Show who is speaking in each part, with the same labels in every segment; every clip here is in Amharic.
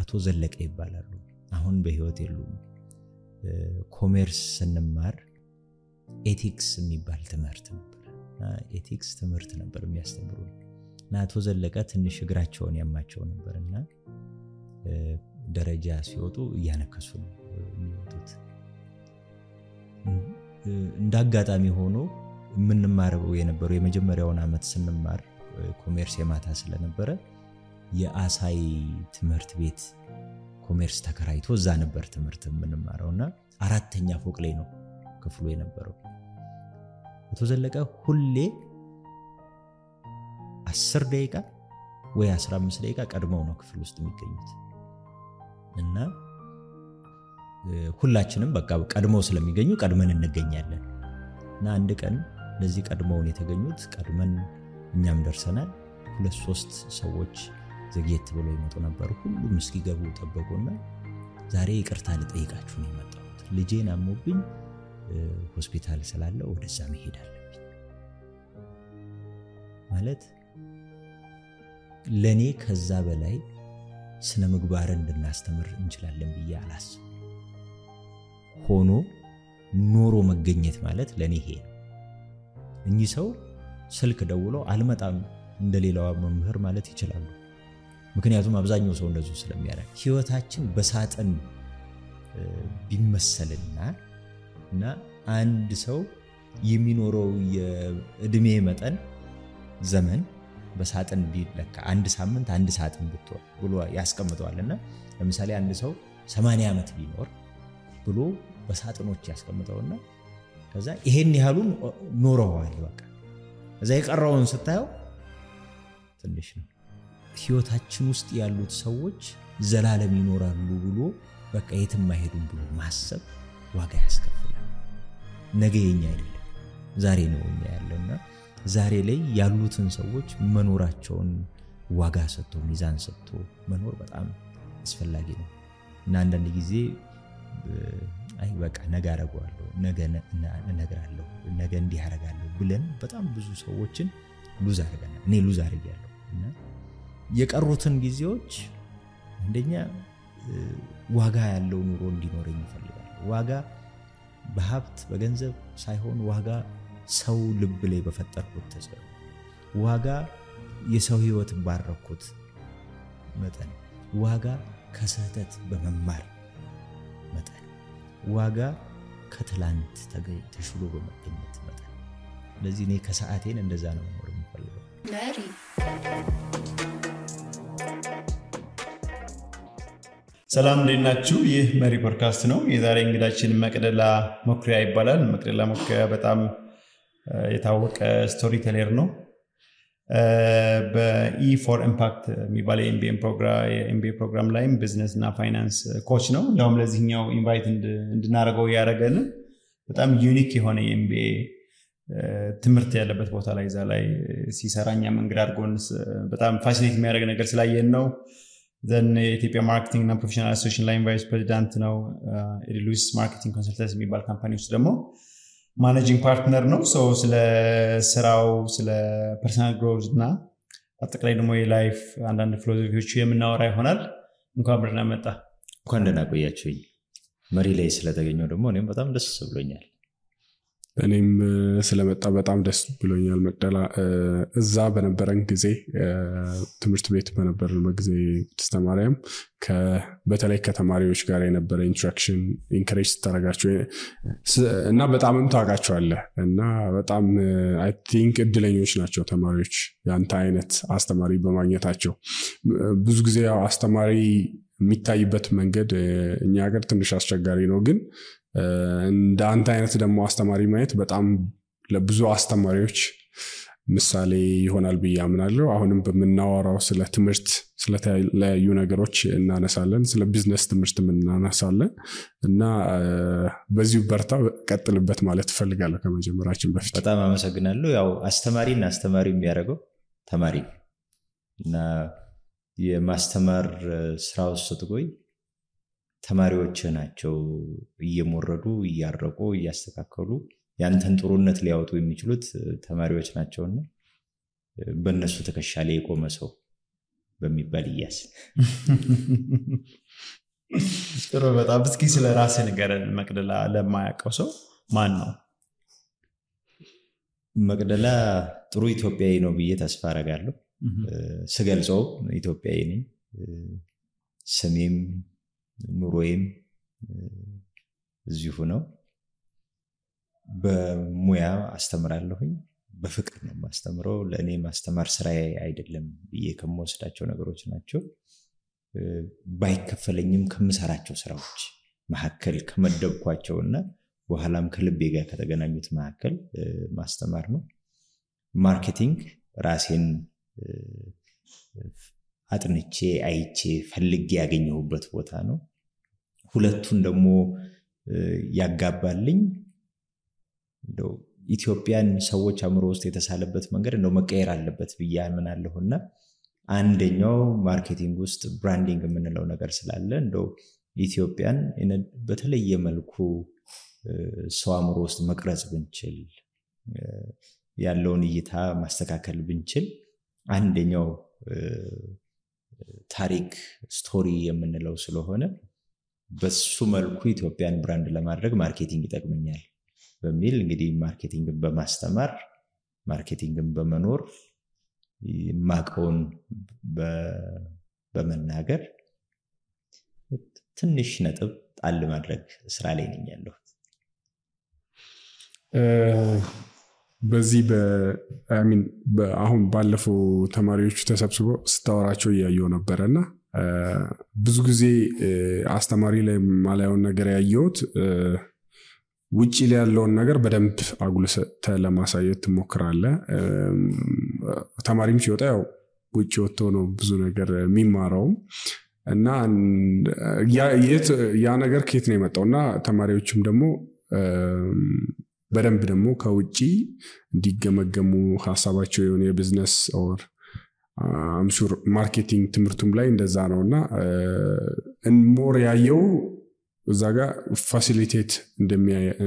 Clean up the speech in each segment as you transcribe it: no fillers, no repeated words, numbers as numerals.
Speaker 1: አቶ ዘለቀ ይባላሉ አሁን በህይወት የሉም ኮሜርስ ስንማር ኤቲክስ የሚባል ትምህርት ነበርና ኤቲክስ ትምህርት ነበር የሚያስተምሩን እና አቶ ዘለቀ ትንሽ እግራቸውን ያማቸው ነበርና ደረጃ ሲወጡ ያነከሱ ነው የሚወጡት እንዳጋጣሚ ሆኖ ምንማረው የነበረው የመጀመሪያውን አመት ስንማር ኮሜርስ የማታ ስለነበረ የአሳይ ትምህርት ቤት ኮሜርስ ተከራይቶ እዛ ነበር ትምህርት ምንማረውና አራተኛ ፎቅ ላይ ነው ክፍሉ የነበረው አቶ ዘለቀ ሁሌ 10 ደቂቃ ወይ 15 ደቂቃ ቀድመው ነው ክፍል ውስጥ የሚገኙት እና ሁላችንም በቃ ቀድመው ስለሚገኙ ቀድመን እንገኛለን እና አንድ ቀን ለዚህ ቀድመውን የተገኙት ቀድመን እኛም ደርሰናል 2-3 ሰዎች ዘግየት ብለው ይመጡ ነበር ሁሉም እስኪገቡ ተጠበቁና ዛሬ ይቅርታ ልጠይቃችሁ ነው የመጣሁት ልጄን አሞብኝ ሆስፒታል ስላለ ወደዛ መሄድ አለብኝ ማለት ለኔ ከዛ በላይ ስነ ምግባርን እንድናስተምር እንችላለን ብዬ አላስብ ሆኖ ኖሮ መገኘት ማለት ለኔ ይሄ እንጂ ሰው ስልክ ደውሎ አልመጣም እንደሌላው መምህር ማለት ይችላል ምክንያቱም አብዛኛው ሰው እንደዚህ ስለሚያደርግ ህይወታችን በሳጥን ቢመሰልና እና አንድ ሰው የሚኖረው የእድሜ መጠን ዘመን በሳጥን ቢለካ አንድ ሳምንት አንድ ሳጥን ብሎ ያስቀምጠዋልና ለምሳሌ አንድ ሰው 80 ዓመት ቢኖር ብሎ በሳጥኖች ያስቀምጠውና ከዛ ይሄን ያህሉን ኖረዋል በቃ እዛ የቀረውን ስታየው ትንሽ ነው ህይወታችን ውስጥ ያሉት ሰዎች ዘላለም ይኖራሉ ብሎ በቃ የትም አይሄዱም ብሎ ማሰብ ዋጋ ያስከፍላል ነገ የኛ አይደለም ዛሬ ነው እኛ ያለና ዛሬ ላይ ያሉትን ሰዎች መኖራቸውን ዋጋ ሰጥቶ ሚዛን ሰጥቶ መኖር በጣም አስፈላጊ ነው እና አንዳንድ ጊዜ አይ በቃ ነገ አረጋለሁ ነገ እነግራለሁ ነገ እንዲህ አረጋለሁ ብለን በጣም ብዙ ሰዎችን ሉዝ አረጋለሁ እኔ ሉዝ አረጋለሁ እና የቀሩትን ጊዜዎች እንደኛ ዋጋ ያለው ኑሮ እንዲኖረኝ ይፈልጋል ዋጋ በሀብት በገንዘብ ሳይሆን ዋጋ ሰው ልብ ላይ በፈጠርኩት ተጽዕኖ ዋጋ የሰው ህይወት ባረኩት መጠን ዋጋ ከስህተት በመማር መጠን ዋጋ ከትላንት ተሽሎ በመገኘት መጠን ለዚህ እኔ ከሰዓቴን እንደዛ ነው መኖር የምፈልገው
Speaker 2: መሪ
Speaker 3: ሰላም እንደናችሁ ይህ መሪ ፖድካስት ነው የዛሬ እንግዳችን መቅደላ ሞክሪያ ይባላል መቅደላ ሞክሪያ በጣም የታወቀ ስቶሪ ቴለር ነው በኢ ፎር ኢምፓክት የሚባል የኤምቢኤ ፕሮግራም ላይም ቢዝነስ እና ፋይናንስ ኮች ነው ያውም ለዚህኛው ኢንቫይት እንድናረገው ያረጋል በጣም ዩኒክ የሆነ የኤምቢኤ ትምህርት ያለበት ቦታ ላይ ዛ ላይ ሲሰራኛ መንገድ አድርጎን በጣም ፋሲሊቴት የሚያደርግ ነገር ስላየን ነው ዘን የኢትዮጵያ ማርኬቲንግ እና ፕሮፌሽናል አሶሲዬሽን ላይ ቫይስ ፕሬዚዳንት ነው ኤሪሉስ ማርኬቲንግ ኮንሰልተንሲ የሚባል ካምፓኒ ውስጥ ደግሞ ማኔጂንግ ፓርትነር ነው ስለ ስራው ስለ ፐርሰናል ግሮዝ እና አጠቃላይ ደግሞ የላይፍ አንዳንድ ፊሎሶፊዎች የምናወራ ይሆናል እንኳን ብርና መጣ
Speaker 1: እንኳን ደህና ቆያችሁኝ መሪ ላይ ስለተገኘው ደግሞ እኔም በጣም ደስ ብሎኛል
Speaker 4: እኔም ስለመጣ በጣም ደስ ብሎኛል መቅደላ እዛ በነበረን ጊዜ ትምህርት ቤት በነበረን ጊዜ ተስተማሪያም በተለይ ከተማሪዎች ጋር የነበረ ኢንትራክሽን ኢንከሬጅ ተደረጋቸው እና በጣምም ታውቃቸዋለህ እና በጣም አይ ቲንክ እድለኞች ናቸው ተማሪዎች ያንተ አይነት አስተማሪ በማግኘታቸው ብዙ ጊዜ አስተማሪ የሚታይበት መንገድ እኛ ሀገር ትንሽ አስቸጋሪ ነው ግን እንደ አንተ አይነት ደግሞ አስተማሪ ማየት በጣም ለብዙ አስተማሪዎች ምሳሌ ይሆናል ብዬ አምናለሁ አሁንም በመናወራው ስለ ትምህርት ስለተለያዩ ነገሮች እናነሳለን ስለ ቢዝነስ ትምህርት እናነሳለን እና በዚሁ በርታ ቀጥልበት ማለት ፈልጋለሁ ከመጀመራችን በፊት
Speaker 1: በጣም አመሰግናለሁ ያው አስተማሪና አስተማሪ የሚያደርገው ተማሪ እና የማስተማር ስራው ስትቆይ ተማሪዎች ናቸው እየሞረዱ እያረቁ እያስተካከሉ ያንተን ጥሩነት ሊያወጡ የሚችሉት ተማሪዎች ናቸውና በእነሱ ተከሻለ የቆመ ሰው በሚባል ይያዝ።
Speaker 3: ጥሩ በጣም እስኪ ስለ ራስህ ንገረን መቅደላ ለማያውቀው ሰው ማን ነው?
Speaker 1: መቅደላ ጥሩ ኢትዮጵያዊ ነው ብዬ ተስፋ አደርጋለሁ። ስገልጸው ኢትዮጵያዊ ነኝ። ስሜም ኑሮዬም እዚሁ ነው። በሙያ አስተምራለሁኝ። በፍቅር ነው ማስተምረው። ለእኔ ማስተማር ስራዬ አይደለም ብዬ ከምወስዳቸው ነገሮች ናቸው። ባይከፈለኝም ከምሰራቸው ስራዎች መካከል ከመደብኳቸውና በኋላም ከልቤ ጋር ከተገናኙት መካከል ማስተማር ነው። ማርኬቲንግ ራሴን አጥንቼ አይቼ ፈልጌ ያገኘሁበት ቦታ ነው። ሁለቱን ደግሞ ያጋባልኝ እንደው ኢትዮጵያን ሰዎች አእምሮ ውስጥ የተሳለበት መንገድ እንደው መቀየር አለበት ብዬ አምናለሁና አንደኛው ማርኬቲንግ ውስጥ ብራንዲንግ የምንለው ነገር ስላለ እንደው ኢትዮጵያን በተለየ መልኩ ሰው አእምሮ ውስጥ መቅረጽ ብንችል ያለውን እይታ ማስተካከል ብንችል አንደኛው ታሪክ ስቶሪ የምንለው ስለሆነ በሱ መልኩ ኢትዮጵያን ብራንድ ለማድረግ ማርኬቲንግ ይጠቅመኛል በሚል እንግዲህ ማርኬቲንግን በማስተማር ማርኬቲንግን በመኖር ማቀውን በመናገር ትንሽ ነጥብ ጣል ማድረግ ስራ ላይ ነኝ ያለው።
Speaker 4: በዚህ አሁን ባለፈው ተማሪዎቹ ተሰብስበው ስታወራቸው እያየው ነበረና ብዙ ጊዜ አስተማሪ ላይ ማላየውን ነገር ያየሁት ውጪ ላይ ያለውን ነገር በደንብ አጉልተህ ለማሳየት ትሞክራለህ። ተማሪም ሲወጣ ያው ውጪ ወጥቶ ነው ብዙ ነገር የሚማረው እና ያ ነገር ከየት ነው የመጣውና ተማሪዎችም ደግሞ በደንብ ደግሞ ከውጪ እንዲገመገሙ ሐሳባቸው የሆነ የቢዝነስ ኦር አምሹር ማርኬቲንግ ትምህርቱም ላይ እንደዛ ነውና ሞር ያየው እዛ ጋር ፋሲሊቴት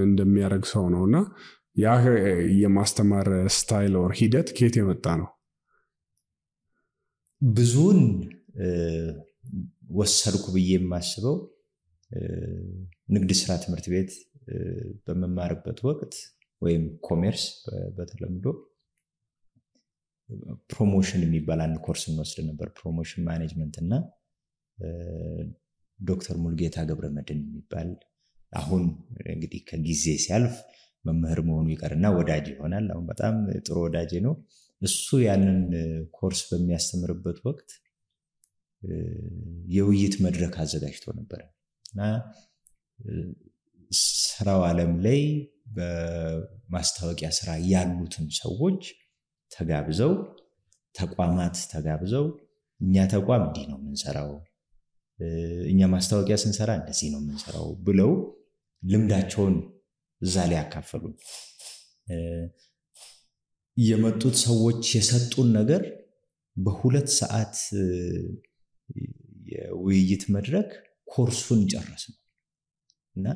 Speaker 4: እንደሚያደርግ ሰው ነውና ያ የማስተማር ስታይል ኦር ሂደት ከየት የመጣ ነው?
Speaker 1: ብዙን ወሰድኩ ብዬ የማስበው ንግድ ስራ ትምህርት ቤት በመማርበት ወቅት ወይም ኮሜርስ በተለምዶ ፕሮሞሽን የሚባል አንድ ኮርስ እንወስድ ነበር። ፕሮሞሽን ማኔጅመንት እና ዶክተር ሙልጌታ ገብረመድህን የሚባል አሁን እንግዲህ ከጊዜ ሲያልፍ መምህር መሆኑ ይቀርና ወዳጅ ይሆናል። አሁን በጣም ጥሩ ወዳጅ ነው። እሱ ያንን ኮርስ በሚያስተምርበት ወቅት የውይይት መድረክ አዘጋጅቶ ነበር እና ስራው ዓለም ላይ በማስታወቂያ ስራ ያሉትን ሰዎች ተጋብዘው ተቋማት ተጋብዘው እኛ ተቋም እንዲህ ነው የምንሰራው፣ እኛ ማስታወቂያ ስንሰራ እንደዚህ ነው የምንሰራው ብለው ልምዳቸውን እዛ ላይ ያካፈሉ። የመጡት ሰዎች የሰጡን ነገር በ2 ሰዓት የውይይት መድረክ ኮርሱን ጨረስን እና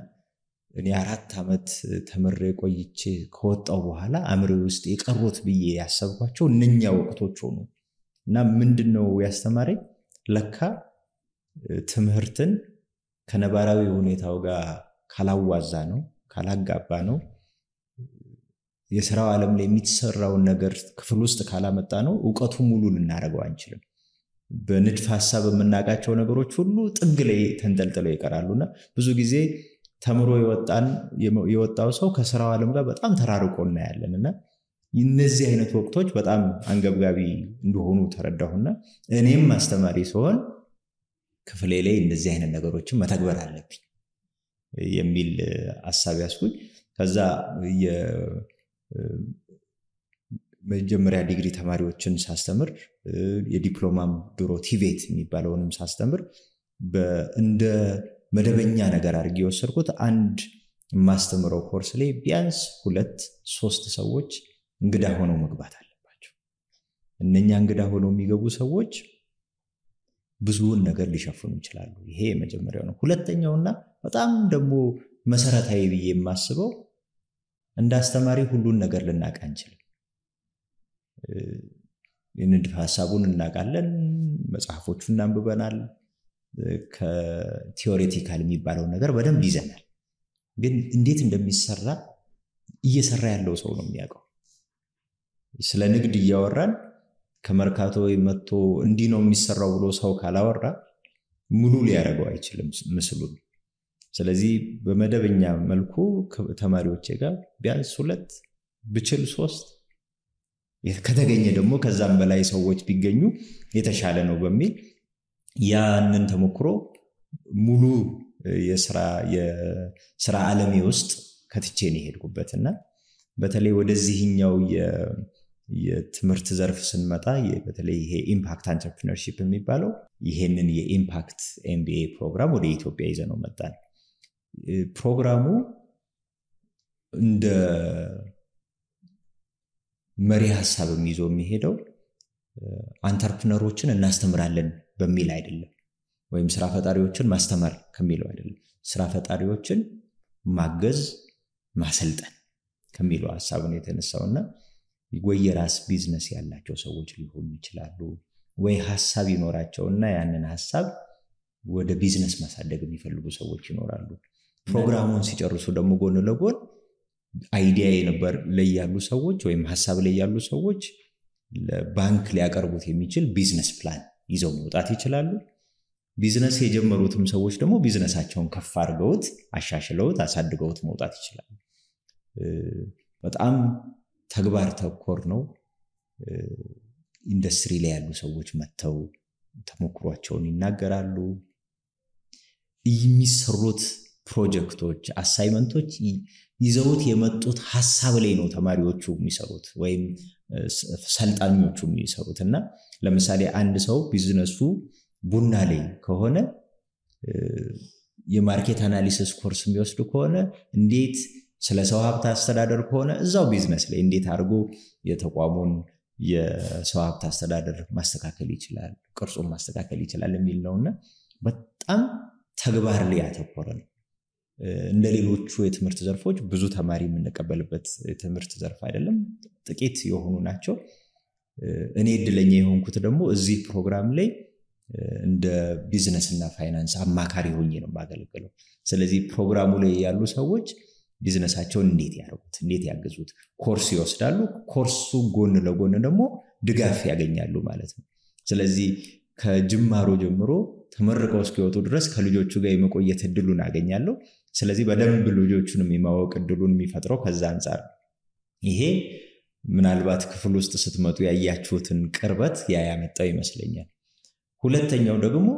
Speaker 1: እኔ 4 ዓመት ተምሬ ቆይቼ ከወጣው በኋላ አምሬ ውስጥ የቀሩት ብዬ ያሰብኳቸው እነኛ ወቅቶች ሆኑ እና ምንድነው ያስተማረኝ ለካ ትምህርትን ከነባራዊ ሁኔታው ጋር ካላዋዛ ነው ካላጋባ ነው የሥራው ዓለም ላይ የሚሰራውን ነገር ክፍል ውስጥ ካላመጣ ነው ዕውቀቱ ሙሉ ልናረጋው አንችልም። በንድፍ ሐሳብ የምናቃቸው ነገሮች ሁሉ ጥግ ላይ ተንጠልጥለው ይቀራሉና ብዙ ጊዜ ተምሮ የወጣው ሰው ከሥራው ዓለም ጋር በጣም ተራርቆ እናያለንና እነዚህ አይነት ወቅቶች በጣም አንገብጋቢ እንደሆኑ ተረዳሁና እኔም አስተማሪ ስሆን ክፍሌ ላይ እንደዚህ አይነት ነገሮችን መተግበር አለብኝ የሚል ሐሳብ ያስኩኝ። ከዛ የመጀመሪያ ዲግሪ ተማሪዎችን ሳስተምር የዲፕሎማም ድሮ ቲቬት የሚባለውንም ሳስተምር እንደ መደበኛ ነገር አድርጌ የወሰድኩት አንድ ማስተምረው ኮርስ ላይ ቢያንስ 2-3 ሰዎች እንግዳ ሆነው መግባት አለባቸው። እነኛ እንግዳ ሆነው የሚገቡ ሰዎች ብዙውን ነገር ሊሸፍኑ ይችላሉ። ይሄ የመጀመሪያው ነው። ሁለተኛውና በጣም ደግሞ መሰረታዊ ብዬ የማስበው እንደ አስተማሪ ሁሉን ነገር ልናውቅ አንችልም። የንድፈ ሐሳቡን እናውቃለን መጽሐፎቹን አንብበናል ከቲዮሬቲካል የሚባለው ነገር በደንብ ይዘናል ግን እንዴት እንደሚሰራ እየሰራ ያለው ሰው ነው የሚያውቀው ስለ ንግድ እያወራን ከመርካቶ መጥቶ እንዲህ ነው የሚሰራው ብሎ ሰው ካላወራ ሙሉ ሊያደርገው አይችልም ምስሉን ስለዚህ በመደበኛ መልኩ ተማሪዎቼ ጋር ቢያንስ 2 ብችል 3 ከተገኘ ደግሞ ከዛም በላይ ሰዎች ቢገኙ የተሻለ ነው በሚል ያንን ተሞክሮ ሙሉ የሥራ ዓለሜ ውስጥ ከትቼ ነው ሄድኩበትና በተለይ ወደዚህኛው የትምህርት ዘርፍ ስንመጣ በተለይ ይሄ ኢምፓክት አንትረፕረነርሺፕ የሚባለው ይሄንን የኢምፓክት ኤምቢኤ ፕሮግራም ወደ ኢትዮጵያ ይዘነው መጣን ፕሮግራሙ እንደ መሪ ሐሳብ ይዞ የሚሄደው አንትረፕረነሮችን እናስተምራለን በሚል አይደለም ወይም ስራ ፈጣሪዎችን ማስተማር ከሚለው አይደለም ስራ ፈጣሪዎችን ማገዝ ማሰልጠን ከሚለው ሐሳብ ነው የተነሳውና ወይ የራስ ቢዝነስ ያላቸው ሰዎች ሊሆኑ ይችላሉ ወይ ሐሳብ ይኖራቸውና ያንን ሐሳብ ወደ ቢዝነስ ማሳደግ የሚፈልጉ ሰዎች ይኖራሉ ፕሮግራሙን ሲጨርሱ ደግሞ ጎን ለጎን አይዲያ የነበር ላይ ያሉ ሰዎች ወይም ሐሳብ ላይ ያሉ ሰዎች ለባንክ ሊያቀርቡት የሚችል ቢዝነስ ፕላን ይዘው መውጣት ይችላሉ ቢዝነስ የጀመሩትም ሰዎች ደግሞ ቢዝነሳቸውን ከፍ አድርገውት አሻሽለውት አሳድገውት መውጣት ይችላሉ በጣም ተግባር ተኮር ነው ኢንዱስትሪ ላይ ያሉ ሰዎች መተው ተሞክሯቸውን ይናገራሉ የሚሰሩት ፕሮጀክቶች አሳይመንቶች ይዘውት የመጡት ሐሳብ ላይ ነው ተማሪዎቹ የሚሰሩት ወይም ሰልጣኞቹ የሚሰሩትና ለምሳሌ አንድ ሰው ቢዝነሱ ቡና ላይ ከሆነ የማርኬት አናሊሲስ ኮርስ የሚወስድ ከሆነ እንዴት ስለ ሰው ሀብት አስተዳደር ከሆነ እዛው ቢዝነስ ላይ እንዴት አድርጎ የተቋሙን የሰው ሀብት አስተዳደር ማስተካከል ይችላል ቅርጹን ማስተካከል ይችላል የሚል ነውና በጣም ተግባር ላይ ያተኮረ ነው እንደሌሎቹ የትምህርት ዘርፎች ብዙ ተማሪ የምንቀበልበት የትምህርት ዘርፍ አይደለም ጥቂት የሆኑ ናቸው እኔ እድለኛ የሆንኩት ደግሞ እዚህ ፕሮግራም ላይ እንደ ቢዝነስ እና ፋይናንስ አማካሪ ሆኜ ነው ማገለግለው ስለዚህ ፕሮግራሙ ላይ ያሉ ሰዎች ቢዝነሳቸውን እንዴት ያደርጉት እንዴት ያገዙት ኮርስ ይወስዳሉ ኮርሱ ጎን ለጎን ደግሞ ድጋፍ ያገኛሉ ማለት ነው ስለዚህ ከጅማሮ ጀምሮ ተመርቀው እስኪወጡ ድረስ ከልጆቹ ጋር የመቆየት እድሉን አገኛለሁ ስለዚህ በደንብ ልጆቹንም የማወቅ እድሉን የሚፈጥረው ከዛ አንፃር ይሄ ምናልባት ክፍል ውስጥ ስትመጡ ያያችሁትን ቅርበት ያመጣው ይመስለኛል ሁለተኛው ደግሞ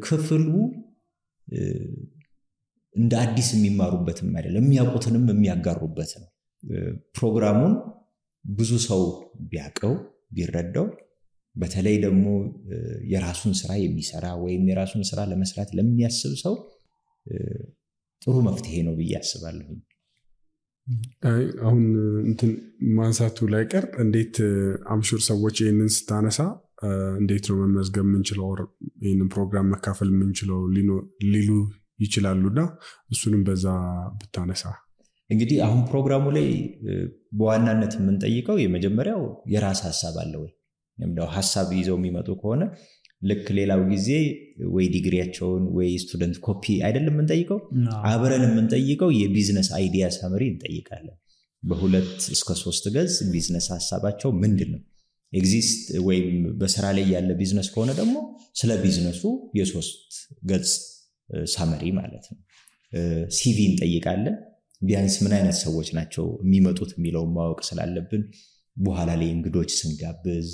Speaker 1: ክፍሉ እንደ አዲስ የሚማሩበትም አይደለም የሚያውቁትንም የሚያጋሩበት ነው ፕሮግራሙን ብዙ ሰው ቢያቀው ቢረዳው በተለይ ደግሞ የራሱን ስራ የሚሰራ ወይም የራሱን ስራ ለመስራት ለሚያስብ ሰው ጥሩ መፍትሄ ነው ብዬ አስባለሁ
Speaker 4: አሁን እንትን ማንሳቱ ላይ ቀር እንዴት አምሹር ሰዎች ይሄንን ስታነሳ እንዴት ነው መመዝገብ የምንችለው ይሄንን ፕሮግራም መካፈል የምንችለው ሊሉ ይችላሉና እሱንም በዛ ብታነሳ
Speaker 1: እንግዲህ አሁን ፕሮግራሙ ላይ በዋናነት የምንጠይቀው የመጀመሪያው የራስ ሐሳብ አለ ወይ እንደው ሐሳብ ይዘው የሚመጡ ከሆነ ልክ ሌላው ጊዜ ወይ ዲግሪያቸውን ወይ ስቱደንት ኮፒ አይደለም የምንጠይቀው አብረን የምንጠይቀው የቢዝነስ አይዲያ ሳመሪ እንጠይቃለን በ2 እስከ 3 ገጽ ቢዝነስ ሐሳባቸው ምንድነው ኤግዚስት ወይም በስራ ላይ ያለ ቢዝነስ ከሆነ ደግሞ ስለ ቢዝነሱ የ3 ገጽ ሳመሪ ማለት ነው ሲቪ እንጠይቃለን ቢያንስ ምን አይነት ሰዎች ናቸው የሚመጡት የሚለው ማወቅ ስላለብን በኋላ ላይ እንግዶች ስንጋብዝ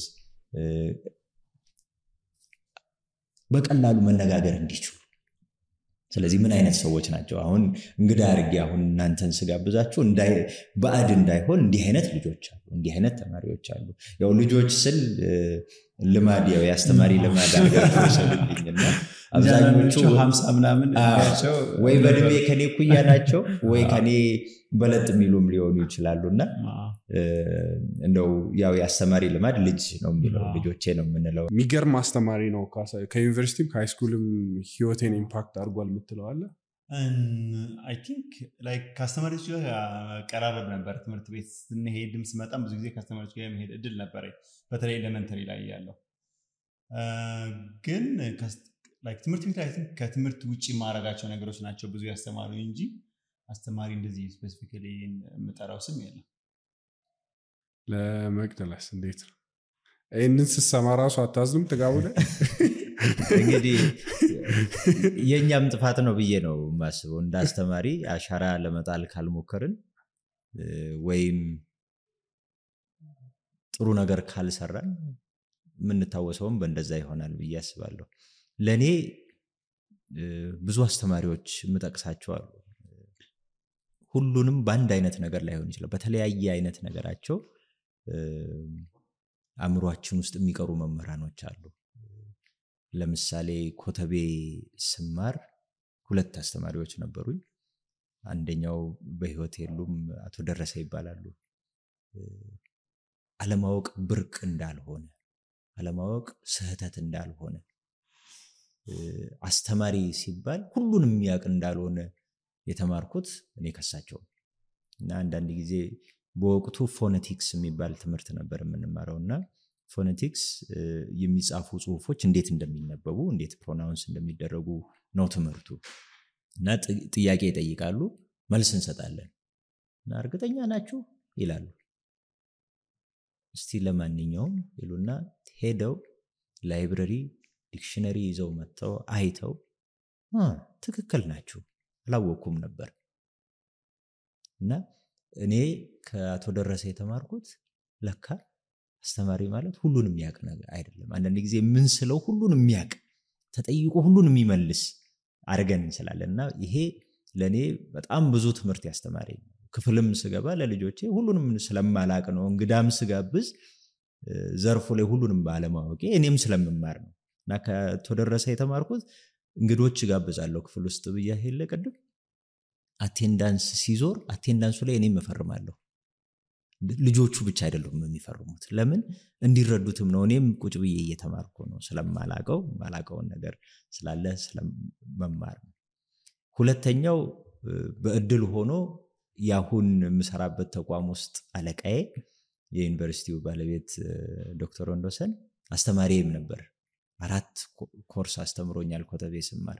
Speaker 1: በቀላሉ መነጋገር እንዲችሉ ስለዚህ ምን አይነት ሰዎች ናቸው አሁን እንግዳ አርጊ አሁን እናንተን ስጋብዛችሁ ባዕድ እንዳይሆን እንዲህ አይነት ልጆች አሉ እንዲህ አይነት ተማሪዎች አሉ ያው ልጆች ስል ልማድ ያው ያስተማሪ ልማድ አድርገው ስለልኝና አብዛኞቹ
Speaker 3: 50 ምናምን ያቸው
Speaker 1: ወይ በድሜ ከኔ ኩያ ናቸው ወይ ከኔ በለጥ የሚሉም ሊሆኑ ይችላሉና እንደው ያው ያስተማሪ ልማድ ልጅ ነው የሚለው ልጆቼ ነው የምንለው
Speaker 4: የሚገርም አስተማሪ ነው ከዩኒቨርሲቲም ከሃይስኩልም ህይወቴን ኢምፓክት አድርጓል የምትለው አለ
Speaker 3: አይ ቲንክ ላይክ ከአስተማሪዎች ጋር ቀራረብ ነበር። ትምህርት ቤት ስንሄድም ስመጣም ብዙ ጊዜ ከአስተማሪዎች ጋር የመሄድ እድል ነበረኝ፣ በተለይ ኤሌመንተሪ ላይ ያለው። ግን ትምህርት ቤት ላይ ከትምህርት ውጭ ማድረጋቸው ነገሮች ናቸው ብዙ ያስተማሩ እንጂ አስተማሪ እንደዚህ ስፔሲፊካሊ የምጠራው ስም የለም።
Speaker 4: ለመቅደላስ እንዴት ነው? ይህንን ስትሰማ ራሱ አታዝኑም? ጥጋቡ ላይ
Speaker 1: እንግዲህ የእኛም ጥፋት ነው ብዬ ነው የማስበው። እንደ አስተማሪ አሻራ ለመጣል ካልሞከርን ወይም ጥሩ ነገር ካልሰራን የምንታወሰውም በእንደዛ ይሆናል ብዬ አስባለሁ። ለእኔ ብዙ አስተማሪዎች የምጠቅሳቸው አሉ። ሁሉንም በአንድ አይነት ነገር ላይሆን ይችላል። በተለያየ አይነት ነገራቸው አእምሯችን ውስጥ የሚቀሩ መምህራኖች አሉ። ለምሳሌ ኮተቤ ስማር 2 አስተማሪዎች ነበሩኝ። አንደኛው በህይወት የሉም፣ አቶ ደረሰ ይባላሉ። አለማወቅ ብርቅ እንዳልሆነ፣ አለማወቅ ስህተት እንዳልሆነ፣ አስተማሪ ሲባል ሁሉንም የሚያውቅ እንዳልሆነ የተማርኩት እኔ ከሳቸው። እና አንዳንድ ጊዜ በወቅቱ ፎኔቲክስ የሚባል ትምህርት ነበር የምንማረውና ፎኔቲክስ የሚጻፉ ጽሁፎች እንዴት እንደሚነበቡ እንዴት ፕሮናውንስ እንደሚደረጉ ነው ትምህርቱ። እና ጥያቄ ይጠይቃሉ፣ መልስ እንሰጣለን። እና እርግጠኛ ናችሁ ይላሉ። እስቲ ለማንኛውም ይሉና ሄደው ላይብረሪ ዲክሽነሪ ይዘው መጥተው አይተው ትክክል ናችሁ አላወኩም ነበር። እና እኔ ከአቶ ደረሰ የተማርኩት ለካ አስተማሪ ማለት ሁሉንም የሚያውቅ ነገር አይደለም። አንዳንድ ጊዜ ምን ስለው ሁሉንም የሚያውቅ ተጠይቆ ሁሉንም የሚመልስ አድርገን እንችላለንና ይሄ ለኔ በጣም ብዙ ትምህርት ያስተማረኝ። ክፍልም ስገባ ለልጆቼ ሁሉንም ስለማላቅ ነው። እንግዳም ስጋብዝ ዘርፉ ላይ ሁሉንም ባለማወቄ እኔም ስለምማር ነው። እና ከአቶ ደረሰ የተማርኩት እንግዶች ጋብዛለሁ ክፍል ውስጥ ብያ ሄለ ቀድም አቴንዳንስ ሲዞር አቴንዳንሱ ላይ እኔም እፈርማለሁ። ልጆቹ ብቻ አይደሉም የሚፈርሙት። ለምን እንዲረዱትም ነው። እኔም ቁጭ ብዬ እየተማርኩ ነው። ስለማላቀው ማላቀውን ነገር ስላለ ስለመማር ነው። ሁለተኛው በእድል ሆኖ ያሁን የምሰራበት ተቋም ውስጥ አለቃዬ የዩኒቨርሲቲው ባለቤት ዶክተር ወንዶሰን አስተማሪም ነበር። 4 ኮርስ አስተምሮኛል ኮተቤ ስማር።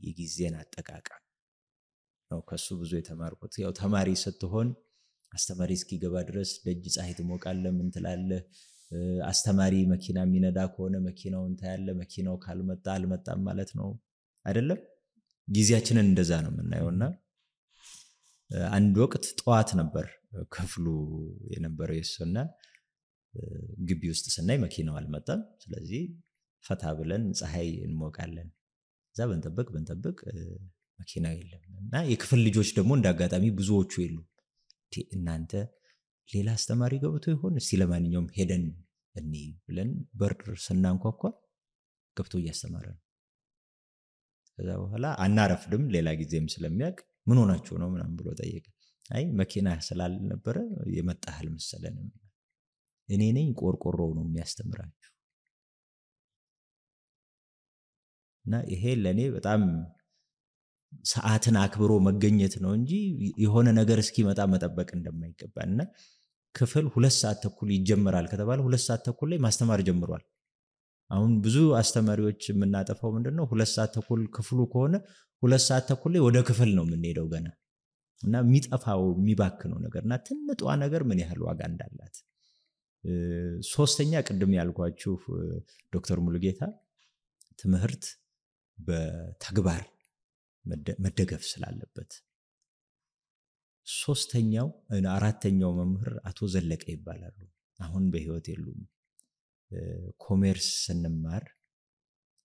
Speaker 1: የጊዜን አጠቃቀም ነው ከሱ ብዙ የተማርኩት። ያው ተማሪ ስትሆን አስተማሪ እስኪገባ ድረስ ደጅ ፀሐይ ትሞቃለህ፣ ምን ትላለህ። አስተማሪ መኪና የሚነዳ ከሆነ መኪናውን ታያለህ። መኪናው ካልመጣ አልመጣም ማለት ነው አይደለም። ጊዜያችንን እንደዛ ነው የምናየውና አንድ ወቅት ጠዋት ነበር ክፍሉ የነበረው የሱና ግቢ ውስጥ ስናይ መኪናው አልመጣም። ስለዚህ ፈታ ብለን ፀሐይ እንሞቃለን። እዛ በንጠብቅ መኪና የለም። እና የክፍል ልጆች ደግሞ እንዳጋጣሚ ብዙዎቹ የሉ። እናንተ ሌላ አስተማሪ ገብቶ ይሆን እስቲ ለማንኛውም ሄደን እኔ ብለን በር ስናንኳኳ ገብቶ እያስተማረ ነው። ከዛ በኋላ አናረፍድም። ሌላ ጊዜም ስለሚያውቅ ምን ሆናችሁ ነው ምናምን ብሎ ጠየቀ። አይ መኪና ስላልነበረ የመጣህል መሰለን። እኔ ነኝ ቆርቆሮው ነው የሚያስተምራችሁ። እና ይሄ ለኔ በጣም ሰዓትን አክብሮ መገኘት ነው እንጂ የሆነ ነገር እስኪመጣ መጠበቅ እንደማይገባና ክፍል 2 ሰዓት ተኩል ይጀምራል ከተባለ 2 ሰዓት ተኩል ላይ ማስተማር ጀምሯል። አሁን ብዙ አስተማሪዎች የምናጠፋው ምንድነው 2 ሰዓት ተኩል ክፍሉ ከሆነ 2 ሰዓት ተኩል ላይ ወደ ክፍል ነው የምንሄደው ገና። እና የሚጠፋው የሚባክነው ነገርና ትንጧ ነገር ምን ያህል ዋጋ እንዳላት። ሶስተኛ ቅድም ያልኳችሁ ዶክተር ሙሉጌታ ትምህርት በተግባር መደገፍ ስላለበት። አራተኛው መምህር አቶ ዘለቀ ይባላሉ። አሁን በህይወት የሉም። ኮሜርስ ስንማር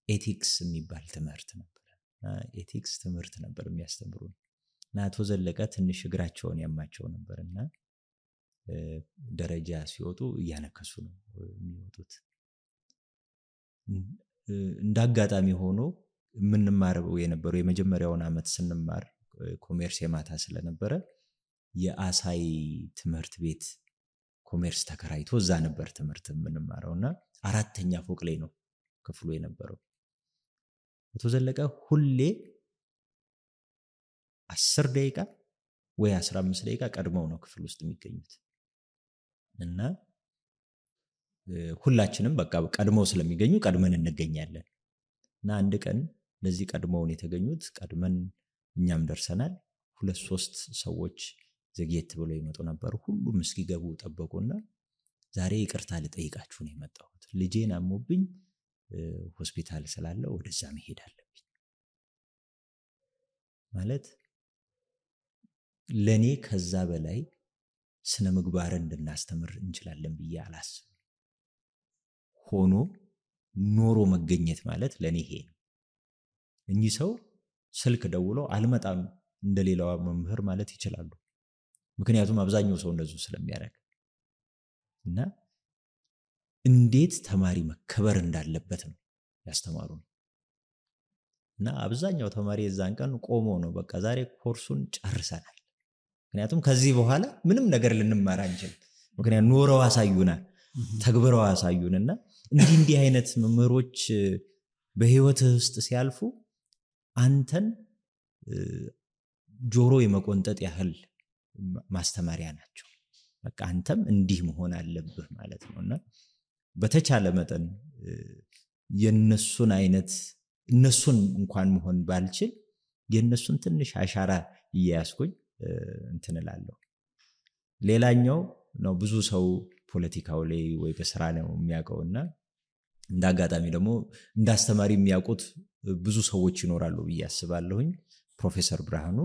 Speaker 1: ኤቲክስ የሚባል ትምህርት ነበር። ኤቲክስ ትምህርት ነበር የሚያስተምሩን። እና አቶ ዘለቀ ትንሽ እግራቸውን ያማቸው ነበርና ደረጃ ሲወጡ እያነከሱ ነው የሚወጡት። እንዳጋጣሚ ሆኖ የምንማረው የነበረው የመጀመሪያውን ዓመት ስንማር ኮሜርስ የማታ ስለነበረ የአሳይ ትምህርት ቤት ኮሜርስ ተከራይቶ እዛ ነበር ትምህርት የምንማረውና 4ኛ ፎቅ ላይ ነው ክፍሉ የነበረው። አቶ ዘለቀ ሁሌ 10 ደቂቃ ወይ 15 ደቂቃ ቀድመው ነው ክፍል ውስጥ የሚገኙት እና ሁላችንም በቃ ቀድመው ስለሚገኙ ቀድመን እንገኛለን እና አንድ ቀን ለዚህ ቀድመውን የተገኙት ቀድመን እኛም ደርሰናል 2-3 ሰዎች ዘግየት ብለው ይመጡ ነበር። ሁሉም እስኪገቡ ጠበቁና ዛሬ ይቅርታ ልጠይቃችሁ ነው የመጣሁት፣ ልጄን አሞብኝ ሆስፒታል ስላለ ወደዛ መሄድ አለብኝ ማለት ለኔ ከዛ በላይ ስነ ምግባርን እንድናስተምር እንችላለን ብዬ አላስብም። ሆኖ ኖሮ መገኘት ማለት ለኔ ይሄ ነው። እኚህ ሰው ስልክ ደውሎ አልመጣም እንደሌላው መምህር ማለት ይችላሉ። ምክንያቱም አብዛኛው ሰው እንደዚህ ስለሚያደርግ እና እንዴት ተማሪ መከበር እንዳለበት ነው ያስተማሩን። እና አብዛኛው ተማሪ የዛን ቀን ቆሞ ነው በቃ ዛሬ ኮርሱን ጨርሰናል፣ ምክንያቱም ከዚህ በኋላ ምንም ነገር ልንማር አንችል፣ ምክንያቱም ኖረው አሳዩናል፣ ተግብረው አሳዩንና እንዲህ አይነት መምህሮች በህይወት ውስጥ ሲያልፉ አንተን ጆሮ የመቆንጠጥ ያህል ማስተማሪያ ናቸው። በቃ አንተም እንዲህ መሆን አለብህ ማለት ነውና በተቻለ መጠን የነሱን አይነት እነሱን እንኳን መሆን ባልችል የነሱን ትንሽ አሻራ እያያስኩኝ እንትንላለሁ። ሌላኛው ነው ብዙ ሰው ፖለቲካው ላይ ወይ በስራ ነው የሚያውቀውና እንዳጋጣሚ ደግሞ እንዳስተማሪ የሚያውቁት ብዙ ሰዎች ይኖራሉ ብዬ አስባለሁኝ። ፕሮፌሰር ብርሃኑ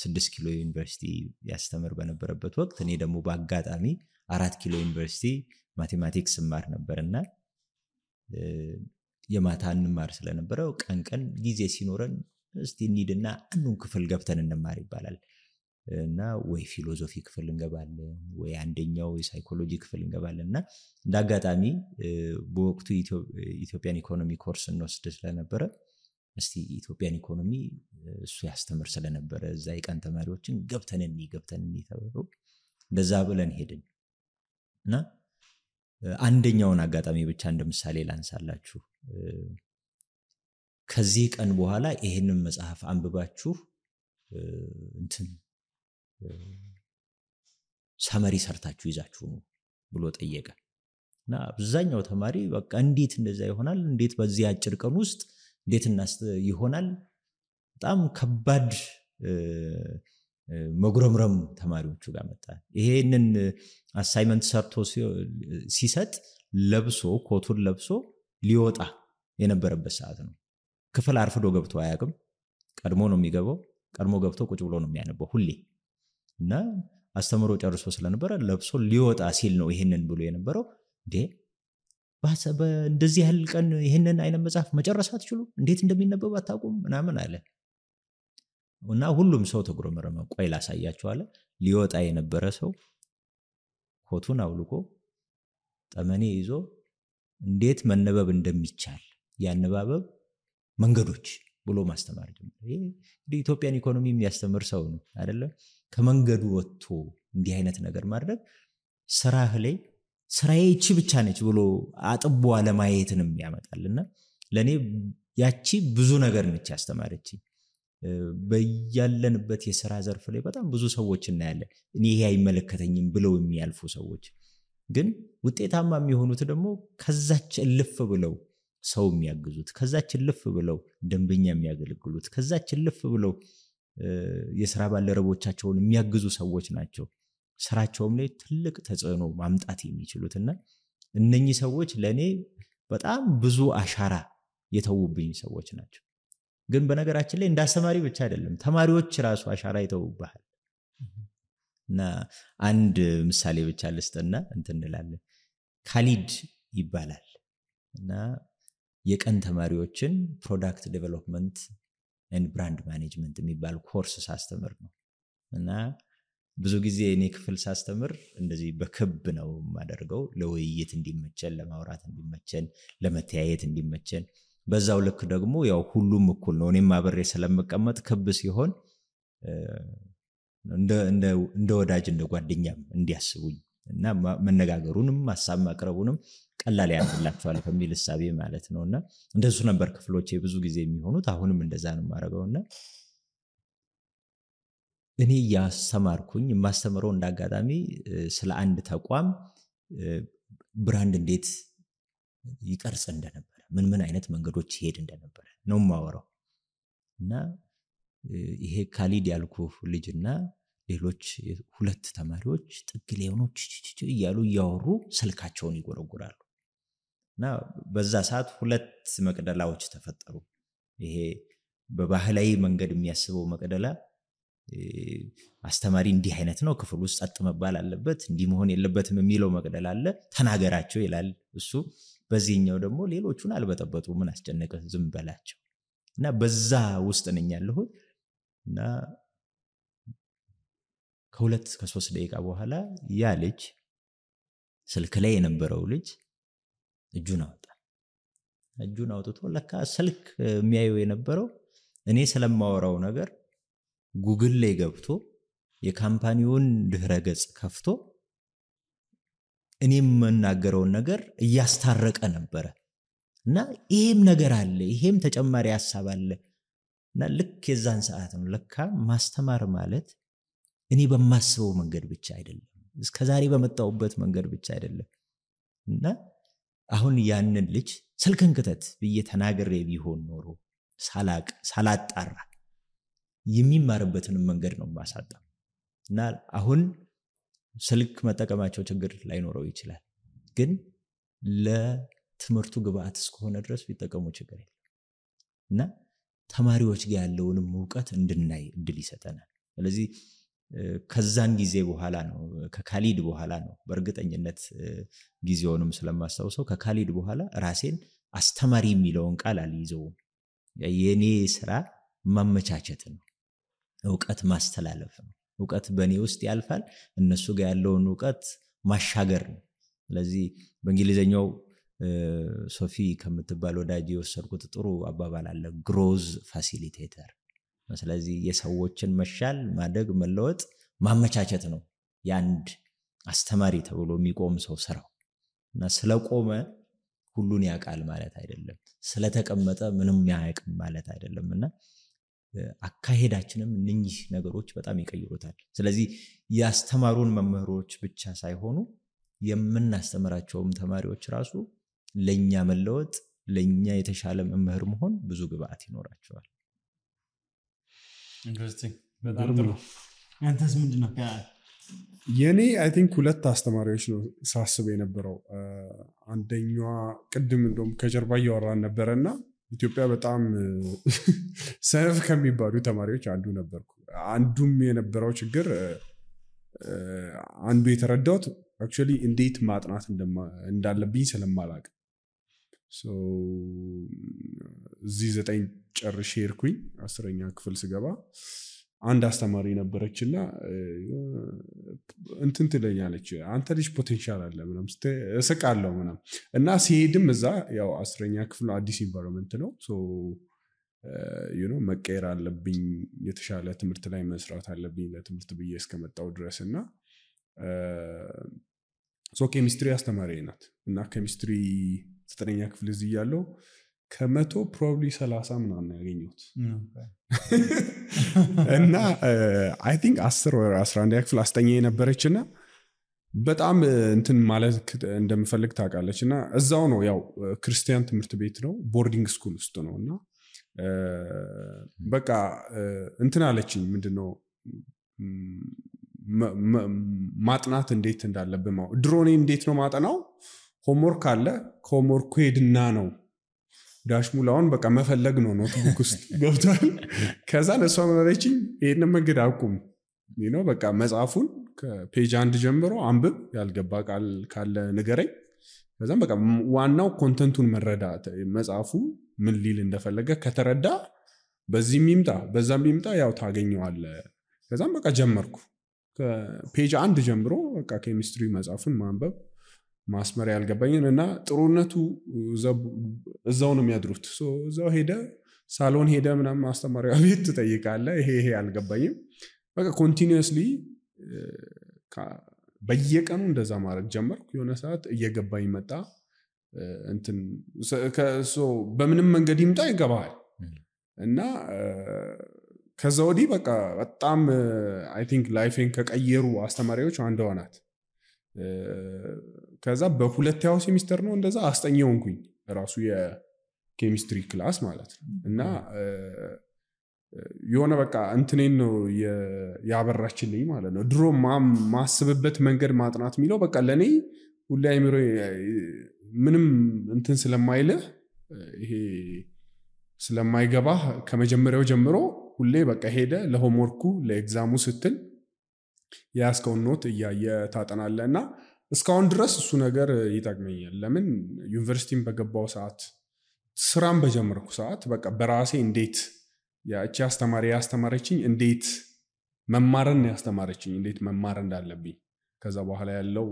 Speaker 1: 6 ኪሎ ዩኒቨርሲቲ ያስተምር በነበረበት ወቅት እኔ ደግሞ በአጋጣሚ 4 ኪሎ ዩኒቨርሲቲ ማቴማቲክስ ማር ነበርና የማታ እንማር ስለነበረው ቀን ጊዜ ሲኖረን እስቲ እንሂድና አንዱን ክፍል ገብተን እንማር ይባላል እና ወይ ፊሎሶፊ ክፍል እንገባለን ወይ አንደኛው የሳይኮሎጂ ክፍል እንገባለንና እንዳጋጣሚ በወቅቱ ኢትዮጵያን ኢኮኖሚ ኮርስ እንወስድ ስለነበረ እስቲ ኢትዮጵያን ኢኮኖሚ እሱ ያስተምር ስለነበረ እዛ የቀን ተማሪዎችን ገብተን ተብሎ እንደዛ ብለን ሄድን እና አንደኛውን አጋጣሚ ብቻ እንደምሳሌ ላንሳላችሁ። ከዚህ ቀን በኋላ ይሄንን መጽሐፍ አንብባችሁ እንትን ሳመሪ ሰርታችሁ ይዛችሁ ነው ብሎ ጠየቀ እና አብዛኛው ተማሪ በቃ እንዴት እንደዛ ይሆናል፣ እንዴት በዚህ አጭር ቀን ውስጥ እንዴት ይሆናል፣ በጣም ከባድ መጉረምረም ተማሪዎቹ ጋር መጣ። ይሄንን አሳይመንት ሰርቶ ሲሰጥ ለብሶ ኮቱን ለብሶ ሊወጣ የነበረበት ሰዓት ነው። ክፍል አርፍዶ ገብቶ አያውቅም። ቀድሞ ነው የሚገባው። ቀድሞ ገብቶ ቁጭ ብሎ ነው የሚያነበው ሁሌ እና አስተምሮ ጨርሶ ስለነበረ ለብሶ ሊወጣ ሲል ነው ይሄንን ብሎ የነበረው። እንደዚህ ያህል ቀን ይሄንን አይነት መጽሐፍ መጨረስ አትችሉ፣ እንዴት እንደሚነበብ አታውቁም ምናምን አለ እና ሁሉም ሰው ተጉረመረመ። ቆይ ላሳያችሁ አለ። ሊወጣ የነበረ ሰው ኮቱን አውልቆ ጠመኔ ይዞ እንዴት መነበብ እንደሚቻል ያነባበብ መንገዶች ብሎ ማስተማር ጀመረ። ይሄ ኢትዮጵያን ኢኮኖሚ የሚያስተምር ሰው ነው አይደለ? ከመንገዱ ወጥቶ እንዲህ አይነት ነገር ማድረግ ስራህ ላይ ስራዬ እቺ ብቻ ነች ብሎ አጥቦ አለማየትንም ያመጣልና ለኔ ያቺ ብዙ ነገር ነች ያስተማረች። በያለንበት የሥራ ዘርፍ ላይ በጣም ብዙ ሰዎች እናያለን እኔ ይሄ አይመለከተኝም ብለው የሚያልፉ ሰዎች፣ ግን ውጤታማ የሚሆኑት ደግሞ ከዛች እልፍ ብለው ሰው የሚያግዙት፣ ከዛች እልፍ ብለው ደንበኛ የሚያገለግሉት፣ ከዛች እልፍ ብለው የሥራ ባልደረቦቻቸውን የሚያግዙ ሰዎች ናቸው። ስራቸውም ላይ ትልቅ ተጽዕኖ ማምጣት የሚችሉትና እነኚህ ሰዎች ለኔ በጣም ብዙ አሻራ የተውብኝ ሰዎች ናቸው። ግን በነገራችን ላይ እንዳስተማሪ ብቻ አይደለም ተማሪዎች ራሱ አሻራ ይተውብሃል። እና አንድ ምሳሌ ብቻ ልስጥና እንትንላለን። ካሊድ ይባላል እና የቀን ተማሪዎችን ፕሮዳክት ዴቨሎፕመንት ኤንድ ብራንድ ማኔጅመንት የሚባል ኮርስ ሳስተምር ነው እና ብዙ ጊዜ እኔ ክፍል ሳስተምር እንደዚህ በክብ ነው የማደርገው፣ ለውይይት እንዲመቸን፣ ለማውራት እንዲመቸን፣ ለመተያየት እንዲመቸን። በዛው ልክ ደግሞ ያው ሁሉም እኩል ነው። እኔም አብሬ ስለምቀመጥ ክብ ሲሆን እንደ ወዳጅ እንደ ጓደኛም እንዲያስቡኝ እና መነጋገሩንም ሐሳብ ማቅረቡንም ቀላል ያደርግላቸዋል ከሚል ሐሳቤ ማለት ነውና እንደሱ ነበር ክፍሎቼ ብዙ ጊዜ የሚሆኑት አሁንም እንደዛ ነው ማረጋውና እኔ ያስተማርኩኝ ማስተምረው እንዳጋጣሚ ስለ አንድ ተቋም ብራንድ እንዴት ይቀርጽ እንደነበረ ምን አይነት መንገዶች ይሄድ እንደነበረ ነው ማወራው እና ይሄ ካሊድ ያልኩ ልጅና ሌሎች ሁለት ተማሪዎች ጥግ ሌዮኖች እያሉ ያወሩ ስልካቸውን ይጎረጉራሉ እና በዛ ሰዓት ሁለት መቅደላዎች ተፈጠሩ ይሄ በባህላዊ መንገድ የሚያስበው መቅደላ አስተማሪ እንዲህ አይነት ነው ክፍል ውስጥ ጸጥ መባል አለበት እንዲህ መሆን የለበትም የሚለው መቅደላ አለ ተናገራቸው ይላል እሱ በዚህኛው ደግሞ ሌሎቹን አልበጠበጡ ምን አስጨነቀ ዝም በላቸው እና በዛ ውስጥ ነኝ ያለሁት እና ከሁለት ከ3 ደቂቃ በኋላ ያ ልጅ ስልክ ላይ የነበረው ልጅ እጁን አውጥቶ ለካ ስልክ የሚያየው የነበረው እኔ ስለማወራው ነገር ጉግል ላይ ገብቶ የካምፓኒውን ድህረ ገጽ ከፍቶ እኔም መናገረውን ነገር እያስታረቀ ነበር እና ይሄም ነገር አለ ይሄም ተጨማሪ ሐሳብ አለ እና ልክ የዛን ሰዓት ነው ለካ ማስተማር ማለት እኔ በማስበው መንገድ ብቻ አይደለም እስከዛሬ በመጣውበት መንገድ ብቻ አይደለም እና አሁን ያንን ልጅ ስልክን ክተት በየተናገረ ቢሆን ኖሮ ሳላጣራ የሚማርበትን መንገድ ነው ማሳጣው እና አሁን ስልክ መጠቀማቸው ችግር ላይኖረው ይችላል ግን ለትምህርቱ ግብአት እስከሆነ ድረስ ቢጠቀሙ ችግር የለም እና ተማሪዎች ጋር ያለውንም ዕውቀት እንድናይ እድል ይሰጠናል ስለዚህ ከዛን ጊዜ በኋላ ነው ከካሊድ በኋላ ነው በእርግጠኝነት ጊዜውንም ስለማስተዋወሰው ከካሊድ በኋላ ራሴን አስተማሪ የሚለውን ቃል አልይዘውም የኔ ስራ ማመቻቸት ነው ዕውቀት ማስተላለፍ ነው ዕውቀት በኔ ውስጥ ያልፋል እነሱ ጋር ያለውን ዕውቀት ማሻገር ነው ስለዚህ በእንግሊዘኛው ሶፊ ከምትባል ወዳጅ የወሰድኩት ጥሩ አባባል አለ ግሮዝ ፋሲሊቴተር ስለዚህ የሰዎችን መሻል ማደግ መለወጥ ማመቻቸት ነው ያንድ አስተማሪ ተብሎ የሚቆም ሰው ስራው እና ስለቆመ ሁሉን ያቃል ማለት አይደለም ስለተቀመጠ ምንም ያያቅም ማለት አይደለምና አካሄዳችንም እነኚህ ነገሮች በጣም ይቀይሩታል ስለዚህ ያስተማሩን መምህሮች ብቻ ሳይሆኑ የምናስተምራቸውም ተማሪዎች ራሱ ለኛ መለወጥ ለኛ የተሻለ መምህር መሆን ብዙ ግብአት ይኖራቸዋል
Speaker 3: ኢንትረስቲንግ በጣም ጥሩ አንተስ ምንድነው
Speaker 4: የኔ አይ ቲንክ ሁለት አስተማሪዎች ነው ሳስብ የነበረው አንደኛዋ ቅድም እንደውም ከጀርባ ያወራን ነበርና ኢትዮጵያ በጣም ሰነፍ ከሚባሉ ተማሪዎች አንዱ ነበርኩ አንዱም የነበረው ችግር አንዱ የተረዳሁት actually እንዴት ማጥናት እንዳለብኝ ስለማላውቅ እዚህ 9 ጨርሼ ሄድኩኝ 10ኛ ክፍል ስገባ አንድ አስተማሪ ነበረችና እንትን ትለኛለች አንተ ልጅ ፖቴንሻል አለ ምናምን እስቃለሁ ምናምን እና ሲሄድም እዛ ያው 10ኛ ክፍል አዲስ ኢንቫይሮንመንት ነው መቀየር አለብኝ የተሻለ ትምህርት ላይ መስራት አለብኝ ለትምህርት ብዬ እስከመጣው ድረስና ኬሚስትሪ አስተማሪ ናት እና ኬሚስትሪ 9ኛ ክፍል እዚህ ያለው ከመቶ ፕሮባብሊ 30 ምናምን ያገኘሁት እና አይ ቲንክ 10 ወይ 11 ክፍል አስተኛ የነበረችና በጣም እንትን ማለት እንደምፈልግ ታውቃለችና እዛው ነው ያው ክርስቲያን ትምህርት ቤት ነው ቦርዲንግ ስኩል ውስጥ ነውና በቃ እንትን አለችኝ ምንድነው ማጥናት እንዴት እንዳለብኝ ድሮኔ እንዴት ነው ማጠናው ሆምወርክ አለ ከሆምወርኩ ሄድና ነው ዳሽሙላውን በቃ መፈለግ ነው ኖትቡክ ውስጥ ገብቷል ከዛ ለሷ መረችኝ ይሄን መንገድ አቁም በቃ መጽሐፉን ከፔጅ 1 ጀምሮ አንብብ ያልገባ ቃል ካለ ንገረኝ ከዛም በቃ ዋናው ኮንተንቱን መረዳት መጽሐፉ ምን ሊል እንደፈለገ ከተረዳ በዚህም ይምጣ በዛም ይምጣ ያው ታገኘዋለህ ከዛም በቃ ጀመርኩ ከፔጅ 1 ጀምሮ በቃ ኬሚስትሪ መጽሐፉን ማንበብ ማስመር ያልገባኝን እና ጥሩነቱ እዛው ነው የሚያድሩት እዛው ሄደ ሳሎን ሄደ ምናምን አስተማሪው አቤት ትጠይቃለህ ይሄ አልገባኝም በቃ ኮንቲኒዩስሊ በየቀኑ እንደዛ ማድረግ ጀመርኩ። የሆነ ሰዓት እየገባኝ መጣ። እንትን በምንም መንገድ ይምጣ ይገባሃል እና ከዛ ወዲህ በቃ በጣም አይ ቲንክ ላይፌን ከቀየሩ አስተማሪዎች አንዷ ናት። ከዛ በሁለተኛው ሴሚስተር ነው እንደዛ አስጠኝ ሆንኩኝ ራሱ የኬሚስትሪ ክላስ ማለት ነው። እና የሆነ በቃ እንትኔን ነው ያበራችልኝ ማለት ነው። ድሮ ማስብበት መንገድ ማጥናት የሚለው በቃ ለእኔ ሁሌ አይምሮ ምንም እንትን ስለማይልህ ይሄ ስለማይገባህ ከመጀመሪያው ጀምሮ ሁሌ በቃ ሄደ ለሆምወርኩ ለኤግዛሙ ስትል የያዝከውን ኖት እያየ ታጠናለህ እና እስካሁን ድረስ እሱ ነገር ይጠቅመኛል። ለምን ዩኒቨርሲቲን በገባው ሰዓት ስራን በጀመርኩ ሰዓት በቃ በራሴ እንዴት ያቺ አስተማሪ ያስተማረችኝ እንዴት መማርን ያስተማረችኝ እንዴት መማር እንዳለብኝ ከዛ በኋላ ያለው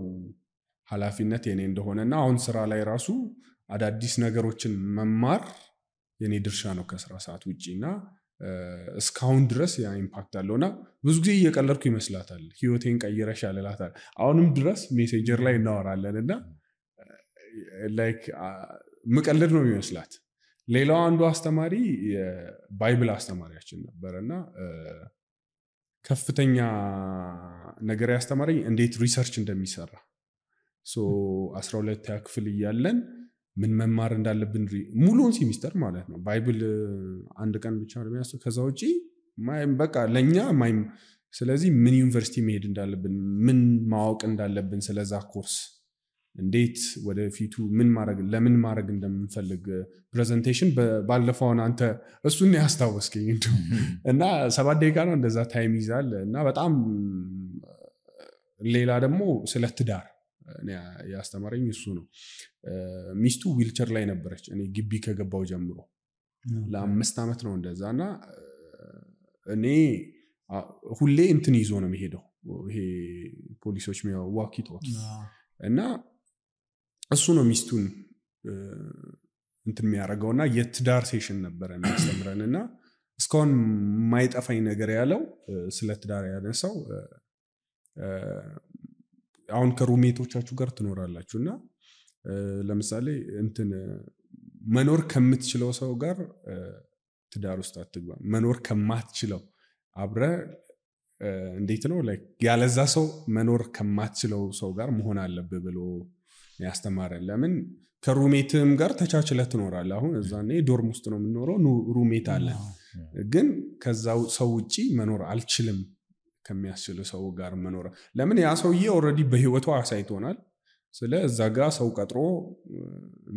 Speaker 4: ኃላፊነት የኔ እንደሆነና አሁን ስራ ላይ ራሱ አዳዲስ ነገሮችን መማር የኔ ድርሻ ነው ከስራ ሰዓት ውጪና እስካሁን ድረስ ያ ኢምፓክት አለውና ብዙ ጊዜ እየቀለድኩ ይመስላታል ህይወቴን ቀይረሻል እላታለሁ። አሁንም ድረስ ሜሴንጀር ላይ እናወራለንና ላይክ ምቀልድ ነው የሚመስላት። ሌላው አንዱ አስተማሪ የባይብል አስተማሪያችን ነበርና ከፍተኛ ነገር ያስተማረኝ እንዴት ሪሰርች እንደሚሰራ 12ኛ ክፍል እያለን ምን መማር እንዳለብን ሙሉውን ሴሚስተር ማለት ነው። ባይብል አንድ ቀን ብቻ ነው የሚያስተው ከዛ ውጪ በቃ ለኛ ስለዚህ ምን ዩኒቨርሲቲ መሄድ እንዳለብን ምን ማወቅ እንዳለብን ስለዛ ኮርስ እንዴት ወደፊቱ ለምን ማድረግ እንደምንፈልግ ፕሬዘንቴሽን ባለፈው አንተ እሱን ያስታወስከኝ እና 7 ደቂቃ ነው እንደዛ ታይም ይዛል እና በጣም ሌላ ደግሞ ስለ ትዳር ያስተማረኝ እሱ ነው። ሚስቱ ዊልቸር ላይ ነበረች እኔ ግቢ ከገባው ጀምሮ ለ5 ዓመት ነው እንደዛና እኔ ሁሌ እንትን ይዞ ነው የሚሄደው ይሄ ፖሊሶች ዋኪቶኪ እና እሱ ነው ሚስቱን እንትን የሚያደርገውና የትዳር ሴሽን ነበረ የሚያስተምረንና እስካሁን የማይጠፋኝ ነገር ያለው ስለ ትዳር ያነሳው አሁን ከሩሜቶቻችሁ ጋር ትኖራላችሁና ለምሳሌ እንትን መኖር ከምትችለው ሰው ጋር ትዳር ውስጥ አትግባ፣ መኖር ከማትችለው አብረ እንዴት ነው ላይክ ያለዛ ሰው መኖር ከማትችለው ሰው ጋር መሆን አለብህ ብሎ ያስተማረን። ለምን ከሩሜትም ጋር ተቻችለህ ትኖራለህ። አሁን እዛኔ ዶርም ውስጥ ነው የምንኖረው፣ ሩሜት አለ፣ ግን ከዛው ሰው ውጪ መኖር አልችልም ከሚያስችል ሰው ጋር መኖር። ለምን ያ ሰውዬ ኦልሬዲ በህይወቱ አሳይቶናል። ስለ እዛ ጋር ሰው ቀጥሮ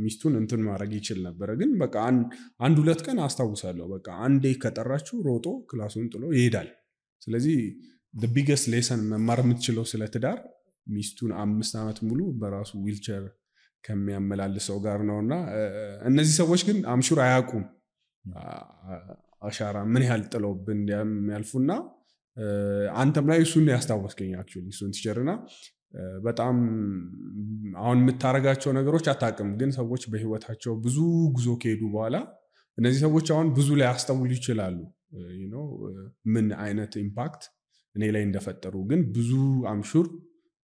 Speaker 4: ሚስቱን እንትን ማድረግ ይችል ነበር። ግን በቃ 1-2 ቀን አስታውሳለሁ በቃ አንዴ ከጠራችሁ ሮጦ ክላሱን ጥሎ ይሄዳል። ስለዚህ the biggest lesson መማር የምትችለው ስለ ትዳር ሚስቱን 5 ዓመት ሙሉ በራሱ ዊልቸር ከሚያመላልሰው ጋር ነውና እነዚህ ሰዎች ግን አምሹር አያውቁም አሻራ ምን ያህል ጥለውብን ያልፉና አንተም ላይ እሱን ያስታወስከኝ አክቹሊ እሱን ትቸርና በጣም አሁን የምታረጋቸው ነገሮች አታውቅም። ግን ሰዎች በህይወታቸው ብዙ ጉዞ ከሄዱ በኋላ እነዚህ ሰዎች አሁን ብዙ ላይ ያስተውሉ ይችላሉ ምን አይነት ኢምፓክት እኔ ላይ እንደፈጠሩ። ግን ብዙ አምሹር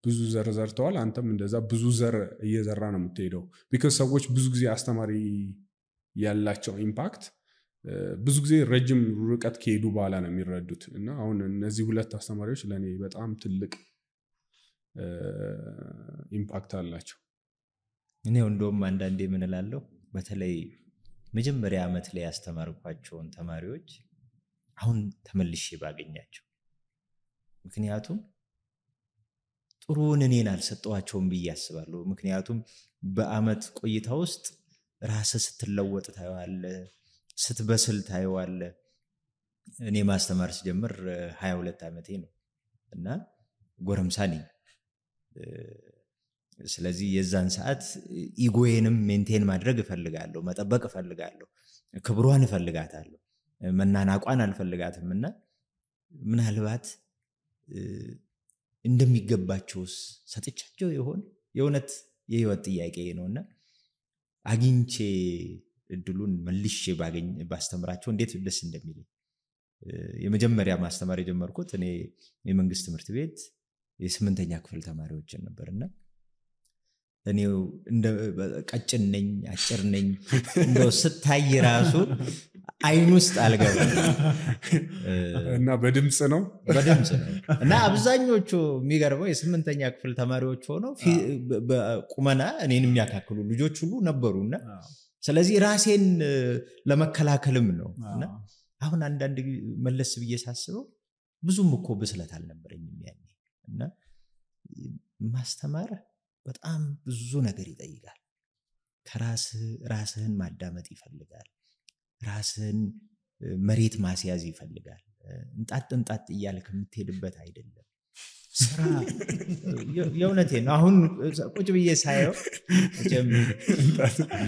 Speaker 4: ብዙ ዘር ዘርተዋል። አንተም እንደዛ ብዙ ዘር እየዘራ ነው የምትሄደው። ቢካዝ ሰዎች ብዙ ጊዜ አስተማሪ ያላቸው ኢምፓክት ብዙ ጊዜ ረጅም ርቀት ከሄዱ በኋላ ነው የሚረዱት። እና አሁን እነዚህ 2 አስተማሪዎች ለኔ በጣም ትልቅ ኢምፓክት አላቸው።
Speaker 1: እኔ እንደውም አንዳንዴ ምን እላለሁ በተለይ መጀመሪያ ዓመት ላይ ያስተማርኳቸውን ተማሪዎች አሁን ተመልሼ ባገኛቸው፣ ምክንያቱም ጥሩውን እኔን አልሰጠዋቸውም ብዬ አስባለሁ። ምክንያቱም በአመት ቆይታ ውስጥ ራስህ ስትለወጥ ታየዋለህ፣ ስትበስል ታየዋለህ። እኔ ማስተማር ስጀምር 22 ዓመቴ ነው እና ጎረምሳ ነኝ። ስለዚህ የዛን ሰዓት ኢጎዬንም ሜንቴን ማድረግ እፈልጋለሁ፣ መጠበቅ እፈልጋለሁ፣ ክብሯን እፈልጋታለሁ፣ መናናቋን አልፈልጋትምና ምናልባት እንደሚገባቸውስ ሰጥቻቸው ይሆን? የእውነት የህይወት ጥያቄ ነውና አግኝቼ እድሉን መልሼ ባስተምራቸው እንዴት ደስ እንደሚለኝ። የመጀመሪያ ማስተማር የጀመርኩት እኔ የመንግስት ትምህርት ቤት የ8ኛ ክፍል ተማሪዎችን ነበርና እኔው እንደ ቀጭን ነኝ አጭር ነኝ እንደው ስታይ ራሱ አይን ውስጥ አልገባም
Speaker 4: እና በድምጽ ነው
Speaker 1: እና አብዛኞቹ የሚገርመው የ8ኛ ክፍል ተማሪዎች ሆነው በቁመና እኔን የሚያካክሉ ልጆች ሁሉ ነበሩና ስለዚህ ራሴን ለመከላከልም ነውና አሁን አንዳንድ መለስ ብዬ ሳስበው ብዙም እኮ ብስለት አልነበረኝም ያኔ እና ማስተማር በጣም ብዙ ነገር ይጠይቃል ራስህን ማዳመጥ ይፈልጋል ራስህን መሬት ማስያዝ ይፈልጋል እንጣጥ እያልክ የምትሄድበት አይደለም ስራ የእውነቴን ነው አሁን ቁጭ ብዬ ሳየው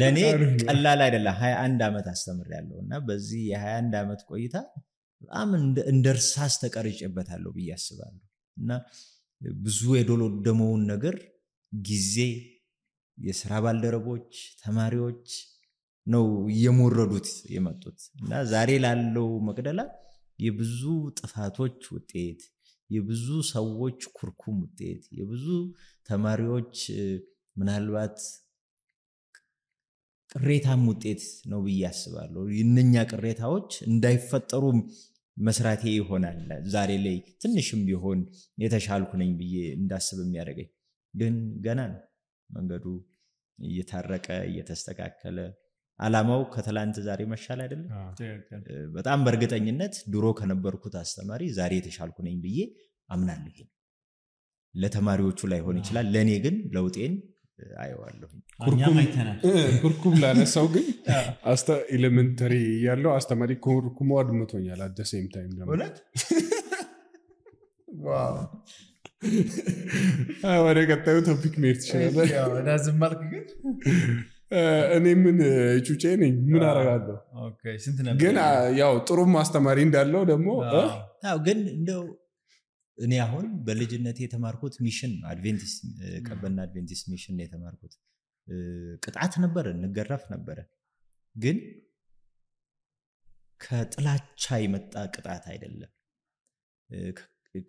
Speaker 1: ለኔ ቀላል አይደለም 21 ዓመት አስተምሬያለሁና በዚህ የ21 ዓመት ቆይታ በጣም እንደርሳስ ተቀርጬበታለሁ ብዬ አስባለሁ እና ብዙ የዶሎደመውን ነገር ጊዜ የሥራ ባልደረቦች ተማሪዎች ነው የሞረዱት የመጡት እና ዛሬ ላለው መቅደላ የብዙ ጥፋቶች ውጤት የብዙ ሰዎች ኩርኩም ውጤት የብዙ ተማሪዎች ምናልባት ቅሬታም ውጤት ነው ብዬ አስባለሁ እነኛ ቅሬታዎች እንዳይፈጠሩ መስራቴ ይሆናል ዛሬ ላይ ትንሽም ቢሆን የተሻልኩ ነኝ ብዬ እንዳስብ የሚያደርገኝ ግን ገና ነው መንገዱ እየታረቀ እየተስተካከለ አላማው ከትላንት ዛሬ መሻል አይደለም በጣም በእርግጠኝነት ድሮ ከነበርኩት አስተማሪ ዛሬ የተሻልኩ ነኝ ብዬ አምናለሁ ለተማሪዎቹ ላይ ሆነ ይችላል ለኔ ግን ለውጤን አየዋለሁ
Speaker 4: ኩርኩም ላነሳው ግን ኤሌመንተሪ ያለው አስተማሪ ኩርኩሙ አድምቶኛል at the same time
Speaker 3: እውነት ዋው
Speaker 4: ወደ ቀጣዩ ቶፒክ መሄድ ትችላለህ
Speaker 3: ያው ዳዝም ማርክ ግን
Speaker 4: እኔ ምን ጩጬ ነኝ ምን አረጋለሁ
Speaker 3: ኦኬ ስንት ነበር
Speaker 4: ግን ያው ጥሩም አስተማሪ እንዳለው ደግሞ
Speaker 1: አው ግን እንደው እኔ አሁን በልጅነቴ የተማርኩት ሚሽን አድቬንቲስት ቀበና አድቬንቲስት ሚሽን ነው የተማርኩት ቅጣት ነበር እንገረፍ ነበር ግን ከጥላቻ የመጣ ቅጣት አይደለም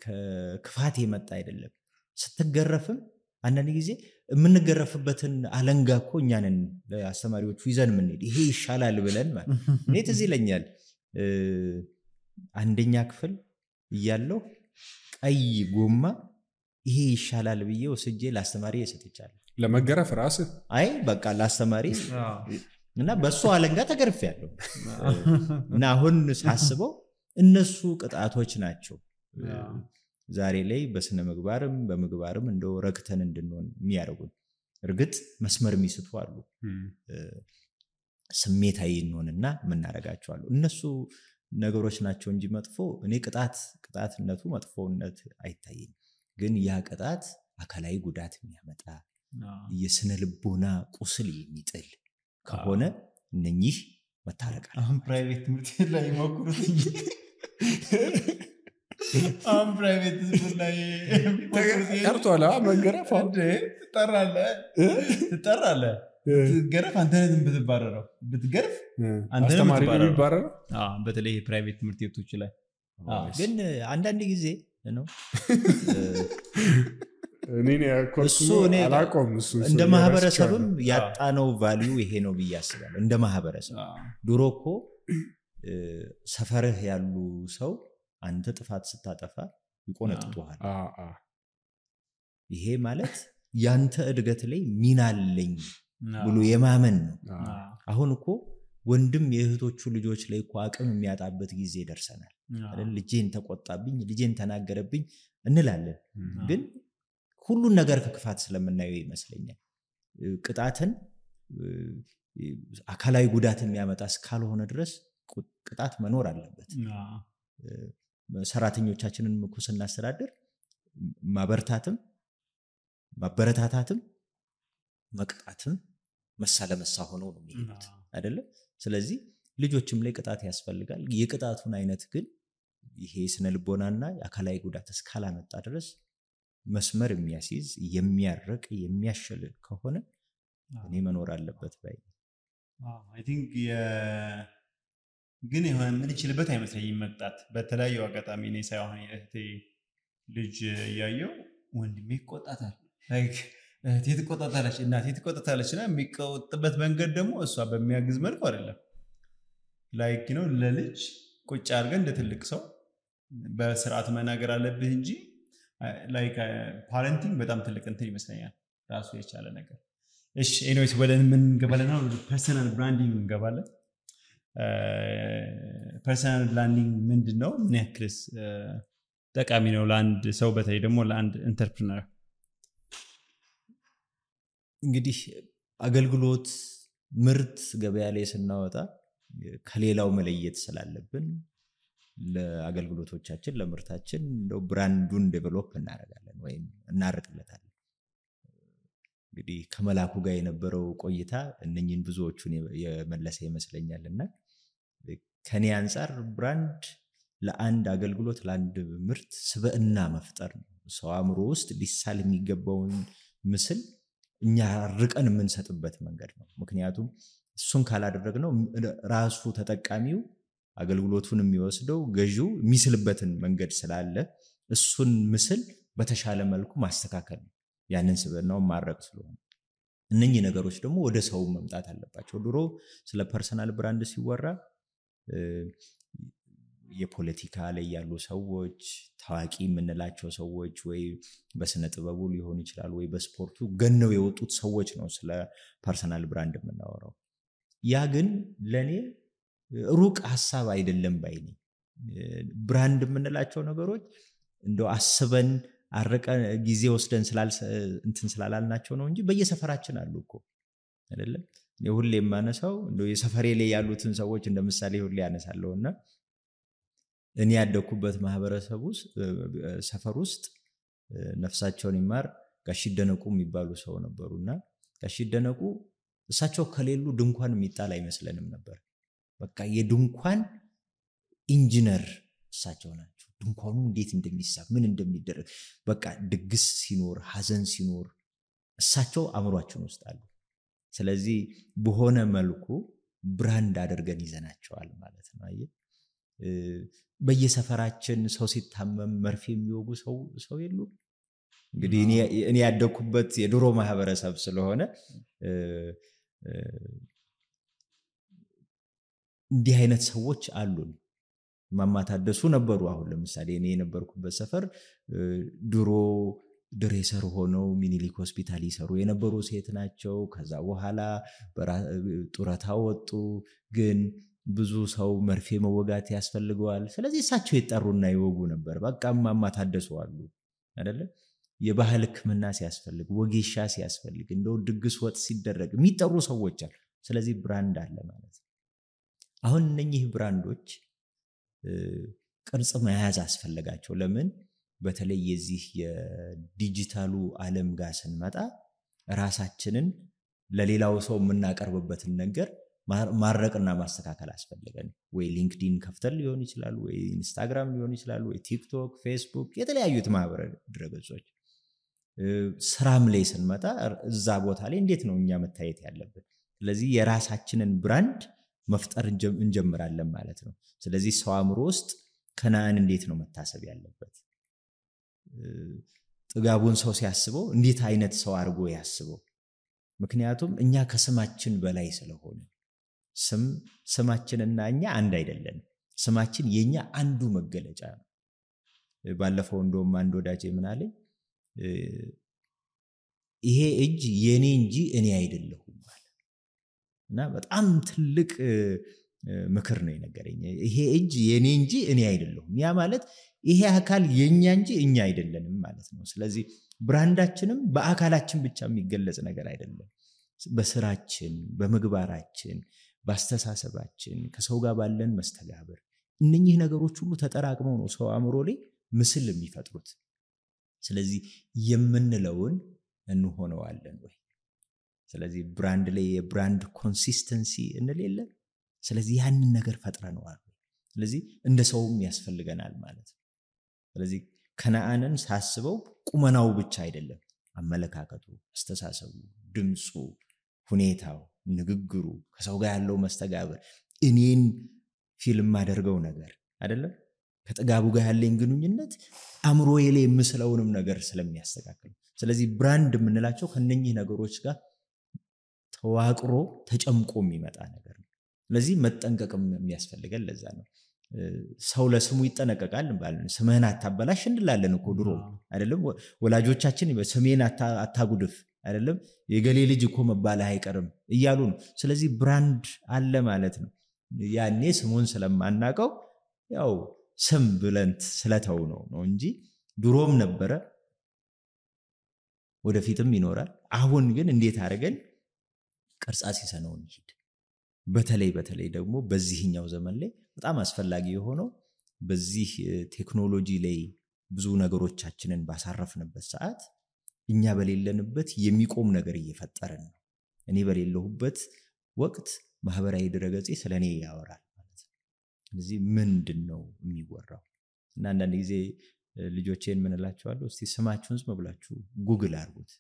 Speaker 1: ከክፋት የመጣ አይደለም ስትገረፍም አንዳንድ ጊዜ የምንገረፍበትን አለንጋ እኮ እኛንን ለአስተማሪዎቹ ይዘን ምንሄድ ይሄ ይሻላል ብለን ማለት እኔ ትዝ ይለኛል አንደኛ ክፍል እያለሁ ቀይ ጎማ ይሄ ይሻላል ብዬ ወስጄ ለአስተማሪ ሰጥቻለሁ
Speaker 4: ለመገረፍ ራስ
Speaker 1: አይ በቃ ለአስተማሪ እና በሱ አለንጋ ተገርፌያለሁ እና አሁን ሳስበው እነሱ ቅጣቶች ናቸው ዛሬ ላይ በስነ ምግባርም በምግባርም እንደው ረክተን እንድንሆን የሚያደርጉን እርግጥ መስመር የሚስቱ አሉ ስሜታዊ እንሆንና ምናረጋቸው አሉ እነሱ ነገሮች ናቸው እንጂ መጥፎ እኔ ቅጣትነቱ መጥፎነት አይታየኝ ግን ያ ቅጣት አካላዊ ጉዳት የሚያመጣ የስነ ልቦና ቁስል የሚጥል ከሆነ እነኚህ መታረቃል
Speaker 3: አሁን ፕራይቬት ትምህርት ላይ ሞክሩት አሁን ፕራይቬት ትምህርት ላይ
Speaker 4: ቀርቷል መገረፍ
Speaker 3: ትጠራለህ ትገረፍ አንተ ነህ ብትባረረው ብትገርፍ አንተ ነህ
Speaker 4: አስተማሪ ብትባረረው
Speaker 3: በተለይ ፕራይቬት ትምህርት ቤቶች ላይ
Speaker 1: ግን አንዳንድ ጊዜ ነው
Speaker 4: እኔ ኮርሱ አላቆም እሱ
Speaker 1: እንደ ማህበረሰብም ያጣነው ቫልዩ ይሄ ነው ብዬ አስባለሁ እንደ ማህበረሰብ ድሮኮ ሰፈርህ ያሉ ሰው አንተ ጥፋት ስታጠፋ ይቆነጥጡሃል ይሄ ማለት ያንተ እድገት ላይ ሚና አለኝ ብሎ የማመን ነው አሁን እኮ ወንድም የእህቶቹ ልጆች ላይ እኮ አቅም የሚያጣበት ጊዜ ደርሰናል አይደል ልጄን ተቆጣብኝ ልጄን ተናገረብኝ እንላለን ግን ሁሉን ነገር ከክፋት ስለምናየው ይመስለኛል ቅጣትን አካላዊ ጉዳት የሚያመጣ እስካልሆነ ድረስ ቅጣት መኖር አለበት ሰራተኞቻችንን እኮ ስናስተዳድር ማበርታትም ማበረታታትም መቅጣትም መሳለመሳ ሆነው ነው የሚሉት አይደለ ስለዚህ ልጆችም ላይ ቅጣት ያስፈልጋል የቅጣቱን አይነት ግን ይሄ ስነ ልቦናና አካላዊ ጉዳት እስካላመጣ ድረስ መስመር የሚያስይዝ የሚያርቅ የሚያሸል ከሆነ እኔ መኖር አለበት ባይ
Speaker 3: አይ ቲንክ ግን የሆነ ምን ይችልበት አይመስለኝም መቅጣት በተለያዩ አጋጣሚ እኔ ሳይሆን እህቴ ልጅ ያየው ወንድሜ ይቆጣታል ላይክ እህቴ ትቆጣታለች እናቴ ትቆጣታለችና የሚቆጥበት መንገድ ደግሞ እሷ በሚያግዝ መልኩ አይደለም ላይክ ነው ለልጅ ቁጭ አድርገን እንደ ትልቅ ሰው በስርዓት መናገር አለብህ እንጂ ላይክ ፓረንቲንግ በጣም ትልቅ እንትን ይመስለኛል ራሱ የቻለ ነገር እሺ ኤኒዌይስ ወደ ምን ገባለና ፐርሰናል ብራንዲንግ እንገባለን ፐርሰናል ብራንዲንግ ምንድነው ምን ያክልስ ጠቃሚ ነው ለአንድ ሰው በተለይ ደግሞ ለአንድ ኢንተርፕረነር
Speaker 1: እንግዲህ አገልግሎት ምርት ገበያ ላይ ስናወጣ ከሌላው መለየት ስላለብን ለአገልግሎቶቻችን ለምርታችን እንደው ብራንዱን ዴቨሎፕ እናደርጋለን ወይም እናርቅለታለን እንግዲህ ከመላኩ ጋር የነበረው ቆይታ እነኚህን ብዙዎቹን የመለሰ ይመስለኛልና ከኔ አንፃር ብራንድ ለአንድ አገልግሎት ለአንድ ምርት ስብዕና መፍጠር ነው ሰው አእምሮ ውስጥ ሊሳል የሚገባውን ምስል እኛ ርቀን የምንሰጥበት መንገድ ነው ምክንያቱም እሱን ካላደረግነው ራሱ ተጠቃሚው አገልግሎቱን የሚወስደው ገዢው የሚስልበትን መንገድ ስላለ እሱን ምስል በተሻለ መልኩ ማስተካከል ነው ያንን ስብዕናው ማረቅ ስለሆነ እነኚህ ነገሮች ደግሞ ወደ ሰው መምጣት አለባቸው ድሮ ስለ ፐርሰናል ብራንድ ሲወራ የፖለቲካ ላይ ያሉ ሰዎች ታዋቂ የምንላቸው ሰዎች ወይ በስነ ጥበቡ ሊሆን ይችላል ወይ በስፖርቱ ገነው የወጡት ሰዎች ነው ስለ ፐርሰናል ብራንድ የምናወራው ያ ግን ለኔ ሩቅ ሐሳብ አይደለም ባይኔ ብራንድ የምንላቸው ነገሮች እንደው አስበን አረቀ ጊዜ ወስደን ስላላልናቸው ነው እንጂ በየሰፈራችን አሉ እኮ አይደለም ሁሌ የማነሳው እንደው የሰፈሬ ላይ ያሉትን ሰዎች እንደምሳሌ ሁሌ ያነሳለውና እኔ ያደኩበት ማህበረሰብ ውስጥ ሰፈር ውስጥ ነፍሳቸውን ይማር ጋሽ ደነቁ የሚባሉ ሰው ነበሩና ጋሽ ደነቁ እሳቸው ከሌሉ ድንኳን የሚጣል አይመስለንም ነበር በቃ የድንኳን ኢንጂነር እሳቸው ናቸው ድንኳኑ እንዴት እንደሚሳብ ምን እንደሚደረግ በቃ ድግስ ሲኖር ሐዘን ሲኖር እሳቸው አምሯችን ውስጥ አሉ ስለዚህ በሆነ መልኩ ብራንድ አድርገን ይዘናቸዋል ማለት ነው አይ በየሰፈራችን ሰው ሲታመም መርፌ የሚወጉ ሰው የሉ እንግዲህ እኔ ያደኩበት የድሮ ማህበረሰብ ስለሆነ እንዲህ አይነት ሰዎች አሉን ማማታደሱ ነበሩ አሁን ለምሳሌ እኔ የነበርኩበት ሰፈር ድሮ ድሬሰር ሆነው ሚኒሊክ ሆስፒታል ይሰሩ የነበሩ ሴት ናቸው ከዛ በኋላ ጡረታ ወጡ ግን ብዙ ሰው መርፌ መወጋት ያስፈልገዋል ስለዚህ እሳቸው ይጣሩና ይወጉ ነበር በቃ ማማታደሱ አሉ አይደለ የባህል ህክምና ሲያስፈልግ ወጌሻ ሲያስፈልግ እንደው ድግስ ወጥ ሲደረግ የሚጠሩ ሰዎች አሉ ስለዚህ ብራንድ አለ ማለት ነው አሁን እነኚህ ብራንዶች ቅርጽ መያዝ አስፈልጋቸው ለምን በተለይ የዚህ የዲጂታሉ ዓለም ጋር ስንመጣ ራሳችንን ለሌላው ሰው የምናቀርብበትን ነገር ማረቅና ማስተካከል አስፈልገን ወይ ሊንክድኢን ከፍተን ሊሆን ይችላል ወይ ኢንስታግራም ሊሆን ይችላል ወይ ቲክቶክ ፌስቡክ የተለያዩት ማህበራዊ ድረገጾች ስራም ላይ ስንመጣ እዛ ቦታ ላይ እንዴት ነው እኛ መታየት ያለብን ስለዚህ የራሳችንን ብራንድ መፍጠር እንጀምራለን ማለት ነው ስለዚህ ሰው አእምሮ ውስጥ ከናን እንዴት ነው መታሰብ ያለበት ጥጋቡን ሰው ሲያስበው እንዴት አይነት ሰው አድርጎ ያስበው ምክንያቱም እኛ ከስማችን በላይ ስለሆነ ስማችንና እኛ አንድ አይደለም ስማችን የኛ አንዱ መገለጫ ነው ባለፈው እንደውም አንድ ወዳጄ ምን አለኝ ይሄ እጅ የኔ እንጂ እኔ አይደለሁም ማለት እና በጣም ትልቅ ምክር ነው የነገረኝ ይሄ እጅ የኔ እንጂ እኔ አይደለሁም ያ ማለት ይሄ አካል የኛ እንጂ እኛ አይደለንም ማለት ነው ስለዚህ ብራንዳችንም በአካላችን ብቻ የሚገለጽ ነገር አይደለም በስራችን በመግባራችን በአስተሳሰባችን ከሰው ጋር ባለን መስተጋብር እነኚህ ነገሮች ሁሉ ተጠራቅመው ነው ሰው አእምሮ ላይ ምስል የሚፈጥሩት ስለዚህ የምንለውን እንሆነዋለን ወይ ስለዚህ ብራንድ ላይ የብራንድ ኮንሲስተንሲ እንለለ ስለዚህ ያንን ነገር ፈጥረናል ስለዚህ እንደ ሰውም ያስፈልገናል ማለት ነው ስለዚህ ከነአንን ሳስበው ቁመናው ብቻ አይደለም አመለካከቱ አስተሳሰቡ ድምጹ ሁኔታው ንግግሩ ከሰው ጋር ያለው መስተጋብር እኔን ፊልም ማደርገው ነገር አይደለም ከጥጋቡ ጋር ያለኝ ግንኙነት አእምሮዬ ላይ የምስለውንም ነገር ስለሚያስተካክል ስለዚህ ብራንድ የምንላቸው ከነኚህ ነገሮች ጋር ተዋቅሮ ተጨምቆ የሚመጣ ነገር ነው ስለዚህ መጠንቀቅም የሚያስፈልገን ለዛ ነው ሰው ለስሙ ይጠነቀቃል እንባለን ስምህን አታበላሽ እንላለን እኮ ድሮ አይደለም ወላጆቻችን ስሜን አታጉድፍ አይደለም የገሌ ልጅ እኮ መባልህ አይቀርም እያሉ ነው ስለዚህ ብራንድ አለ ማለት ነው ያኔ ስሙን ስለማናቀው ያው ስም ብለንት ስለተው ነው እንጂ ድሮም ነበረ ወደፊትም ይኖራል አሁን ግን እንዴት አድርገን ቅርጻ ሲሰነው እንሂድ በተለይ ደግሞ በዚህኛው ዘመን ላይ በጣም አስፈላጊ የሆነው በዚህ ቴክኖሎጂ ላይ ብዙ ነገሮቻችንን ባሳረፍንበት ሰዓት እኛ በሌለንበት የሚቆም ነገር እየፈጠረን ነው እኔ በሌለሁበት ወቅት ማህበራዊ ድረገጽ ስለኔ ያወራል ማለት ነው ስለዚህ ምንድነው የሚወራው እና አንዳንድ ጊዜ ልጆቼን ምን እላቸዋለሁ እስቲ ስማችሁን ዝም ብላችሁ ጉግል አድርጉት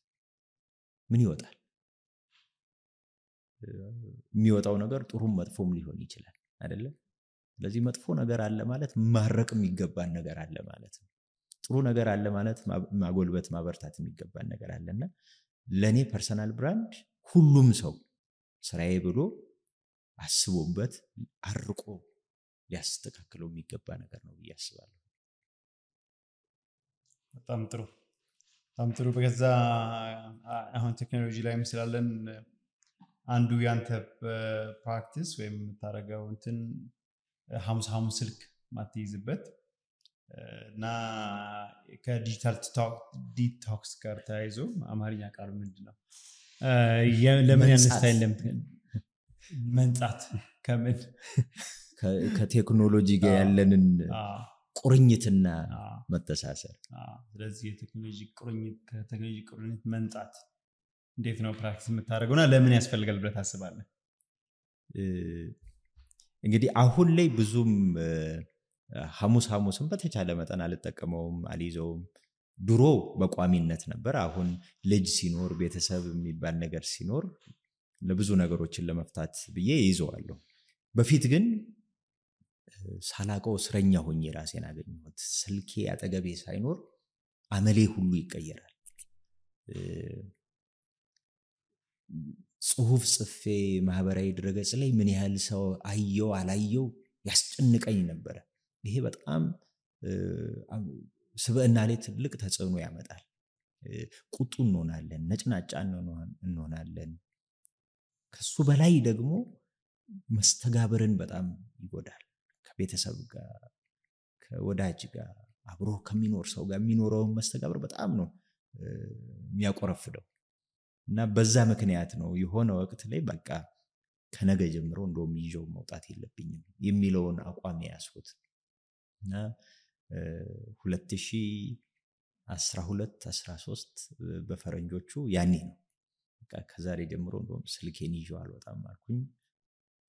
Speaker 1: ምን ይወጣል የሚወጣው ነገር ጥሩም መጥፎም ሊሆን ይችላል አይደለ ስለዚህ መጥፎ ነገር አለ ማለት ማረቅ የሚገባን ነገር አለ ማለት ነው ጥሩ ነገር አለ ማለት ማጎልበት ማበርታት የሚገባን ነገር አለና ለኔ ፐርሰናል ብራንድ ሁሉም ሰው ስራዬ ብሎ አስቦበት አርቆ ሊያስተካክለው የሚገባ ነገር ነው ያስባለሁ
Speaker 3: በጣም ጥሩ በገዛ አሁን ቴክኖሎጂ ላይ መስላለን አንዱ ያንተ ፕራክቲስ ወይም ታረጋው እንትን ሐሙስ ስልክ ማትይዝበት እና ከዲጂታል ዲቶክስ ጋር ተያይዞ አማርኛ ቃሉ ምንድነው ለምን ያንስታይል መንጻት ከምን
Speaker 1: ከቴክኖሎጂ ጋር ያለንን ቁርኝትና መተሳሰር
Speaker 3: ስለዚህ የቴክኖሎጂ ቁርኝት መንጻት እንዴት ነው ፕራክቲስ የምታደርገውና ለምን ያስፈልጋል ብለህ ታስባለህ
Speaker 1: እንግዲህ አሁን ላይ ብዙም ሐሙስም በተቻለ መጠን አልተጠቀመውም አልይዘውም ድሮ በቋሚነት ነበር አሁን ልጅ ሲኖር ቤተሰብ የሚባል ነገር ሲኖር ለብዙ ነገሮችን ለመፍታት ብዬ ይዘዋለሁ በፊት ግን ሳላቀው እስረኛ ሆኜ ራሴን አገኘሁት ስልኬ አጠገቤ ሳይኖር አመሌ ሁሉ ይቀየራል ጽሁፍ ጽፌ ማህበራዊ ድረገጽ ላይ ምን ያህል ሰው አየው አላየው ያስጨንቀኝ ነበር ይሄ በጣም ስብዕና ላይ ትልቅ ተጽዕኖ ያመጣል ቁጡ እንሆናለን ነጭናጫ እንሆናለን ከሱ በላይ ደግሞ መስተጋብርን በጣም ይጎዳል ከቤተሰብ ጋር ከወዳጅ ጋር አብሮ ከሚኖር ሰው ጋር የሚኖረው መስተጋብር በጣም ነው የሚያቆረፍደው እና በዛ ምክንያት ነው የሆነ ወቅት ላይ በቃ ከነገ ጀምሮ እንደውም ይዤው መውጣት የለብኝም የሚለውን አቋም ያስኩት እና 2012 13 በፈረንጆቹ ያኔ ነው በቃ ከዛሬ ጀምሮ እንደውም ስልኬን ይዤው አልወጣም አልኩኝ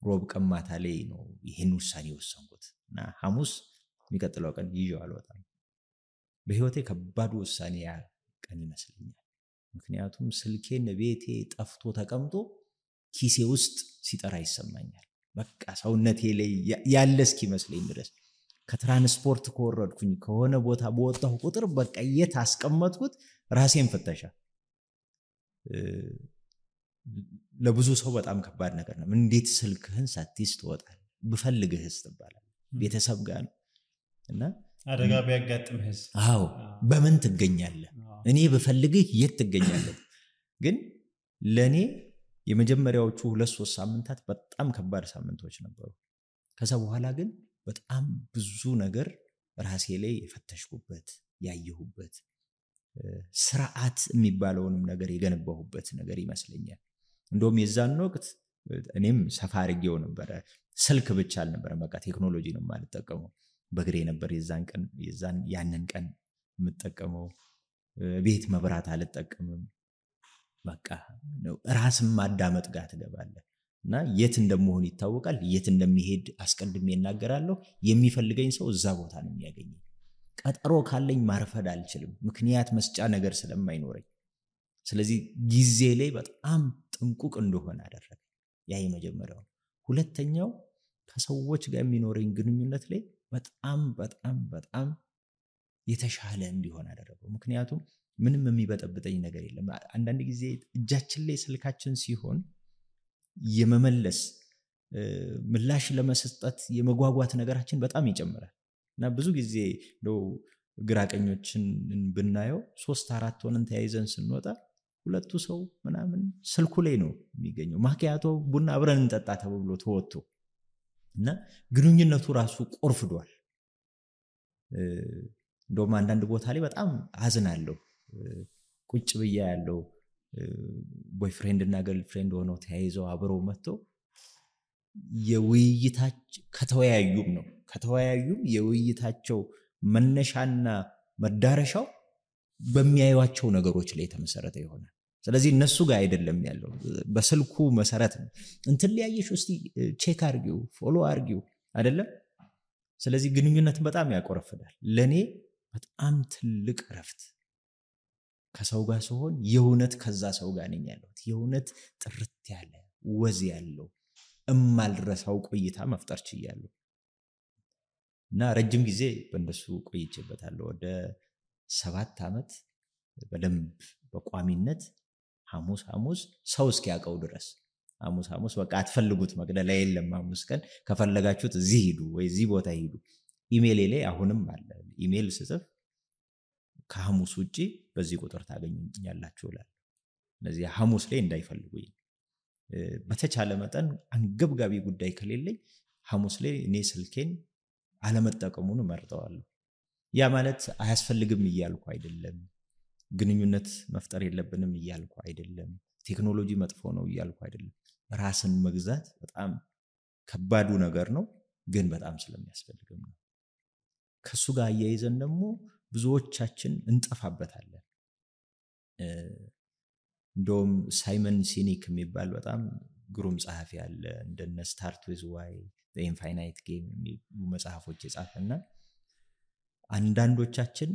Speaker 1: ሮብ ቀማታ ላይ ነው ይሄን ውሳኔ ወሰንኩት እና ሐሙስ የሚቀጥለው ቀን ይዤው አልወጣም በህይወቴ ከባድ ውሳኔ ያ ቀን ይመስለኛል ምክንያቱም ስልኬን ቤቴ ጠፍቶ ተቀምጦ ኪሴ ውስጥ ሲጠራ ይሰማኛል በቃ ሰውነቴ ላይ ያለ እስኪመስለኝ ድረስ ከትራንስፖርት ከወረድኩኝ ከሆነ ቦታ በወጣሁ ቁጥር በቃ የት አስቀመጥኩት ራሴን ፈተሻ ለብዙ ሰው በጣም ከባድ ነገር ነው እንዴት ስልክህን ሳትይዝ ትወጣለህ ብፈልግህስ ትባላለህ ቤተሰብ ጋር ነው እና
Speaker 3: አደጋ ቢያጋጥምህስ
Speaker 1: አዎ በምን ትገኛለህ እኔ ብፈልግህ የት ትገኛለህ ግን ለኔ የመጀመሪያዎቹ 2-3 ሳምንታት በጣም ከባድ ሳምንቶች ነበሩ ከዛ በኋላ ግን በጣም ብዙ ነገር ራሴ ላይ የፈተሽኩበት ያየሁበት ስርዓት የሚባለውንም ነገር የገነባሁበት ነገር ይመስለኛል እንደውም የዛን ወቅት እኔም ሰፋ አድርጌው ነበር ስልክ ብቻ አልነበረም በቃ ቴክኖሎጂ ነው የማልጠቀመው በግሬ ነበር ያንን ቀን የምጠቀመው ቤት መብራት አልጠቀምም በቃ ራስም ማዳመጥ ጋር ትገባለህ እና የት እንደምሆን ይታወቃል የት እንደሚሄድ አስቀድሜ እናገራለሁ የሚፈልገኝ ሰው እዛ ቦታ ነው የሚያገኘኝ ቀጠሮ ካለኝ ማርፈድ አልችልም ምክንያት መስጫ ነገር ስለማይኖረኝ ስለዚህ ጊዜ ላይ በጣም ጥንቁቅ እንደሆነ አደረገ ያ የመጀመሪያው ሁለተኛው ከሰዎች ጋር የሚኖረኝ ግንኙነት ላይ በጣም በጣም በጣም የተሻለ እንዲሆን አደረገው። ምክንያቱም ምንም የሚበጠብጠኝ ነገር የለም። አንዳንድ ጊዜ እጃችን ላይ ስልካችን ሲሆን የመመለስ ምላሽ ለመስጠት የመጓጓት ነገራችን በጣም ይጨምራል እና ብዙ ጊዜ ነው ግራቀኞችን ብናየው 3-4 ሆነን ተያይዘን ስንወጣ ሁለቱ ሰው ምናምን ስልኩ ላይ ነው የሚገኘው። ማኪያቶ ቡና አብረን እንጠጣ ተብሎ ተወጥቶ እና ግንኙነቱ ራሱ ቆርፍዷል። እንደውም አንዳንድ ቦታ ላይ በጣም አዝናለሁ። ቁጭ ብያ ያለው ቦይፍሬንድ እና ገርልፍሬንድ ሆነው ተያይዘው አብረው መጥተው የውይይታቸው ከተወያዩም የውይይታቸው መነሻና መዳረሻው በሚያዩዋቸው ነገሮች ላይ የተመሰረተ ይሆናል። ስለዚህ እነሱ ጋር አይደለም ያለው በስልኩ መሰረት ነው። እንትን ሊያየሽ እስቲ ቼክ አርጊው ፎሎ አርጊው አይደለም። ስለዚህ ግንኙነት በጣም ያቆረፍዳል። ለኔ በጣም ትልቅ ረፍት ከሰው ጋር ሲሆን የእውነት ከዛ ሰው ጋር ነኝ ያለሁት የእውነት ጥርት ያለ ወዝ ያለው እማልረሳው ቆይታ መፍጠር ችያለሁ እና ረጅም ጊዜ በእንደሱ ቆይቼበታለሁ። ወደ 7 ዓመት በደንብ በቋሚነት ሐሙስ ሰው እስኪያቀው ድረስ ሐሙስ በቃ አትፈልጉት መግደላ የለም። ሐሙስ ቀን ከፈለጋችሁት እዚህ ሂዱ ወይ እዚህ ቦታ ሂዱ። ኢሜል ላይ አሁንም አለ። ኢሜል ስጽፍ ከሐሙስ ውጪ በዚህ ቁጥር ታገኙኛላችሁ እላለሁ። ስለዚህ ሐሙስ ላይ እንዳይፈልጉኝ በተቻለ መጠን አንገብጋቢ ጉዳይ ከሌለኝ ሐሙስ ላይ እኔ ስልኬን አለመጠቀሙን እመርጠዋለሁ። ያ ማለት አያስፈልግም እያልኩ አይደለም። ግንኙነት መፍጠር የለብንም እያልኩ አይደለም። ቴክኖሎጂ መጥፎ ነው እያልኩ አይደለም። ራስን መግዛት በጣም ከባዱ ነገር ነው፣ ግን በጣም ስለሚያስፈልግም ነው። ከሱ ጋር አያይዘን ደግሞ ብዙዎቻችን እንጠፋበታለን። እንደውም ሳይመን ሲኒክ የሚባል በጣም ግሩም ጸሐፊ አለ። እንደነ ስታርት ዊዝ ዋይ ዘ ኢንፋይናይት ጌም የሚሉ መጽሐፎች የጻፈና አንዳንዶቻችን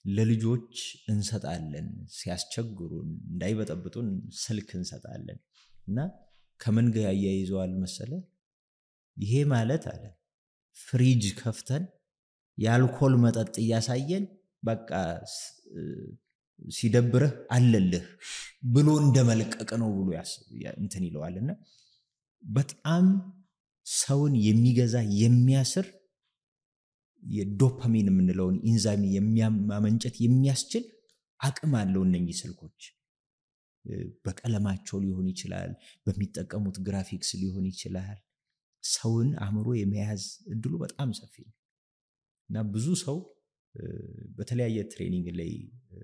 Speaker 1: ለልጆች እንሰጣለን ሲያስቸግሩን እንዳይበጠብጡን ስልክ እንሰጣለን እና ከምን ጋር ያያይዘዋል መሰለ? ይሄ ማለት አለ ፍሪጅ ከፍተን የአልኮል መጠጥ እያሳየን በቃ ሲደብርህ አለልህ ብሎ እንደመልቀቅ ነው ብሎ እንትን ይለዋልና በጣም ሰውን የሚገዛ የሚያስር የዶፓሚን የምንለውን ኢንዛይም የሚያመንጨት የሚያስችል አቅም አለው እነኚህ ስልኮች። በቀለማቸው ሊሆን ይችላል፣ በሚጠቀሙት ግራፊክስ ሊሆን ይችላል። ሰውን አእምሮ የመያዝ እድሉ በጣም ሰፊ ነው እና ብዙ ሰው በተለያየ ትሬኒንግ ላይ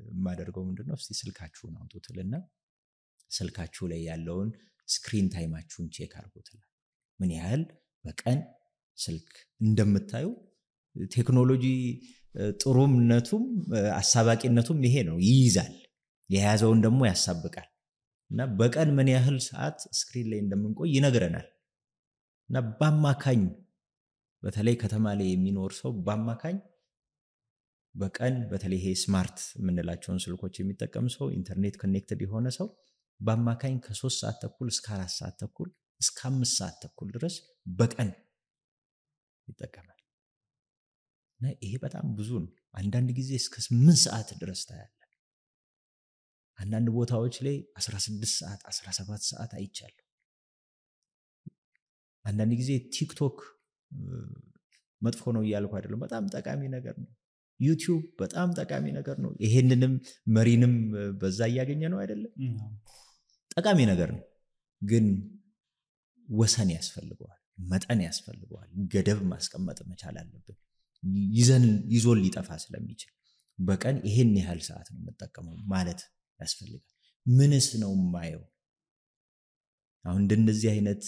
Speaker 1: የማደርገው ምንድነው እስቲ ስልካችሁን አውጡትና ስልካችሁ ላይ ያለውን ስክሪን ታይማችሁን ቼክ አድርጉትና ምን ያህል በቀን ስልክ እንደምታዩ። ቴክኖሎጂ ጥሩምነቱም አሳባቂነቱም ይሄ ነው፣ ይይዛል፣ የያዘውን ደግሞ ያሳብቃል እና በቀን ምን ያህል ሰዓት ስክሪን ላይ እንደምንቆይ ይነግረናል። እና በአማካኝ በተለይ ከተማ ላይ የሚኖር ሰው በአማካኝ በቀን በተለይ ይሄ ስማርት የምንላቸውን ስልኮች የሚጠቀም ሰው ኢንተርኔት ኮኔክትድ የሆነ ሰው በአማካኝ ከ3 ሰዓት ተኩል እስከ 4 ሰዓት ተኩል እስከ 5 ሰዓት ተኩል ድረስ በቀን ይጠቀማል። እና ይሄ በጣም ብዙ ነው። አንዳንድ ጊዜ እስከ 8 ሰዓት ድረስ ታያለ። አንዳንድ ቦታዎች ላይ 16 ሰዓት 17 ሰዓት አይቻለሁ። አንዳንድ ጊዜ ቲክቶክ መጥፎ ነው እያልኩ አይደለም፣ በጣም ጠቃሚ ነገር ነው። ዩቲዩብ በጣም ጠቃሚ ነገር ነው። ይሄንንም መሪንም በዛ እያገኘ ነው አይደለም፣ ጠቃሚ ነገር ነው። ግን ወሰን ያስፈልገዋል፣ መጠን ያስፈልገዋል፣ ገደብ ማስቀመጥ መቻል አለብን። ይዞን ሊጠፋ ስለሚችል በቀን ይሄን ያህል ሰዓት ነው መጠቀመው ማለት ያስፈልጋል። ምንስ ነው ማየው? አሁን እንደዚህ አይነት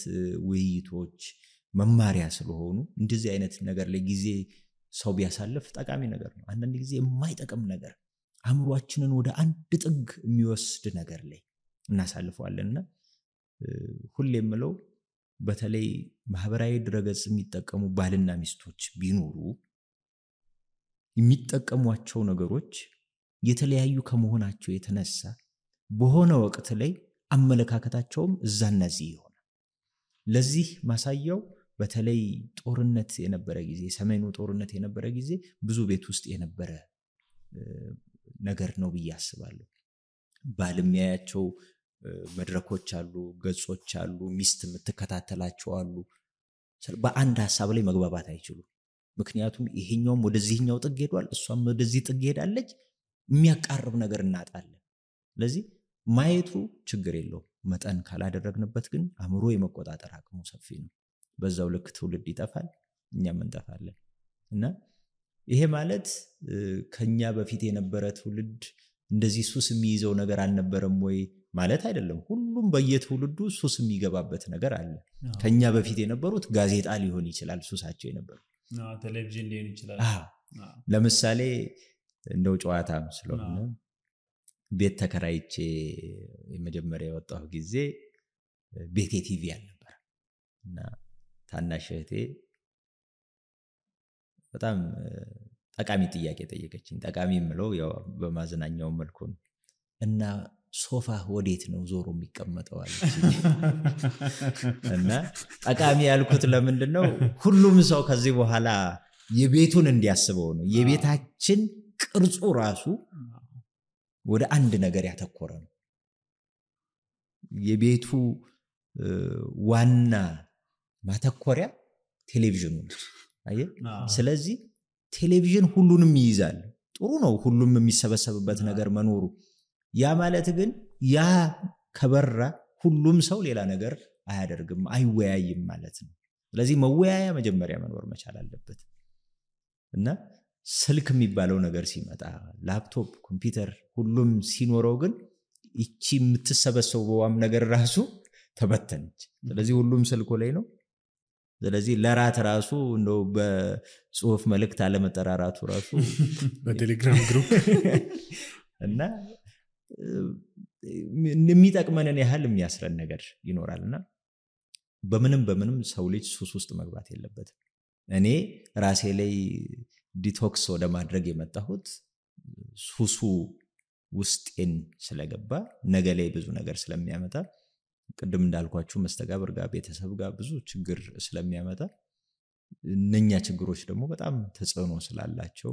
Speaker 1: ውይይቶች መማሪያ ስለሆኑ እንደዚህ አይነት ነገር ላይ ጊዜ ሰው ቢያሳልፍ ጠቃሚ ነገር ነው። አንዳንድ ጊዜ የማይጠቅም ነገር አእምሮአችንን ወደ አንድ ጥግ የሚወስድ ነገር ላይ እናሳልፈዋለንና ሁሌ የምለው በተለይ ማህበራዊ ድረገጽ የሚጠቀሙ ባልና ሚስቶች ቢኖሩ የሚጠቀሟቸው ነገሮች የተለያዩ ከመሆናቸው የተነሳ በሆነ ወቅት ላይ አመለካከታቸውም እዛና እዚህ ይሆናል። ለዚህ ማሳያው በተለይ ጦርነት የነበረ ጊዜ ሰሜኑ ጦርነት የነበረ ጊዜ ብዙ ቤት ውስጥ የነበረ ነገር ነው ብዬ አስባለሁ። ባልሚያያቸው መድረኮች አሉ፣ ገጾች አሉ፣ ሚስት የምትከታተላቸው አሉ። በአንድ ሐሳብ ላይ መግባባት አይችሉም። ምክንያቱም ይሄኛውም ወደዚህኛው ጥግ ሄዷል፣ እሷም ወደዚህ ጥግ ሄዳለች። የሚያቃርብ ነገር እናጣለን። ስለዚህ ማየቱ ችግር የለውም፣ መጠን ካላደረግንበት ግን አእምሮ የመቆጣጠር አቅሙ ሰፊ ነው። በዛው ልክ ትውልድ ይጠፋል፣ እኛም እንጠፋለን። እና ይሄ ማለት ከኛ በፊት የነበረ ትውልድ እንደዚህ ሱስ የሚይዘው ነገር አልነበረም ወይ ማለት አይደለም። ሁሉም በየትውልዱ ሱስ የሚገባበት ነገር አለ። ከኛ በፊት የነበሩት ጋዜጣ ሊሆን ይችላል ሱሳቸው የነበሩ፣
Speaker 3: ቴሌቪዥን ሊሆን ይችላል።
Speaker 1: ለምሳሌ እንደው ጨዋታም ስለሆነ ቤት ተከራይቼ የመጀመሪያ የወጣሁ ጊዜ ቤቴ ቲቪ አልነበረ እና ታናሽ እህቴ በጣም ጠቃሚ ጥያቄ ጠየቀችኝ። ጠቃሚ የምለው ያው በማዝናኛው መልኩ ነው። እና ሶፋ ወዴት ነው ዞሮ የሚቀመጠው አለችኝ። እና ጠቃሚ ያልኩት ለምንድነው ሁሉም ሰው ከዚህ በኋላ የቤቱን እንዲያስበው ነው። የቤታችን ቅርጹ ራሱ ወደ አንድ ነገር ያተኮረ ነው። የቤቱ ዋና ማተኮሪያ ቴሌቪዥኑ ነው። አየህ፣ ስለዚህ ቴሌቪዥን ሁሉንም ይይዛል። ጥሩ ነው ሁሉም የሚሰበሰብበት ነገር መኖሩ። ያ ማለት ግን ያ ከበራ ሁሉም ሰው ሌላ ነገር አያደርግም፣ አይወያይም ማለት ነው። ስለዚህ መወያያ መጀመሪያ መኖር መቻል አለበት። እና ስልክ የሚባለው ነገር ሲመጣ ላፕቶፕ፣ ኮምፒውተር ሁሉም ሲኖረው ግን እቺ የምትሰበሰበውም ነገር ራሱ ተበተነች። ስለዚህ ሁሉም ስልኮ ላይ ነው። ስለዚህ ለራት ራሱ እንደው በጽሁፍ መልእክት አለመጠራራቱ ራሱ
Speaker 4: በቴሌግራም ግሩፕ
Speaker 1: እና የሚጠቅመንን ያህል የሚያስረን ነገር ይኖራልና በምንም ሰው ልጅ ሱስ ውስጥ መግባት የለበትም። እኔ ራሴ ላይ ዲቶክስ ወደ ማድረግ የመጣሁት ሱሱ ውስጤን ስለገባ ነገ ላይ ብዙ ነገር ስለሚያመጣ፣ ቅድም እንዳልኳችሁ መስተጋብር ጋር ቤተሰብ ጋር ብዙ ችግር ስለሚያመጣ፣ እነኛ ችግሮች ደግሞ በጣም ተጽዕኖ ስላላቸው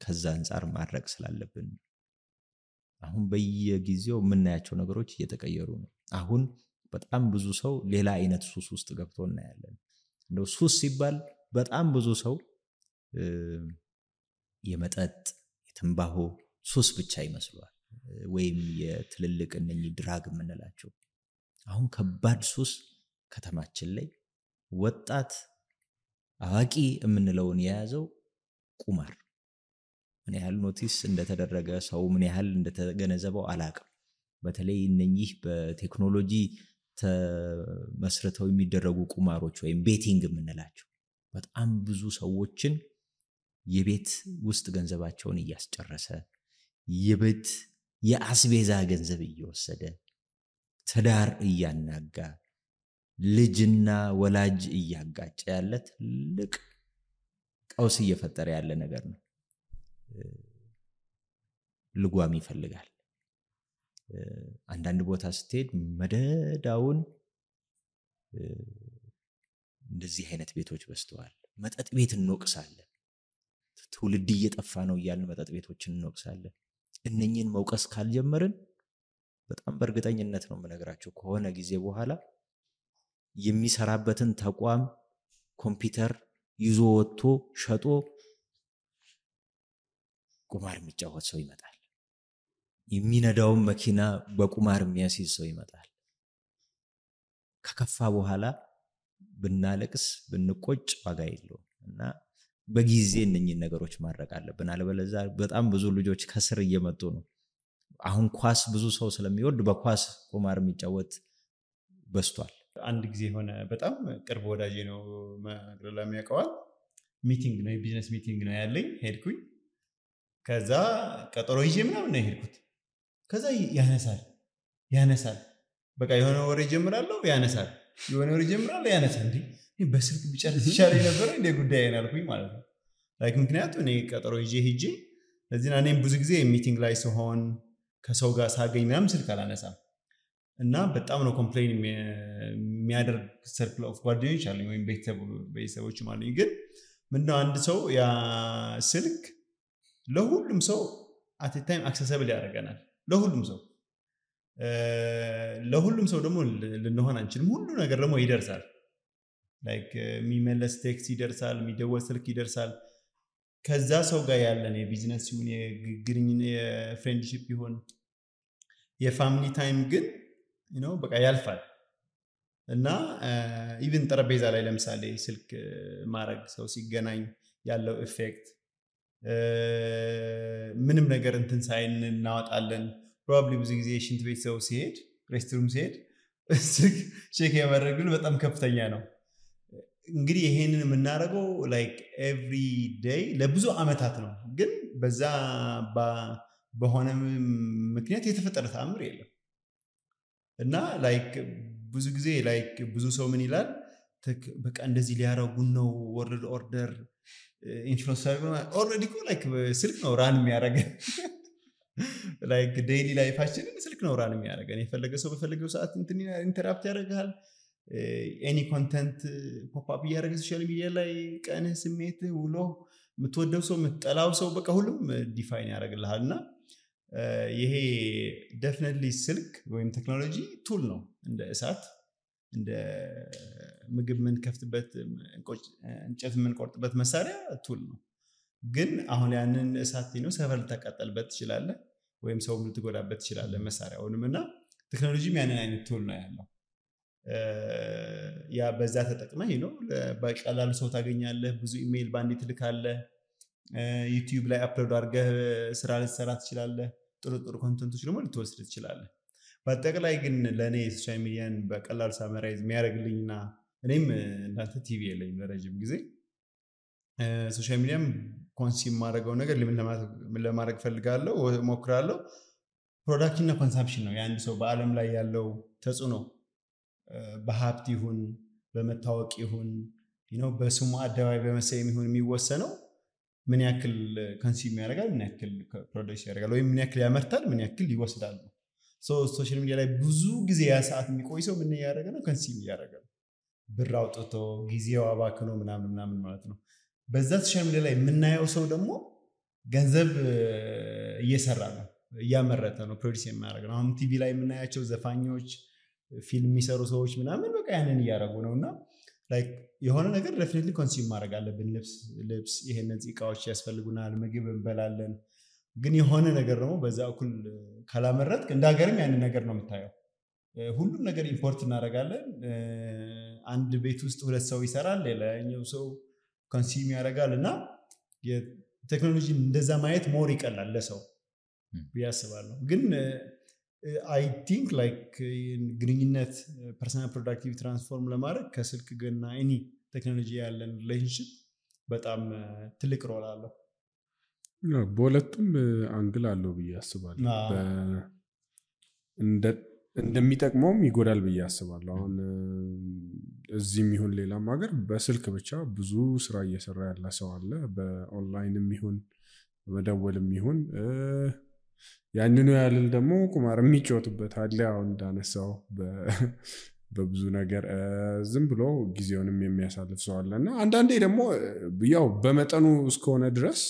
Speaker 1: ከዛ አንፃር ማድረግ ስላለብን አሁን በየጊዜው የምናያቸው ነገሮች እየተቀየሩ ነው። አሁን በጣም ብዙ ሰው ሌላ አይነት ሱስ ውስጥ ገብቶ እናያለን። እንደው ሱስ ሲባል በጣም ብዙ ሰው የመጠጥ የትንባሆ ሱስ ብቻ ይመስለዋል፣ ወይም የትልልቅ እነኚህ ድራግ የምንላቸው። አሁን ከባድ ሱስ ከተማችን ላይ ወጣት አዋቂ የምንለውን የያዘው ቁማር። ምን ያህል ኖቲስ እንደተደረገ ሰው ምን ያህል እንደተገነዘበው አላቅም። በተለይ እነኚህ በቴክኖሎጂ ተመስርተው የሚደረጉ ቁማሮች ወይም ቤቲንግ የምንላቸው በጣም ብዙ ሰዎችን የቤት ውስጥ ገንዘባቸውን እያስጨረሰ፣ የቤት የአስቤዛ ገንዘብ እየወሰደ፣ ትዳር እያናጋ፣ ልጅና ወላጅ እያጋጨ ያለ ትልቅ ቀውስ እየፈጠረ ያለ ነገር ነው። ልጓም ይፈልጋል። አንዳንድ ቦታ ስትሄድ መደዳውን እንደዚህ አይነት ቤቶች በስተዋል። መጠጥ ቤት እንወቅሳለን። ትውልድ እየጠፋ ነው እያልን መጠጥ ቤቶችን እንወቅሳለን። እነኚህን መውቀስ ካልጀመርን በጣም በእርግጠኝነት ነው የምነግራቸው ከሆነ ጊዜ በኋላ የሚሰራበትን ተቋም ኮምፒውተር ይዞ ወጥቶ ሸጦ ቁማር የሚጫወት ሰው ይመጣል። የሚነዳውን መኪና በቁማር የሚያስይዝ ሰው ይመጣል። ከከፋ በኋላ ብናለቅስ ብንቆጭ ዋጋ የለውም እና በጊዜ እነኚህን ነገሮች ማድረግ አለብን። አለበለዚያ በጣም ብዙ ልጆች ከስር እየመጡ ነው። አሁን ኳስ ብዙ ሰው ስለሚወድ በኳስ ቁማር የሚጫወት በስቷል።
Speaker 3: አንድ ጊዜ ሆነ በጣም ቅርብ ወዳጄ ነው ማግረላ የሚያውቀዋል። ሚቲንግ ነው የቢዝነስ ሚቲንግ ነው ያለኝ። ሄድኩኝ። ከዛ ቀጠሮ ይዤ ምናምን ነው ሄድኩት። ከዛ ያነሳል በቃ የሆነ ወሬ ጀምራለሁ ያነሳል፣ የሆነ ወሬ ጀምራለሁ ያነሳል። እንዴ በስልክ ብቻልስ ይሻለኝ ነበር እንደ ጉዳይ ያልኩኝ ማለት ነው። ምክንያቱም እኔ ቀጠሮ ይዤ ሄጄ ለዚህ እኔም ብዙ ጊዜ ሚቲንግ ላይ ሲሆን ከሰው ጋር ሳገኝ ምናምን ስልክ አላነሳም። እና በጣም ነው ኮምፕሌን የሚያደርግ ሰርክል ኦፍ ጓደኞች አሉኝ ወይም ቤተሰቦችም አሉኝ። ግን ምንድነው አንድ ሰው ያ ስልክ ለሁሉም ሰው አት ታይም አክሰሰብል ያደርገናል። ለሁሉም ሰው ደግሞ ልንሆን አንችልም። ሁሉ ነገር ደግሞ ይደርሳል። ላይክ የሚመለስ ቴክስት ይደርሳል፣ የሚደወል ስልክ ይደርሳል። ከዛ ሰው ጋር ያለን የቢዝነስ ይሁን የግንኙነት የፍሬንድሺፕ ይሁን የፋሚሊ ታይም ግን በቃ ያልፋል። እና ኢቭን ጠረጴዛ ላይ ለምሳሌ ስልክ ማድረግ ሰው ሲገናኝ ያለው ኢፌክት ምንም ነገር እንትን ሳይን እናወጣለን። ፕሮባብሊ ብዙ ጊዜ ሽንት ቤት ሰው ሲሄድ ሬስትሩም ሲሄድ ስልክ ቼክ ያደረግ በጣም ከፍተኛ ነው። እንግዲህ ይሄንን የምናደርገው ላይክ ኤቭሪ ዴይ ለብዙ አመታት ነው። ግን በዛ በሆነ ምክንያት የተፈጠረ ተአምር የለም። እና ላይክ ብዙ ጊዜ ላይክ ብዙ ሰው ምን ይላል በቃ እንደዚህ ሊያረጉን ነው ወርልድ ኦርደር ኢንፍሉዌንሰር ኦልሬዲ እኮ ላይክ ስልክ ነው ራን የሚያደርገን። ላይክ ዴይሊ ላይፋችንን ስልክ ነው ራን የሚያደርገን። የፈለገ ሰው በፈለገው ሰዓት ኢንተራፕት ያደርጋል። ኤኒ ኮንተንት ፖፕ አፕ እያደረገ ሶሻል ሚዲያ ላይ ቀንህ፣ ስሜትህ፣ ውሎ፣ የምትወደው ሰው፣ የምትጠላው ሰው በቃ ሁሉም ዲፋይን ያደርግልሃል። እና ይሄ ዴፊኒትሊ ስልክ ወይም ቴክኖሎጂ ቱል ነው። እንደ እሳት እንደ ምግብ የምንከፍትበት እንጨት የምንቆርጥበት መሳሪያ ቱል ነው። ግን አሁን ያንን እሳት ነው ሰፈር ልታቃጠልበት ትችላለህ ወይም ሰው ልትጎዳበት ትችላለህ መሳሪያውንም። እና ቴክኖሎጂም ያንን አይነት ቱል ነው ያለው። ያ በዛ ተጠቅመህ በቀላሉ ሰው ታገኛለህ። ብዙ ኢሜይል ባንዴ ትልካለህ። ዩቲዩብ ላይ አፕሎድ አድርገህ ስራ ልትሰራ ትችላለህ። ጥሩ ኮንተንቶች ደግሞ ልትወስድ ትችላለህ። በአጠቃላይ ግን ለእኔ ሶሻል ሚዲያን በቀላሉ ሳመራይዝ የሚያደርግልኝና እኔም እንዳንተ ቲቪ የለኝም ለረጅም ጊዜ ሶሻል ሚዲያም ኮንሱም ማድረገው ነገር ምን ለማድረግ ፈልጋለሁ ሞክራለሁ። ፕሮዳክሽን እና ኮንሳምፕሽን ነው የአንድ ሰው በአለም ላይ ያለው ተጽዕኖ በሀብት ይሁን በመታወቅ ይሁን በስሙ አደባባይ በመሰየም ይሁን የሚወሰነው ምን ያክል ኮንሱም ያደርጋል፣ ምን ያክል ፕሮዲዩስ ያደርጋል፣ ወይም ምን ያክል ያመርታል፣ ምን ያክል ይወስዳል። ሶሻል ሚዲያ ላይ ብዙ ጊዜ ያ ሰዓት የሚቆይ ሰው ምን ያደርጋል ነው ኮንሱም ያደርጋል። ብር አውጥቶ ጊዜው አባክኖ ምናምን ማለት ነው። በዛ ሶሻል ሚዲያ ላይ የምናየው ሰው ደግሞ ገንዘብ እየሰራ ነው፣ እያመረተ ነው፣ ፕሮዲዩስ የሚያደርግ ነው። አሁን ቲቪ ላይ የምናያቸው ዘፋኞች፣ ፊልም የሚሰሩ ሰዎች ምናምን በቃ ያንን እያደረጉ ነው። እና ላይክ የሆነ ነገር ዴፊኒትሊ ኮንሱም ማድረግ አለብን። ልብስ ይሄንን እቃዎች ያስፈልጉናል፣ ምግብ እንበላለን። ግን የሆነ ነገር ደግሞ በዛ እኩል ካላመረጥክ እንደ ሀገርም ያንን ነገር ነው የምታየው። ሁሉም ነገር ኢምፖርት እናደርጋለን። አንድ ቤት ውስጥ ሁለት ሰው ይሰራል፣ ሌላኛው ሰው ኮንሱም ያደርጋል። እና የቴክኖሎጂ እንደዛ ማየት ሞር ይቀላል ለሰው ብዬ አስባለሁ። ግን አይ ቲንክ ላይክ ግንኙነት ፐርሰናል ፕሮዳክቲቪቲ ትራንስፎርም ለማድረግ ከስልክ እና ኤኒ ቴክኖሎጂ ያለን ሪሌሽንሽፕ በጣም ትልቅ ሮል አለው።
Speaker 4: በሁለቱም አንግል አለው ብዬ አስባለሁ። እንደሚጠቅመውም ይጎዳል ብዬ አስባለሁ። አሁን እዚህም ይሁን ሌላም ሀገር በስልክ ብቻ ብዙ ስራ እየሰራ ያለ ሰው አለ። በኦንላይንም ይሁን በመደወልም ይሁን ያንኑ ያልል ደግሞ ቁማር የሚጫወቱበት አለ። አሁን እንዳነሳው በብዙ ነገር ዝም ብሎ ጊዜውንም የሚያሳልፍ ሰው አለ። እና አንዳንዴ ደግሞ ያው በመጠኑ እስከሆነ ድረስ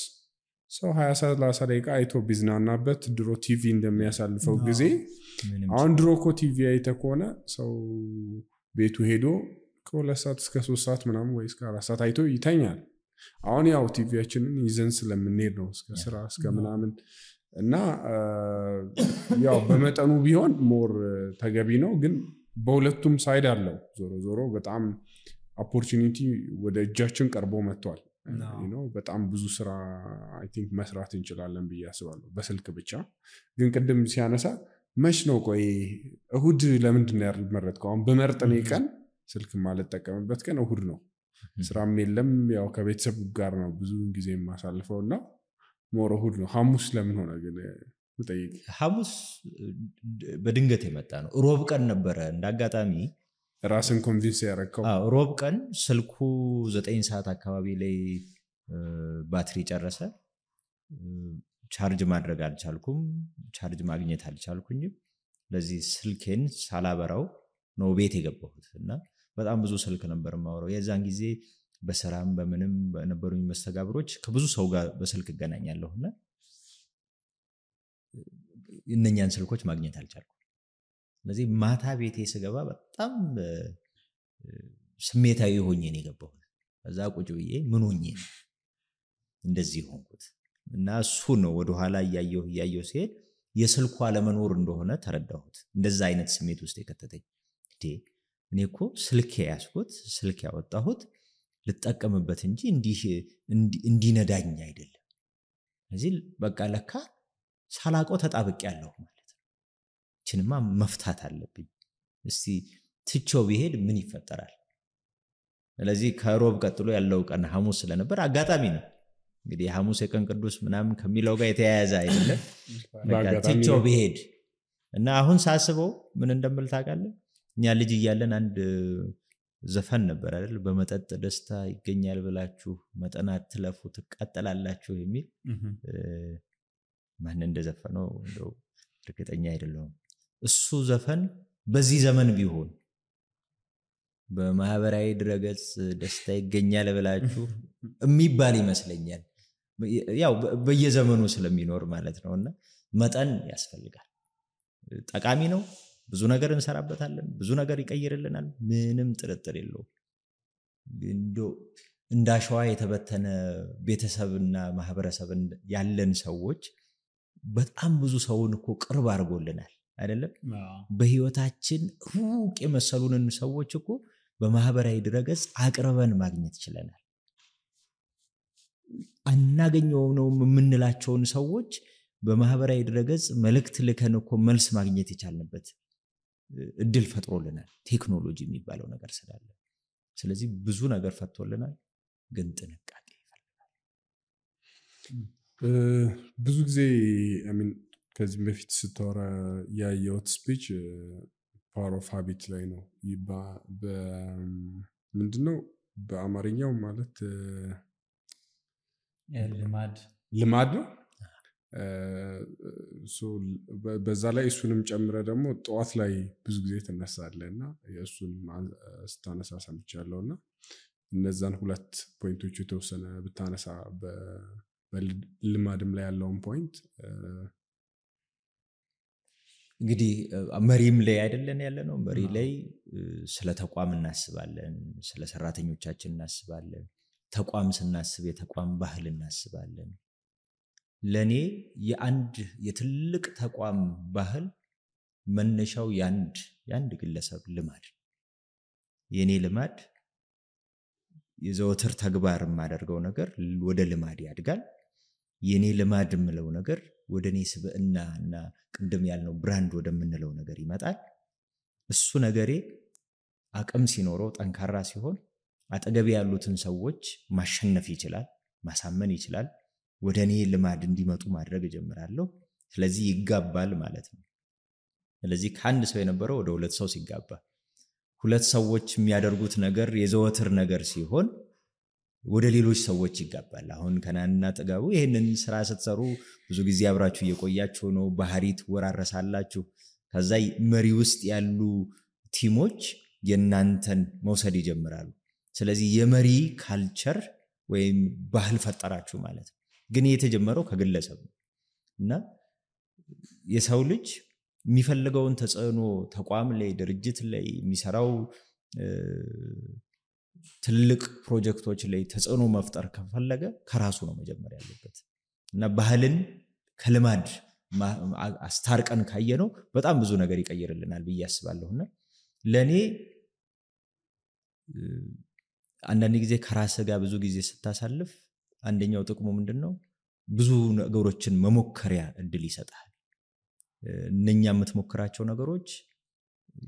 Speaker 4: ሰው 20-30 ደቂቃ አይቶ ቢዝናናበት ድሮ ቲቪ እንደሚያሳልፈው ጊዜ አሁን ድሮ እኮ ቲቪ አይተ ከሆነ ሰው ቤቱ ሄዶ ከ2 ሰዓት እስከ 3 ሰዓት ምናምን ወይ እስከ 4 ሰዓት አይቶ ይተኛል። አሁን ያው ቲቪያችንን ይዘን ስለምንሄድ ነው እስከ ስራ እስከ ምናምን። እና ያው በመጠኑ ቢሆን ሞር ተገቢ ነው። ግን በሁለቱም ሳይድ አለው። ዞሮ በጣም ኦፖርቹኒቲ ወደ እጃችን ቀርቦ መጥቷል። በጣም ብዙ ስራ አይ ቲንክ መስራት እንችላለን ብዬ አስባለሁ በስልክ ብቻ። ግን ቅድም ሲያነሳ መች ነው ቆይ እሁድ ለምንድን ነው ያልመረጥከው? አሁን በመርጠኔ ቀን ስልክ ማልጠቀምበት ቀን እሁድ ነው። ስራም የለም፣ ያው ከቤተሰብ ጋር ነው ብዙ ጊዜ የማሳልፈው እና ሞር እሁድ ነው። ሐሙስ ለምን ሆነ ግን ምጠይቅ?
Speaker 1: ሐሙስ በድንገት የመጣ ነው። ሮብ ቀን ነበረ እንዳጋጣሚ
Speaker 4: ራስን ኮንቪንስ ያደረከው?
Speaker 1: ሮብ ቀን ስልኩ 9 ሰዓት አካባቢ ላይ ባትሪ ጨረሰ። ቻርጅ ማድረግ አልቻልኩም፣ ቻርጅ ማግኘት አልቻልኩኝም። ስለዚህ ስልኬን ሳላበራው ነው ቤት የገባሁት እና በጣም ብዙ ስልክ ነበር የማወራው። የዛን ጊዜ በስራም በምንም በነበሩኝ መስተጋብሮች ከብዙ ሰው ጋር በስልክ እገናኛለሁና እነኛን ስልኮች ማግኘት አልቻልኩም። ስለዚህ ማታ ቤቴ ስገባ በጣም ስሜታዊ ሆኜ ነው የገባሁት። ከዛ ቁጭ ብዬ ምን ሆኜ ነው እንደዚህ ሆንኩት እና እሱ ነው ወደ ኋላ እያየሁ ሲሄድ የስልኩ አለመኖር እንደሆነ ተረዳሁት። እንደዛ አይነት ስሜት ውስጥ የከተተኝ እኔ እኮ ስልክ ያስኩት ስልክ ያወጣሁት ልጠቀምበት እንጂ እንዲነዳኝ አይደለም። ስለዚህ በቃ ለካ ሳላቀው ተጣብቄያለሁ ማለት ነው። እችንማ መፍታት አለብኝ። እስቲ ትቼው ቢሄድ ምን ይፈጠራል? ስለዚህ ከሮብ ቀጥሎ ያለው ቀን ሐሙስ ስለነበር አጋጣሚ ነው እንግዲህ ሐሙስ የቀን ቅዱስ ምናምን ከሚለው ጋር የተያያዘ አይደለም። በቃ ትቼው ቢሄድ እና አሁን ሳስበው ምን እንደምል ታውቃለህ? እኛ ልጅ እያለን አንድ ዘፈን ነበር አይደል? በመጠጥ ደስታ ይገኛል ብላችሁ መጠን አትለፉ ትቃጠላላችሁ የሚል ማን እንደዘፈነው እንደው እርግጠኛ አይደለሁም። እሱ ዘፈን በዚህ ዘመን ቢሆን በማህበራዊ ድረገጽ ደስታ ይገኛል ብላችሁ የሚባል ይመስለኛል። ያው በየዘመኑ ስለሚኖር ማለት ነውና መጠን ያስፈልጋል። ጠቃሚ ነው። ብዙ ነገር እንሰራበታለን። ብዙ ነገር ይቀይርልናል። ምንም ጥርጥር የለውም። እንደው እንዳሸዋ የተበተነ ቤተሰብና ማህበረሰብ ያለን ሰዎች በጣም ብዙ ሰውን እኮ ቅርብ አድርጎልናል አይደለም? በህይወታችን ሩቅ የመሰሉንን ሰዎች እኮ በማህበራዊ ድረገጽ አቅርበን ማግኘት ይችላል። አናገኘው ነው የምንላቸውን ሰዎች በማህበራዊ ድረገጽ መልእክት ልከን እኮ መልስ ማግኘት ይቻልንበት እድል ፈጥሮልናል ቴክኖሎጂ የሚባለው ነገር ስላለ። ስለዚህ ብዙ ነገር ፈጥቶልናል፣ ግን ጥንቃቄ ይፈልጋል።
Speaker 4: ብዙ ጊዜ ከዚህ በፊት ስታወራ ያየሁት ስፒች ፓወር ኦፍ ሃቢት ላይ ነው። ምንድነው በአማርኛው ማለት ልማድ ነው። በዛ ላይ እሱንም ጨምረ ደግሞ ጠዋት ላይ ብዙ ጊዜ ትነሳለህ እና የእሱን ስታነሳ ሰምቻለሁ እና እነዛን ሁለት ፖይንቶች የተወሰነ ብታነሳ በልማድም ላይ ያለውን ፖይንት።
Speaker 1: እንግዲህ መሪም ላይ አይደለን ያለ ነው። መሪ ላይ ስለ ተቋም እናስባለን፣ ስለ ሰራተኞቻችን እናስባለን። ተቋም ስናስብ የተቋም ባህል እናስባለን። ለኔ የአንድ የትልቅ ተቋም ባህል መነሻው ያንድ ግለሰብ ልማድ። የኔ ልማድ የዘወትር ተግባር የማደርገው ነገር ወደ ልማድ ያድጋል። የኔ ልማድ የምለው ነገር ወደ እኔ ስብዕና እና ቅድም ያልነው ብራንድ ወደምንለው ነገር ይመጣል። እሱ ነገሬ አቅም ሲኖረው ጠንካራ ሲሆን አጠገብ ያሉትን ሰዎች ማሸነፍ ይችላል፣ ማሳመን ይችላል። ወደ እኔ ልማድ እንዲመጡ ማድረግ ጀምራለሁ። ስለዚህ ይጋባል ማለት ነው። ስለዚህ ከአንድ ሰው የነበረው ወደ ሁለት ሰው ሲጋባ፣ ሁለት ሰዎች የሚያደርጉት ነገር የዘወትር ነገር ሲሆን ወደ ሌሎች ሰዎች ይጋባል። አሁን ከናንና ጥጋቡ ይሄንን ስራ ስትሰሩ ብዙ ጊዜ አብራችሁ እየቆያችሁ ነው። ባህሪ ትወራረሳላችሁ። ከዛ መሪ ውስጥ ያሉ ቲሞች የናንተን መውሰድ ይጀምራሉ። ስለዚህ የመሪ ካልቸር ወይም ባህል ፈጠራችሁ ማለት ነው። ግን የተጀመረው ከግለሰብ ነው እና የሰው ልጅ የሚፈልገውን ተጽዕኖ ተቋም ላይ ድርጅት ላይ የሚሰራው ትልቅ ፕሮጀክቶች ላይ ተጽዕኖ መፍጠር ከፈለገ ከራሱ ነው መጀመሪያ ያለበት እና ባህልን ከልማድ አስታርቀን ካየነው በጣም ብዙ ነገር ይቀይርልናል ብዬ አስባለሁና ለኔ አንዳንድ ጊዜ ከራስ ጋር ብዙ ጊዜ ስታሳልፍ አንደኛው ጥቅሙ ምንድነው? ብዙ ነገሮችን መሞከሪያ እድል ይሰጣል። እነኛ የምትሞክራቸው ነገሮች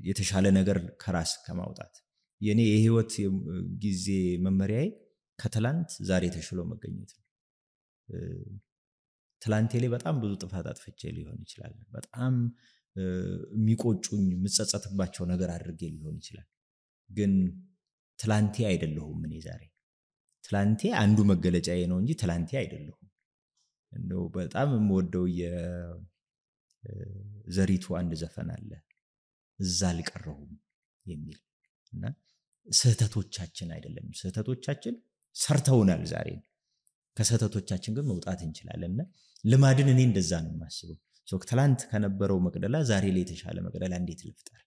Speaker 1: የተሻለ ነገር ከራስ ከማውጣት የኔ የህይወት ጊዜ መመሪያዬ ከትላንት ዛሬ ተሽሎ መገኘት ነው። ትላንቴ ላይ በጣም ብዙ ጥፋት አጥፍቼ ሊሆን ይችላል። በጣም የሚቆጩኝ ምጸጸትባቸው ነገር አድርጌ ሊሆን ይችላል። ግን ትላንቴ አይደለሁም እኔ ዛሬ። ትላንቴ አንዱ መገለጫዬ ነው እንጂ ትላንቴ አይደለሁም። እንደው በጣም የምወደው ዘሪቱ አንድ ዘፈን አለ እዛ አልቀረሁም የሚል እና ስህተቶቻችን አይደለም ስህተቶቻችን ሰርተውናል ዛሬ ከስህተቶቻችን ግን መውጣት እንችላለንና ልማድን እኔ እንደዛ ነው የማስበው ትላንት ከነበረው መቅደላ ዛሬ ላይ የተሻለ መቅደላ እንዴት ልፍጠር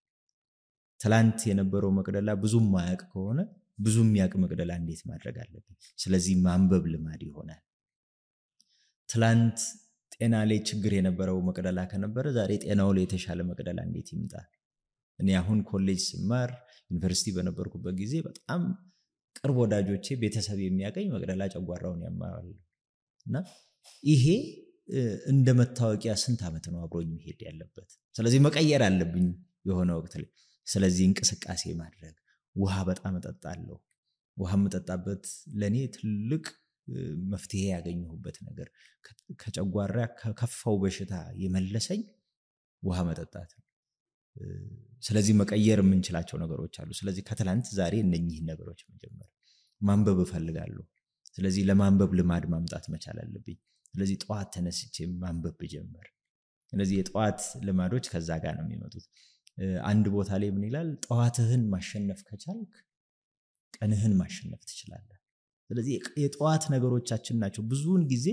Speaker 1: ትላንት የነበረው መቅደላ ብዙም ማያቅ ከሆነ ብዙም ያቅ መቅደላ እንዴት ማድረግ አለብኝ ስለዚህ ማንበብ ልማድ ይሆናል ትላንት ጤና ላይ ችግር የነበረው መቅደላ ከነበረ ዛሬ ጤናው ላይ የተሻለ መቅደላ እንዴት ይምጣ እኔ አሁን ኮሌጅ ስማር ዩኒቨርሲቲ በነበርኩበት ጊዜ በጣም ቅርብ ወዳጆቼ ቤተሰብ የሚያቀኝ መቅደላ ጨጓራውን ያማዋልና ይሄ እንደ መታወቂያ ስንት አመት ነው አብሮኝ መሄድ ያለበት ስለዚህ መቀየር አለብኝ የሆነ ወቅት ላይ ስለዚህ እንቅስቃሴ ማድረግ ውሃ በጣም እጠጣለሁ ውሃ መጠጣበት ለኔ ትልቅ መፍትሄ ያገኘሁበት ነገር ከጨጓራ ከከፋው በሽታ የመለሰኝ ውሃ መጠጣት ስለዚህ መቀየር የምንችላቸው ነገሮች አሉ ስለዚህ ከትላንት ዛሬ እነኚህ ነገሮች መጀመር ማንበብ እፈልጋለሁ ስለዚህ ለማንበብ ልማድ ማምጣት መቻል አለብኝ ስለዚህ ጧት ተነስቼ ማንበብ ጀመር ስለዚህ የጧት ልማዶች ከዛ ጋር ነው የሚመጡት አንድ ቦታ ላይ ምን ይላል ጧትህን ማሸነፍ ከቻልክ ቀንህን ማሸነፍ ትችላለህ ስለዚህ የጧት ነገሮቻችን ናቸው ብዙውን ጊዜ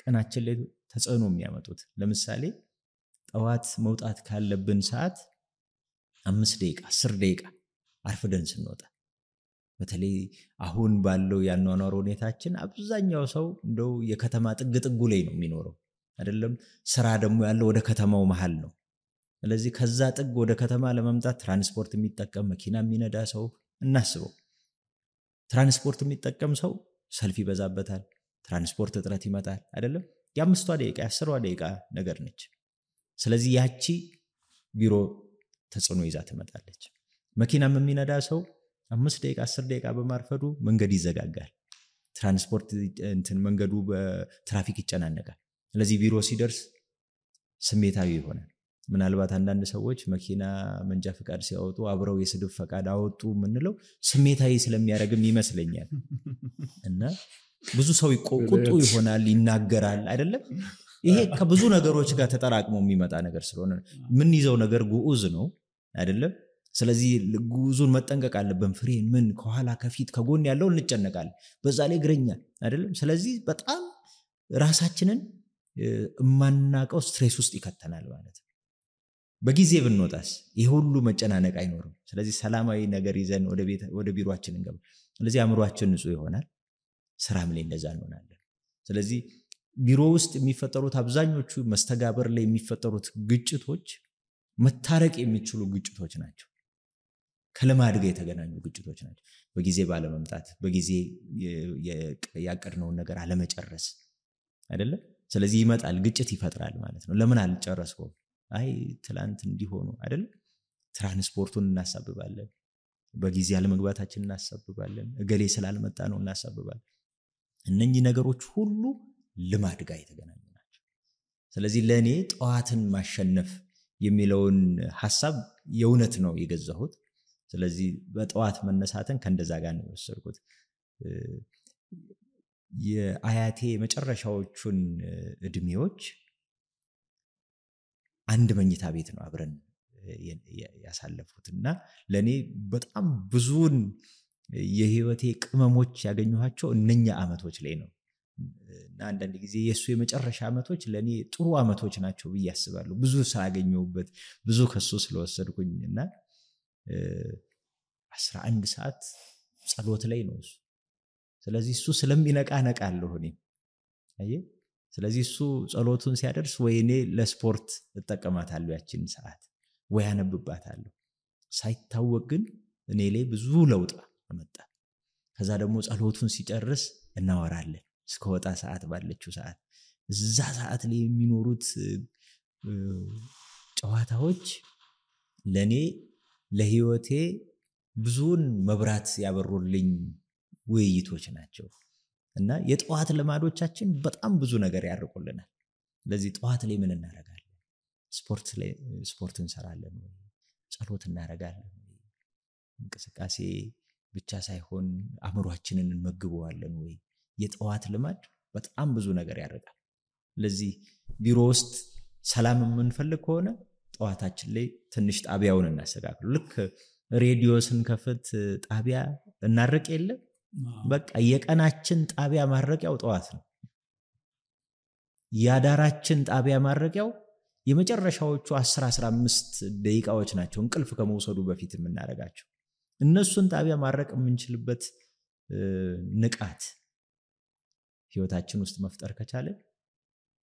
Speaker 1: ቀናችን ላይ ተጽዕኖ የሚያመጡት ለምሳሌ ጧት መውጣት ካለብን ሰዓት 5 ደቂቃ 10 ደቂቃ አርፍደን ስንወጣ በተለይ አሁን ባለው ያኗኗር ሁኔታችን አብዛኛው ሰው እንደው የከተማ ጥግጥጉ ላይ ነው የሚኖረው አይደለም ስራ ደግሞ ያለው ወደ ከተማው መሃል ነው ስለዚህ ከዛ ጥግ ወደ ከተማ ለመምጣት ትራንስፖርት የሚጠቀም መኪና የሚነዳ ሰው እናስበው ትራንስፖርት የሚጠቀም ሰው ሰልፍ ይበዛበታል ትራንስፖርት እጥረት ይመጣል አይደለም የ5 ደቂቃ 10 ደቂቃ ነገር ነች ስለዚህ ያቺ ቢሮ ተጽዕኖ ይዛ ትመጣለች መኪናም የሚነዳ ሰው 5 ደቂቃ 10 ደቂቃ በማርፈዱ መንገድ ይዘጋጋል ትራንስፖርት እንትን መንገዱ በትራፊክ ይጨናነቃል ስለዚህ ቢሮ ሲደርስ ስሜታዊ ይሆናል ምናልባት አንዳንድ ሰዎች መኪና መንጃ ፈቃድ ሲያወጡ አብረው የስድብ ፈቃድ አወጡ ምንለው ስሜታዊ ስለሚያረግም ይመስለኛል እና ብዙ ሰው ቁጡ ይሆናል ይናገራል አይደለም ይሄ ከብዙ ነገሮች ጋር ተጠራቅሞ የሚመጣ ነገር ስለሆነ ምን ይዘው ነገር ጉኡዝ ነው አይደለም ስለዚህ ጉኡዙን መጠንቀቅ አለብን ፍሬን ምን ከኋላ ከፊት ከጎን ያለው እንጨነቃለን በዛ ላይ ግረኛ አይደለም ስለዚህ በጣም ራሳችንን ማናቀው ስትሬስ ውስጥ ይከተናል ማለት ነው በጊዜ ብንወጣስ ይሄ ሁሉ መጨናነቅ አይኖርም ስለዚህ ሰላማዊ ነገር ይዘን ወደ ቢሮአችን እንገባ ስለዚህ አእምሮአችን ንጹህ ይሆናል ስራም ላይ እንደዛ እንሆናለን ስለዚህ ቢሮ ውስጥ የሚፈጠሩት አብዛኞቹ መስተጋበር ላይ የሚፈጠሩት ግጭቶች መታረቅ የሚችሉ ግጭቶች ናቸው ከልማድ ጋር የተገናኙ ግጭቶች ናቸው በጊዜ ባለመምጣት በጊዜ ያቀድነውን ነገር አለመጨረስ አይደለም ስለዚህ ይመጣል ግጭት ይፈጥራል ማለት ነው ለምን አልጨረስከው አይ ትላንት እንዲሆኑ አይደል ትራንስፖርቱን እናሳብባለን በጊዜ አለመግባታችን እናሳብባለን እገሌ ስላልመጣ ነው እናሳብባለን እነኚህ ነገሮች ሁሉ ልማድ ጋር የተገናኙ ናቸው ስለዚህ ለኔ ጧትን ማሸነፍ የሚለውን ሐሳብ የእውነት ነው የገዛሁት ስለዚህ በጧት መነሳትን ከእንደዛ ጋር ነው የወሰድኩት የአያቴ መጨረሻዎቹን እድሜዎች አንድ መኝታ ቤት ነው አብረን ያሳለፉትና ለኔ በጣም ብዙን የህይወቴ ቅመሞች ያገኘኋቸው እነኛ አመቶች ላይ ነው እና አንዳንድ ጊዜ የሱ የመጨረሻ አመቶች ለኔ ጥሩ አመቶች ናቸው ብዬ አስባለሁ ብዙ ሳገኘሁበት ብዙ ከሱ ስለወሰድኩኝና 11 ሰዓት ጸሎት ላይ ነው ስለዚህ እሱ ስለሚነቃ ነቃለሁ እኔ አየ ስለዚህ እሱ ጸሎቱን ሲያደርስ ወይኔ ለስፖርት ተጠቀማታለሁ ያቺን ሰዓት ወይ አነብባታለሁ ሳይታወቅ ግን እኔ ላይ ብዙ ለውጥ አመጣ ከዛ ደግሞ ጸሎቱን ሲጨርስ እናወራለን እስከወጣ ሰዓት ባለችው ሰዓት እዛ ሰዓት ላይ የሚኖሩት ጨዋታዎች ለኔ ለህይወቴ ብዙን መብራት ያበሩልኝ ውይይቶች ናቸው እና የጧት ልማዶቻችን በጣም ብዙ ነገር ያርቁልናል ለዚህ ጧት ላይ ምን እናረጋለን ስፖርት እንሰራለን ወይ ጸሎት እናረጋለን እንቅስቃሴ ብቻ ሳይሆን አእምሮአችንን እንመግበዋለን ወይ የጧት ልማድ በጣም ብዙ ነገር ያርቃል ለዚህ ቢሮ ውስጥ ሰላም የምንፈልግ ከሆነ ጠዋታችን ላይ ትንሽ ጣቢያውን እናስተካክሉ። ልክ ሬዲዮ ስንከፍት ጣቢያ እናርቅ የለ በቃ የቀናችን ጣቢያ ማረቂያው ጠዋት ነው። ያዳራችን ጣቢያ ማረቂያው የመጨረሻዎቹ 10-15 ደቂቃዎች ናቸው እንቅልፍ ከመውሰዱ በፊት የምናረጋቸው። እነሱን ጣቢያ ማረቅ የምንችልበት ንቃት ህይወታችን ውስጥ መፍጠር ከቻለ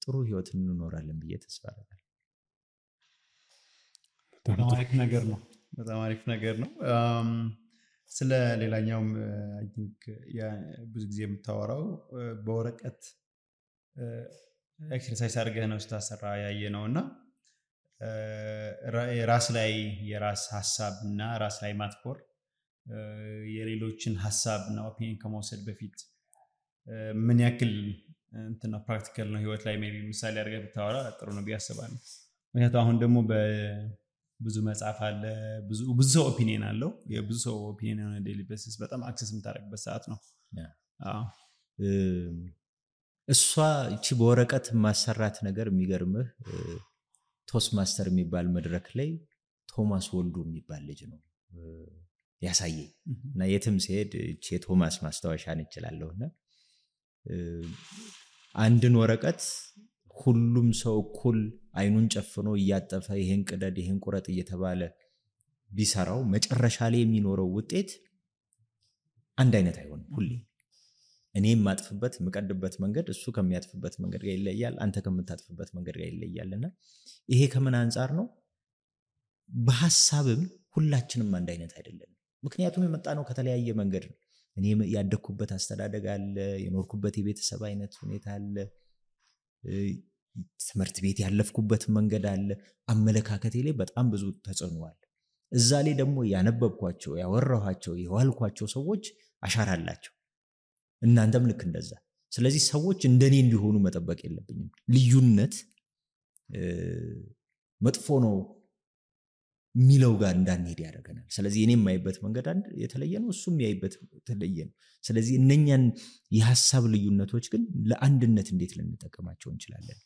Speaker 1: ጥሩ ህይወት እንኖራለን ብዬ ተስፋ አደርጋለሁ።
Speaker 3: በጣም አሪፍ ነገር ነው። ስለ ሌላኛውም አይ ቲንክ ብዙ ጊዜ የምታወራው በወረቀት ኤክሰርሳይዝ አድርገህ ነው ስታሰራ ያየ ነውና ራስ ላይ የራስ ሐሳብና ራስ ላይ ማትኮር የሌሎችን ሐሳብና ኦፒኒየን ከመውሰድ በፊት ምን ያክል እንትና ፕራክቲካል ነው ህይወት ላይ ሜቢ ምሳሌ አድርገህ ብታወራ ጥሩ ነው ቢያስባለሁ። ምክንያቱም አሁን ደግሞ ብዙ መጽሐፍ አለ፣ ብዙ ሰው ኦፒኒየን አለው። የብዙ ሰው ኦፒኒየን on a daily basis በጣም አክሰስ የምታደርግበት ሰዓት ነው።
Speaker 1: እሷ እቺ በወረቀት ማሰራት ነገር የሚገርምህ ቶስት ማስተር የሚባል መድረክ ላይ ቶማስ ወልዱ የሚባል ልጅ ነው ያሳየኝ እና የትም ሲሄድ እቺ የቶማስ ማስታወሻን ይችላልውና አንድን ወረቀት ሁሉም ሰው እኩል አይኑን ጨፍኖ እያጠፈ ይሄን ቅደድ ይሄን ቁረጥ እየተባለ ቢሰራው መጨረሻ ላይ የሚኖረው ውጤት አንድ አይነት አይሆንም። ሁሌ እኔም ማጥፍበት መቀድበት መንገድ እሱ ከሚያጥፍበት መንገድ ጋር ይለያል፣ አንተ ከምታጥፍበት መንገድ ጋር ይለያልና ይሄ ከምን አንፃር ነው? በሐሳብም ሁላችንም አንድ አይነት አይደለም። ምክንያቱም የመጣነው ከተለያየ መንገድ ነው። እኔ ያደኩበት አስተዳደግ አለ፣ የኖርኩበት የቤተሰብ አይነት ሁኔታ አለ፣ ትምህርት ቤት ያለፍኩበት መንገድ አለ፣ አመለካከቴ ላይ በጣም ብዙ ተጽዕኖ አለ። እዛ ላይ ደግሞ ያነበብኳቸው ያወራኋቸው የዋልኳቸው ሰዎች አሻራ አላቸው። እናንተም ልክ እንደዛ። ስለዚህ ሰዎች እንደኔ እንዲሆኑ መጠበቅ የለብኝም። ልዩነት መጥፎ ነው ሚለው ጋር እንዳንሄድ ያደርገናል። ስለዚህ እኔም ማይበት መንገድ አንድ የተለየ ነው፣ እሱም ያይበት የተለየ ነው። ስለዚህ እነኛን የሐሳብ ልዩነቶች ግን ለአንድነት እንዴት ልንጠቀማቸው እንችላለን?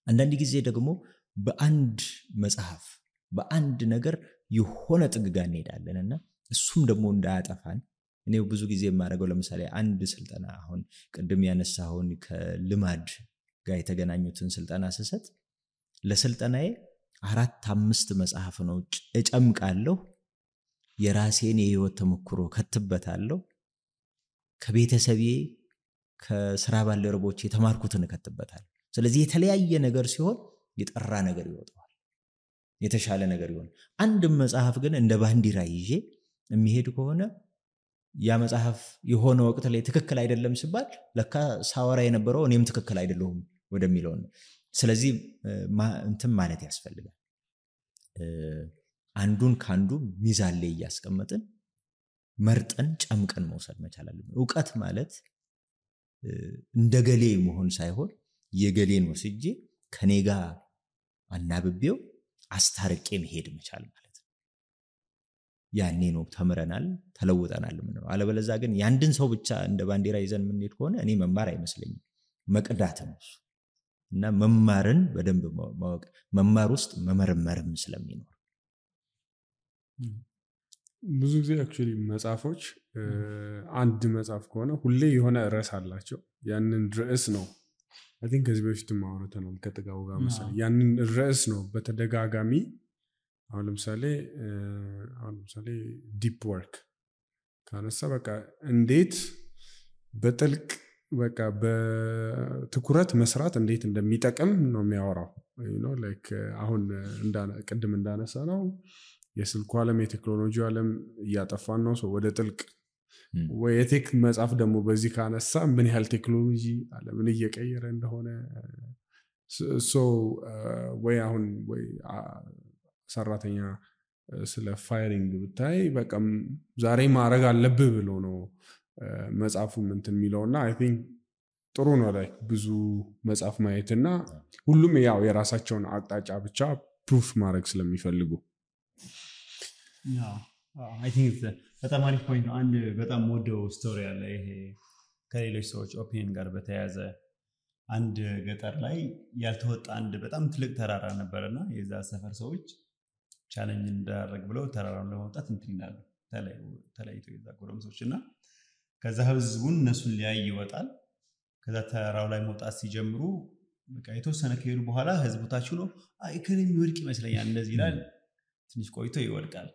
Speaker 1: አንዳንድ ጊዜ ደግሞ በአንድ መጽሐፍ በአንድ ነገር የሆነ ጥግጋ እንሄዳለንና እሱም ደግሞ እንዳያጠፋን እኔ ብዙ ጊዜ የማደርገው ለምሳሌ አንድ ስልጠና አሁን ቅድም ያነሳውን ከልማድ ጋር የተገናኙትን ስልጠና ስሰጥ ለስልጠናዬ 4-5 መጽሐፍ ነው እጨምቃለሁ። የራሴን የህይወት ተሞክሮ ከትበታለሁ። ከቤተሰቤ ከስራ ባልደረቦቼ የተማርኩትን ከትበታለሁ። ስለዚህ የተለያየ ነገር ሲሆን የጠራ ነገር ይወጣዋል፣ የተሻለ ነገር ይሆን። አንድ መጽሐፍ ግን እንደ ባንዲራ ይዤ የሚሄድ ከሆነ ያ መጽሐፍ የሆነ ወቅት ላይ ትክክል አይደለም ሲባል ለካ ሳወራ የነበረው እኔም ትክክል አይደለሁም ወደሚለው ነው። ስለዚህ እንትን ማለት ያስፈልጋል። አንዱን ካንዱ ሚዛን ላይ ያስቀመጥን መርጠን ጨምቀን መውሰድ መቻል አለብን። ዕውቀት ማለት እንደገሌ መሆን ሳይሆን የገሌን ወስጄ ከኔ ጋር አናብቤው አስታርቄ መሄድ መቻል ማለት ነው። ያኔ ነው ተምረናል ተለውጠናል ምንለው። አለበለዚያ ግን ያንድን ሰው ብቻ እንደ ባንዲራ ይዘን ምንሄድ ከሆነ እኔ መማር አይመስለኝም፣ መቅዳት ነው እሱ። እና መማርን በደንብ ማወቅ፣ መማር ውስጥ መመርመርም ስለሚኖር
Speaker 4: ብዙ ጊዜ አክቹሊ መጽሐፎች አንድ መጽሐፍ ከሆነ ሁሌ የሆነ ርዕስ አላቸው። ያንን ርዕስ ነው አይ ቲንክ ከዚህ በፊትም አውርተናል ከጥጋው ጋር መሰለኝ። ያንን ርዕስ ነው በተደጋጋሚ አሁን ለምሳሌ ዲፕ ወርክ ካነሳ በቃ እንዴት በጥልቅ በቃ በትኩረት መስራት እንዴት እንደሚጠቅም ነው የሚያወራው። ላይክ አሁን ቅድም እንዳነሳ ነው የስልኩ ዓለም የቴክኖሎጂ ዓለም እያጠፋን ነው ሰው ወደ ጥልቅ ወይ የቴክ መጽሐፍ ደግሞ በዚህ ካነሳ ምን ያህል ቴክኖሎጂ ዓለምን እየቀየረ እንደሆነ ወይ አሁን ወይ ሰራተኛ ስለ ፋይሪንግ ብታይ በቃ ዛሬ ማድረግ አለብህ ብሎ ነው መጽሐፉ እንትን የሚለውና አይ ቲንክ ጥሩ ነው ላይ ብዙ መጽሐፍ ማየትና ሁሉም ያው የራሳቸውን አቅጣጫ ብቻ ፕሩፍ ማድረግ ስለሚፈልጉ
Speaker 3: አይ ቲንክ በጣም አሪፍ ፖይንት ነው። አንድ በጣም ወደው ስቶሪ አለ ይሄ ከሌሎች ሰዎች ኦፒኒየን ጋር በተያያዘ አንድ ገጠር ላይ ያልተወጣ አንድ በጣም ትልቅ ተራራ ነበርና የዛ ሰፈር ሰዎች ቻሌንጅ እንዳደረግ ብለው ተራራውን ለማውጣት እንትን ይላሉ ተለያይቶ የዛ ጎረምሶች እና ከዛ ህዝቡን እነሱን ሊያይ ይወጣል። ከዛ ተራራው ላይ መውጣት ሲጀምሩ በቃ የተወሰነ ከሄዱ በኋላ ህዝቡ ታች ነው ከኔ የሚወድቅ ይመስለኛል እንደዚህ ይላል። ትንሽ ቆይቶ ይወድቃል።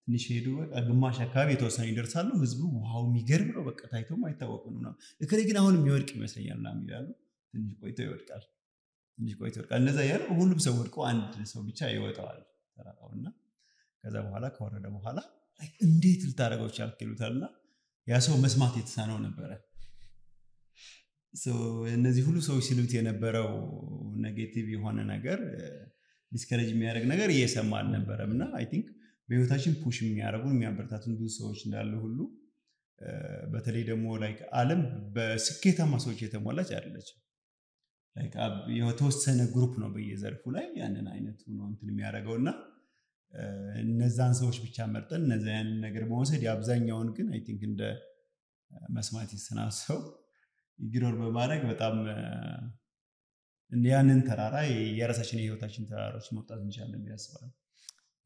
Speaker 3: ትንሽ ሄዱ በቃ ግማሽ አካባቢ የተወሰነ ይደርሳሉ። ህዝቡ ዋው የሚገርም ነው በቃ ታይቶም አይታወቅም ነው እከሌ ግን አሁን የሚወድቅ ይመስለኛል ምናምን ይላሉ። ትንሽ ቆይቶ ይወድቃል። እንደዛ ያለ ሁሉም ሰው ወድቆ አንድ ሰው ብቻ ይወጣዋል ተራራውና ከዛ በኋላ ከወረደ በኋላ እንዴት ልታደርገው ቻልክ ይሉታልና ያ ሰው መስማት የተሳነው ነበረ። እነዚህ ሁሉ ሰዎች ሲሉት የነበረው ኔጌቲቭ የሆነ ነገር ዲስከሬጅ የሚያደርግ ነገር እየሰማ አልነበረም እና አይ ቲንክ በህይወታችን ፑሽ የሚያደርጉን የሚያበረታቱን ብዙ ሰዎች እንዳሉ ሁሉ በተለይ ደግሞ ላይክ ዓለም በስኬታማ ሰዎች የተሞላች አይደለችም። ላይክ የተወሰነ ግሩፕ ነው በየዘርፉ ላይ ያንን አይነት ነው እንትን የሚያደርገውና እነዛን ሰዎች ብቻ መርጠን እነዛን ነገር በመውሰድ የአብዛኛውን ግን አይ ቲንክ እንደ መስማት ይሰናሰው ይግሮር በማድረግ በጣም ያንን ተራራ የራሳችን የህይወታችን ተራራዎች መውጣት እንችላለን ያስባል።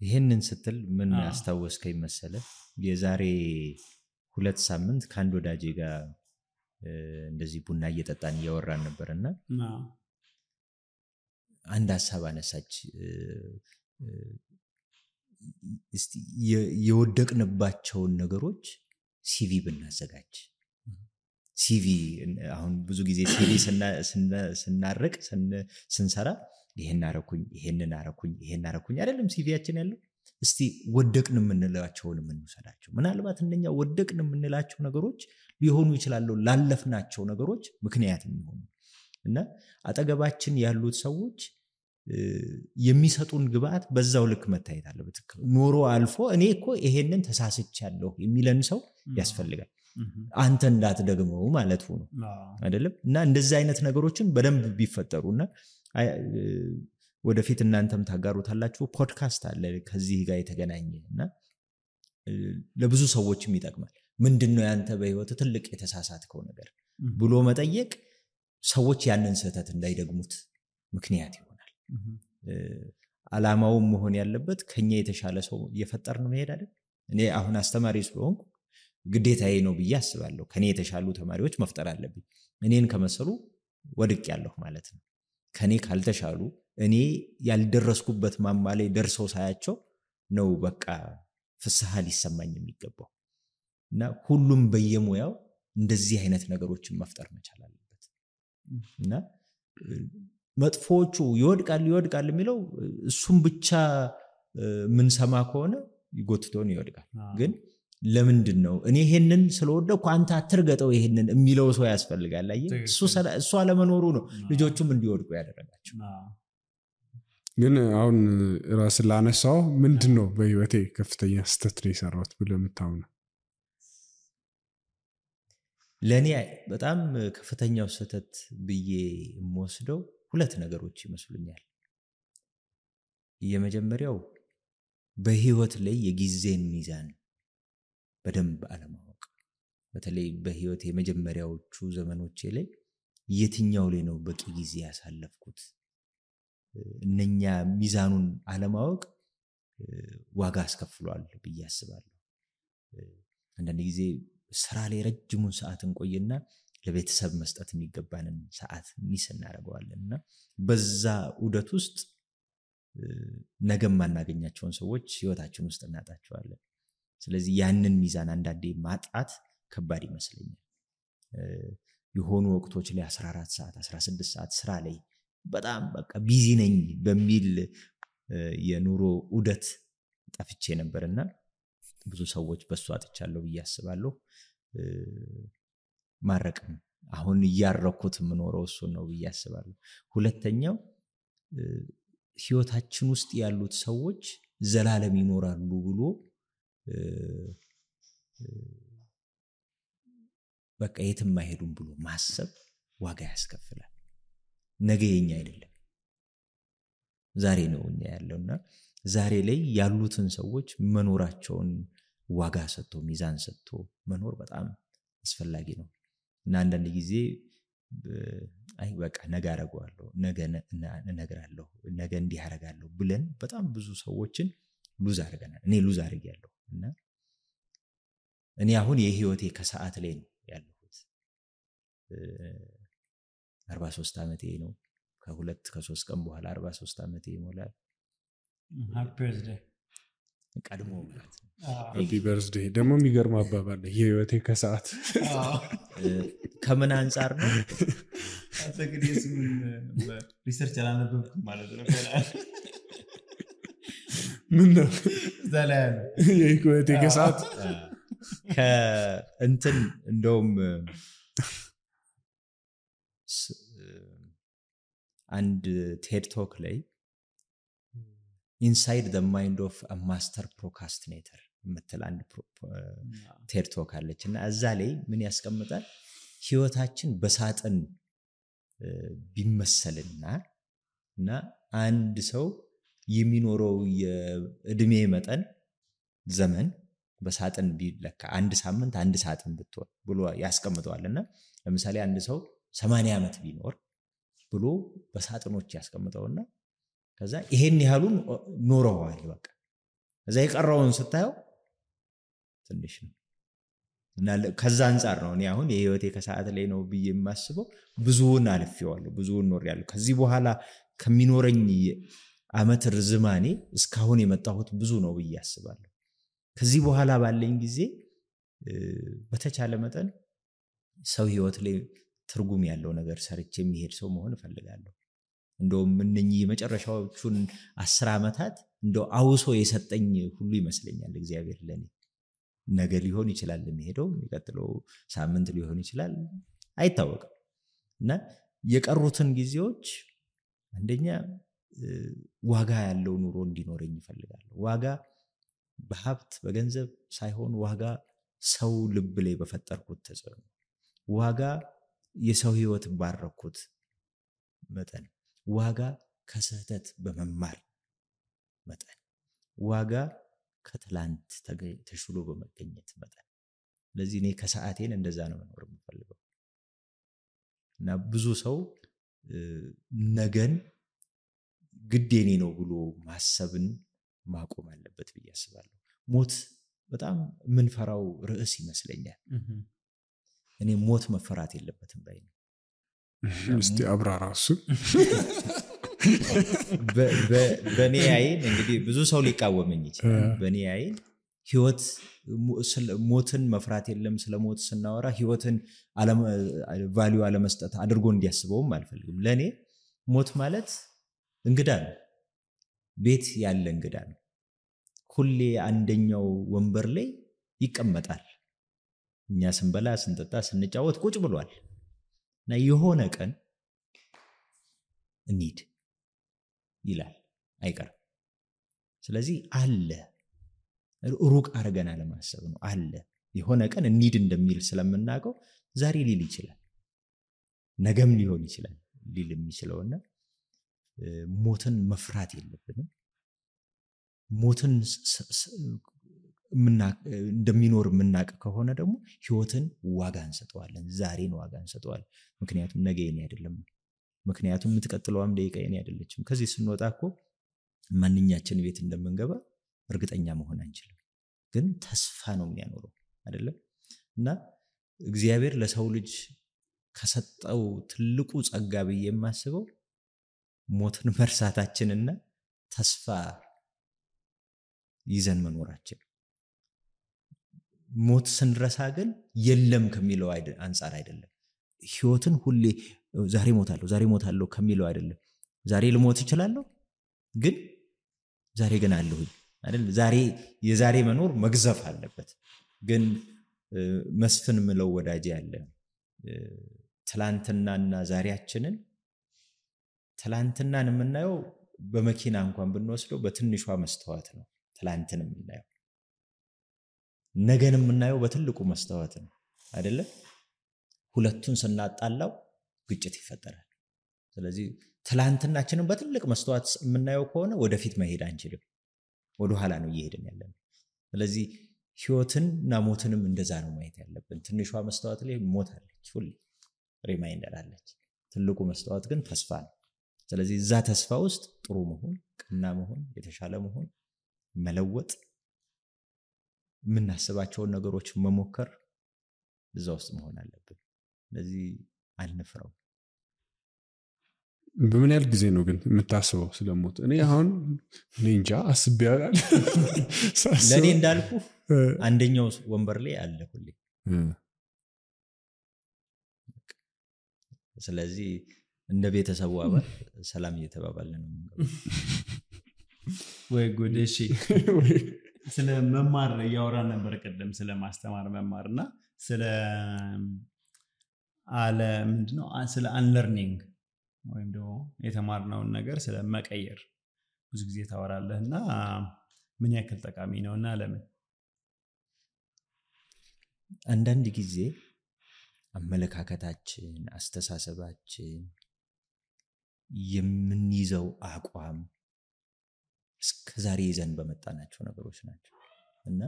Speaker 1: ይሄንን ስትል ምን አስታወስከኝ መሰለ? የዛሬ 2 ሳምንት ከአንድ ወዳጄ ጋር እንደዚህ ቡና እየጠጣን እያወራን ነበርና አንድ ሀሳብ አነሳች። እስቲ የወደቅንባቸውን ነገሮች ሲቪ ብናዘጋጅ። ሲቪ አሁን ብዙ ጊዜ ሲቪ ስናርቅ ስንሰራ ይሄን አረኩኝ አይደለም ሲቪያችን ያለው። እስቲ ወደቅን የምንላቸውን እንውሰዳቸው። ምናልባት እንደኛ ወደቅን የምንላቸው ነገሮች ሊሆኑ ይችላሉ ላለፍናቸው ነገሮች ምክንያት የሚሆኑ እና አጠገባችን ያሉት ሰዎች የሚሰጡን ግብአት በዛው ልክ መታየት አለበት። ኖሮ አልፎ እኔ እኮ ይሄንን ተሳስቻለሁ የሚለን ሰው ያስፈልጋል። አንተ እንዳትደግመው ማለት ነው አይደለም? እና እንደዚህ አይነት ነገሮችን በደንብ ቢፈጠሩና ወደፊት እናንተም ታጋሩታላችሁ። ፖድካስት አለ ከዚህ ጋር የተገናኘና ለብዙ ሰዎችም ይጠቅማል። ምንድነው ያንተ በህይወት ትልቅ የተሳሳትከው ነገር ብሎ መጠየቅ ሰዎች ያንን ስህተት እንዳይደግሙት ምክንያት ይሆናል። አላማው መሆን ያለበት ከኛ የተሻለ ሰው እየፈጠርን መሄድ አይደል? እኔ አሁን አስተማሪ ስለሆንኩ ግዴታዬ ነው ብዬ አስባለሁ። ከኔ የተሻሉ ተማሪዎች መፍጠር አለብኝ። እኔን ከመሰሉ ወድቅ ያለሁ ማለት ነው። ከኔ ካልተሻሉ እኔ ያልደረስኩበት ማማ ላይ ደርሰው ሳያቸው ነው በቃ ፍስሐ ሊሰማኝ የሚገባው። እና ሁሉም በየሙያው እንደዚህ አይነት ነገሮችን መፍጠር መቻል አለበት። እና መጥፎቹ ይወድቃል የሚለው እሱም ብቻ ምን ሰማ ከሆነ ይጎትቶን ይወድቃል። ግን ለምንድን ነው እኔ ይሄንን ስለወደኩ አንተ አትርገጠው ይሄንን የሚለው ሰው ያስፈልጋል። አየህ እሱ አለመኖሩ ነው ልጆቹም እንዲወድቁ ያደረጋቸው።
Speaker 4: ግን አሁን ራስ ላነሳው ምንድነው በህይወቴ ከፍተኛ ስህተት ነው የሰራሁት ብለህ የምታምነው?
Speaker 1: ለኔ በጣም ከፍተኛው ስህተት ብዬ የምወስደው 2 ነገሮች ይመስሉኛል። የመጀመሪያው በህይወት ላይ የጊዜን ሚዛን በደንብ አለማወቅ። በተለይ በህይወት የመጀመሪያዎቹ ዘመኖቼ ላይ የትኛው ላይ ነው በቂ ጊዜ ያሳለፍኩት? እነኛ ሚዛኑን አለማወቅ ዋጋ አስከፍሏል ብዬ አስባለሁ። አንዳንድ ጊዜ ስራ ላይ ረጅሙን ሰዓት እንቆይና ለቤተሰብ መስጠት የሚገባንን ሰዓት ሚስ እናደርገዋለንና በዛ ዑደት ውስጥ ነገም ማናገኛቸውን ሰዎች ህይወታችን ውስጥ እናጣቸዋለን። ስለዚህ ያንን ሚዛን አንዳንዴ ማጣት ከባድ ይመስለኛል። የሆኑ ወቅቶች ላይ 14 ሰዓት 16 ሰዓት ስራ ላይ በጣም በቃ ቢዚ ነኝ በሚል የኑሮ ዑደት ጠፍቼ ነበርና ብዙ ሰዎች በሱ አጥቻለሁ ብዬ አስባለሁ። ማረቅም አሁን እያረኩት የምኖረው እሱ ነው ብዬ አስባለሁ። ሁለተኛው ህይወታችን ውስጥ ያሉት ሰዎች ዘላለም ይኖራሉ ብሎ በቃ የትም አይሄዱም ብሎ ማሰብ ዋጋ ያስከፍላል። ነገ የኛ አይደለም ዛሬ ነው እኛ ያለውና ዛሬ ላይ ያሉትን ሰዎች መኖራቸውን ዋጋ ሰጥቶ ሚዛን ሰጥቶ መኖር በጣም አስፈላጊ ነው። እና አንዳንድ ጊዜ አይ በቃ ነገ አደርገዋለሁ ነገ እነግራለሁ ነገ እንዲህ አደርጋለሁ ብለን በጣም ብዙ ሰዎችን ሉዝ አድርገናል እኔ ሉዝ አድርጌያለሁ እና እኔ አሁን የህይወቴ ከሰዓት ላይ ነው ያለሁት 43 ዓመቴ ነው ከ2-3 ቀን በኋላ 43 ዓመቴ ይሞላል
Speaker 3: ሃፒ በርዝዴይ
Speaker 1: ቀድሞ ማለት ነው
Speaker 4: ሃፒ በርዝዴይ ደግሞ የሚገርም አባባል የህይወቴ ከሰዓት
Speaker 1: ከምን አንፃር ነው
Speaker 3: አሰግዴስ ምን ሪሰርች አላነበብኩም ማለት ነው
Speaker 4: ምን ነው
Speaker 3: ዘላለ
Speaker 4: የህይወቴ ከሰዓት
Speaker 1: ከእንትን እንደውም አንድ ቴድ ቶክ ላይ ኢንሳይድ ዘ ማይንድ ኦፍ አ ማስተር ፕሮካስቲኔተር ምትል አንድ ቴድ ቶክ አለችና እዛ ላይ ምን ያስቀምጣል ህይወታችን በሳጥን ቢመሰልና አንድ ሰው የሚኖረው የእድሜ መጠን ዘመን በሳጥን ቢለካ አንድ ሳምንት አንድ ሳጥን ብትሆን ብሎ ያስቀምጠዋልና ለምሳሌ አንድ ሰው 80 ዓመት ቢኖር ብሎ በሳጥኖች ያስቀምጠውና ከዛ ይሄን ያህሉን ኖረዋል በቃ እዛ የቀረውን ስታየው ትንሽ ነው እና ከዛ አንፃር ነው እኔ አሁን የህይወቴ ከሰዓት ላይ ነው ብዬ የማስበው ብዙውን አልፌዋለሁ ብዙውን ኖርያለሁ ከዚህ በኋላ ከሚኖረኝ አመት ርዝማኔ እስካሁን የመጣሁት ብዙ ነው ብዬ አስባለሁ ከዚህ በኋላ ባለኝ ጊዜ በተቻለ መጠን ሰው ህይወት ላይ ትርጉም ያለው ነገር ሰርቼ የሚሄድ ሰው መሆን እፈልጋለሁ እንደውም እነኚህ መጨረሻዎቹን 10 ዓመታት እንደው አውሶ የሰጠኝ ሁሉ ይመስለኛል እግዚአብሔር ለኔ ነገ ሊሆን ይችላል የሚሄደው የሚቀጥለው ሳምንት ሊሆን ይችላል አይታወቅም እና የቀሩትን ጊዜዎች አንደኛ ዋጋ ያለው ኑሮ እንዲኖረኝ እፈልጋለሁ ዋጋ በሀብት በገንዘብ ሳይሆን ዋጋ ሰው ልብ ላይ በፈጠርኩት ተጽዕኖ ዋጋ የሰው ህይወት ባረኩት መጠን ዋጋ ከስህተት በመማር መጠን ዋጋ ከትላንት ተሽሎ በመገኘት መጠን ለዚህ እኔ ከሰዓቴን እንደዛ ነው መኖር የምፈልገው እና ብዙ ሰው ነገን ግዴኔ ነው ብሎ ማሰብን ማቆም አለበት ብዬ አስባለሁ ሞት በጣም ምንፈራው ርዕስ ይመስለኛል እኔ ሞት መፈራት የለበትም ባይ ነው
Speaker 4: እስቲ አብራራሱ
Speaker 1: በኔ አይን እንግዲህ ብዙ ሰው ሊቃወመኝ ይችላል በኔ አይን ህይወት ሞትን መፍራት የለም ስለሞት ስናወራ ህይወትን ቫልዩ አለመስጠት አድርጎ እንዲያስበውም አልፈልግም ለኔ ሞት ማለት እንግዳ ነው ቤት ያለ እንግዳ ነው ሁሌ አንደኛው ወንበር ላይ ይቀመጣል እኛ ስንበላ ስንጠጣ ስንጫወት ቁጭ ብሏል እና የሆነ ቀን እንሂድ ይላል አይቀርም ስለዚህ አለ ሩቅ አርገና ለማሰብ ነው አለ የሆነ ቀን እንሂድ እንደሚል ስለምናቀው ዛሬ ሊል ይችላል ነገም ሊሆን ይችላል ሊል የሚችለውና ሞትን መፍራት የለብንም ሞትን እንደሚኖር ምናቀ ከሆነ ደግሞ ህይወትን ዋጋ እንሰጠዋለን ዛሬን ዋጋ እንሰጠዋለን ምክንያቱም ነገ የኔ አይደለም ምክንያቱም የምትቀጥለውም ደቂቃ የኔ አይደለችም ከዚህ ስንወጣኮ ማንኛችን ቤት እንደምንገባ እርግጠኛ መሆን አንችልም ግን ተስፋ ነው የሚያኖረው አይደለም እና እግዚአብሔር ለሰው ልጅ ከሰጠው ትልቁ ጸጋ ብዬ የማስበው ሞትን መርሳታችንና ተስፋ ይዘን መኖራችን ሞት ስንረሳ ግን የለም ከሚለው አንፃር አይደለም ህይወትን ሁሌ ዛሬ ሞታለሁ ከሚለው አይደለም ዛሬ ልሞት ይችላልው ግን ዛሬ ግን አለሁ አይደል ዛሬ የዛሬ መኖር መግዘፍ አለበት ግን መስፍን ምለው ወዳጅ ያለ ትላንትናና ዛሬያችንን ትላንትናን የምናየው በመኪና እንኳን ብንወስደው በትንሿ መስተዋት ነው ትላንትን የምናየው ነገን የምናየው በትልቁ መስተዋት ነው አይደለ ሁለቱን ስናጣላው ግጭት ይፈጠራል ስለዚህ ትላንትናችንን በትልቅ መስተዋት የምናየው ከሆነ ወደፊት መሄድ አንችልም ወደ ኋላ ነው እየሄድን ያለነው ስለዚህ ህይወትንና ሞትንም እንደዛ ነው ማየት ያለብን ትንሿ መስተዋት ላይ ሞት አለች ሁሉ ሪማይንደር አለች። ትልቁ መስታወት ግን ተስፋ ነው። ስለዚህ እዛ ተስፋ ውስጥ ጥሩ መሆን፣ ቀና መሆን፣ የተሻለ መሆን፣ መለወጥ፣ የምናስባቸውን ነገሮች መሞከር እዛ ውስጥ መሆን አለብን። ስለዚህ አንፍረው።
Speaker 4: በምን ያህል ጊዜ ነው ግን የምታስበው ስለሞት? እኔ አሁን እንጃ አስቤ ያላል።
Speaker 1: ለእኔ እንዳልኩ አንደኛው ወንበር ላይ አለ ሁሌ። ስለዚህ እንደ ቤተሰቡ አባል ሰላም እየተባባልን ነው።
Speaker 3: ወይ ጉድ! እሺ፣ ስለ መማር እያወራን ነበር ቅድም፣ ስለ ማስተማር መማርና ስለ ምንድነው ስለ አንለርኒንግ ወይም ደግሞ የተማርነውን ነገር ስለ መቀየር ብዙ ጊዜ ታወራለህና ምን ያክል ጠቃሚ ነውና ለምን?
Speaker 1: አንዳንድ ጊዜ አመለካከታችን፣ አስተሳሰባችን፣ የምንይዘው አቋም እስከዛሬ ይዘን በመጣናቸው ነገሮች ናቸው እና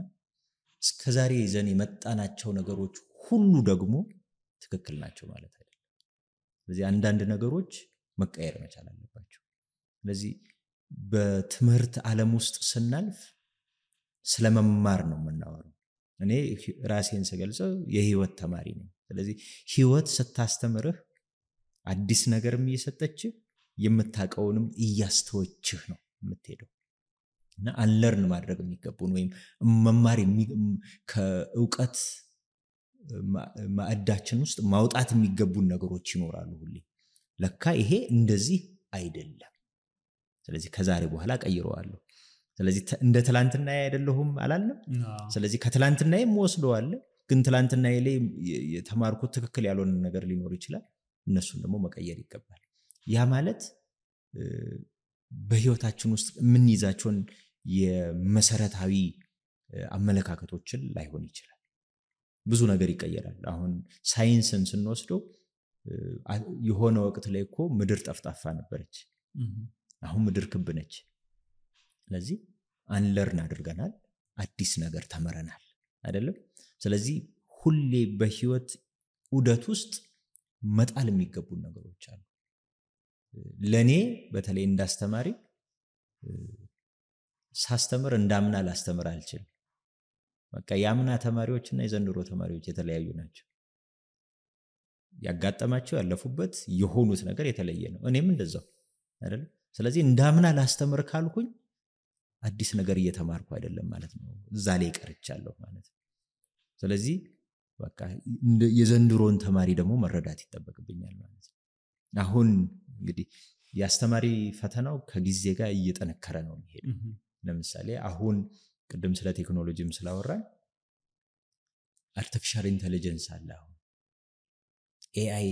Speaker 1: እስከዛሬ ይዘን የመጣናቸው ነገሮች ሁሉ ደግሞ ትክክል ናቸው ማለት አይደለም። ስለዚህ አንዳንድ ነገሮች መቀየር መቻል አለባቸው። ስለዚህ በትምህርት ዓለም ውስጥ ስናልፍ ስለመማር ነው የምናወራው። እኔ ራሴን ስገልጸው የህይወት ተማሪ ነኝ። ስለዚህ ህይወት ስታስተምርህ አዲስ ነገርም እየሰጠችህ የምታውቀውንም እያስተወችህ ነው የምትሄደው እና አንለርን ማድረግ የሚገቡን ወይም መማር ከእውቀት ማዕዳችን ውስጥ ማውጣት የሚገቡን ነገሮች ይኖራሉ ሁሌ። ለካ ይሄ እንደዚህ አይደለም፣ ስለዚህ ከዛሬ በኋላ ቀይረዋለሁ። ስለዚህ እንደ ትላንትና አይደለሁም አላለም። ስለዚህ ከትላንትና ወስደዋል፣ ግን ትላንትና ላይ የተማርኩት ትክክል ያልሆነ ነገር ሊኖር ይችላል። እነሱን ደግሞ መቀየር ይገባል። ያ ማለት በህይወታችን ውስጥ የምንይዛቸውን የመሰረታዊ አመለካከቶችን ላይሆን ይችላል። ብዙ ነገር ይቀየራል። አሁን ሳይንስን ስንወስደው የሆነ ወቅት ላይ እኮ ምድር ጠፍጣፋ ነበረች፣ አሁን ምድር ክብ ነች። ስለዚህ አንለርን አድርገናል፣ አዲስ ነገር ተመረናል አይደለም። ስለዚህ ሁሌ በህይወት ዑደት ውስጥ መጣል የሚገቡ ነገሮች አሉ። ለኔ በተለይ እንዳስተማሪ ሳስተምር እንዳምና ላስተምር አልችልም። በቃ ያምና ተማሪዎችና የዘንድሮ ተማሪዎች የተለያዩ ናቸው። ያጋጠማቸው ያለፉበት የሆኑት ነገር የተለየ ነው። እኔም እንደዛው አይደል? ስለዚህ እንዳምና ላስተምር ካልኩኝ አዲስ ነገር እየተማርኩ አይደለም ማለት ነው። እዛ ላይ ቀርቻለሁ ማለት ነው። ስለዚህ በቃ የዘንድሮን ተማሪ ደግሞ መረዳት ይጠበቅብኛል ማለት ነው። አሁን እንግዲህ የአስተማሪ ፈተናው ከጊዜ ጋር እየጠነከረ ነው የሚሄደው። ለምሳሌ አሁን ቅድም ስለ ቴክኖሎጂም ስላወራን አርቲፊሻል ኢንተለጀንስ አለ። አሁን ኤአይ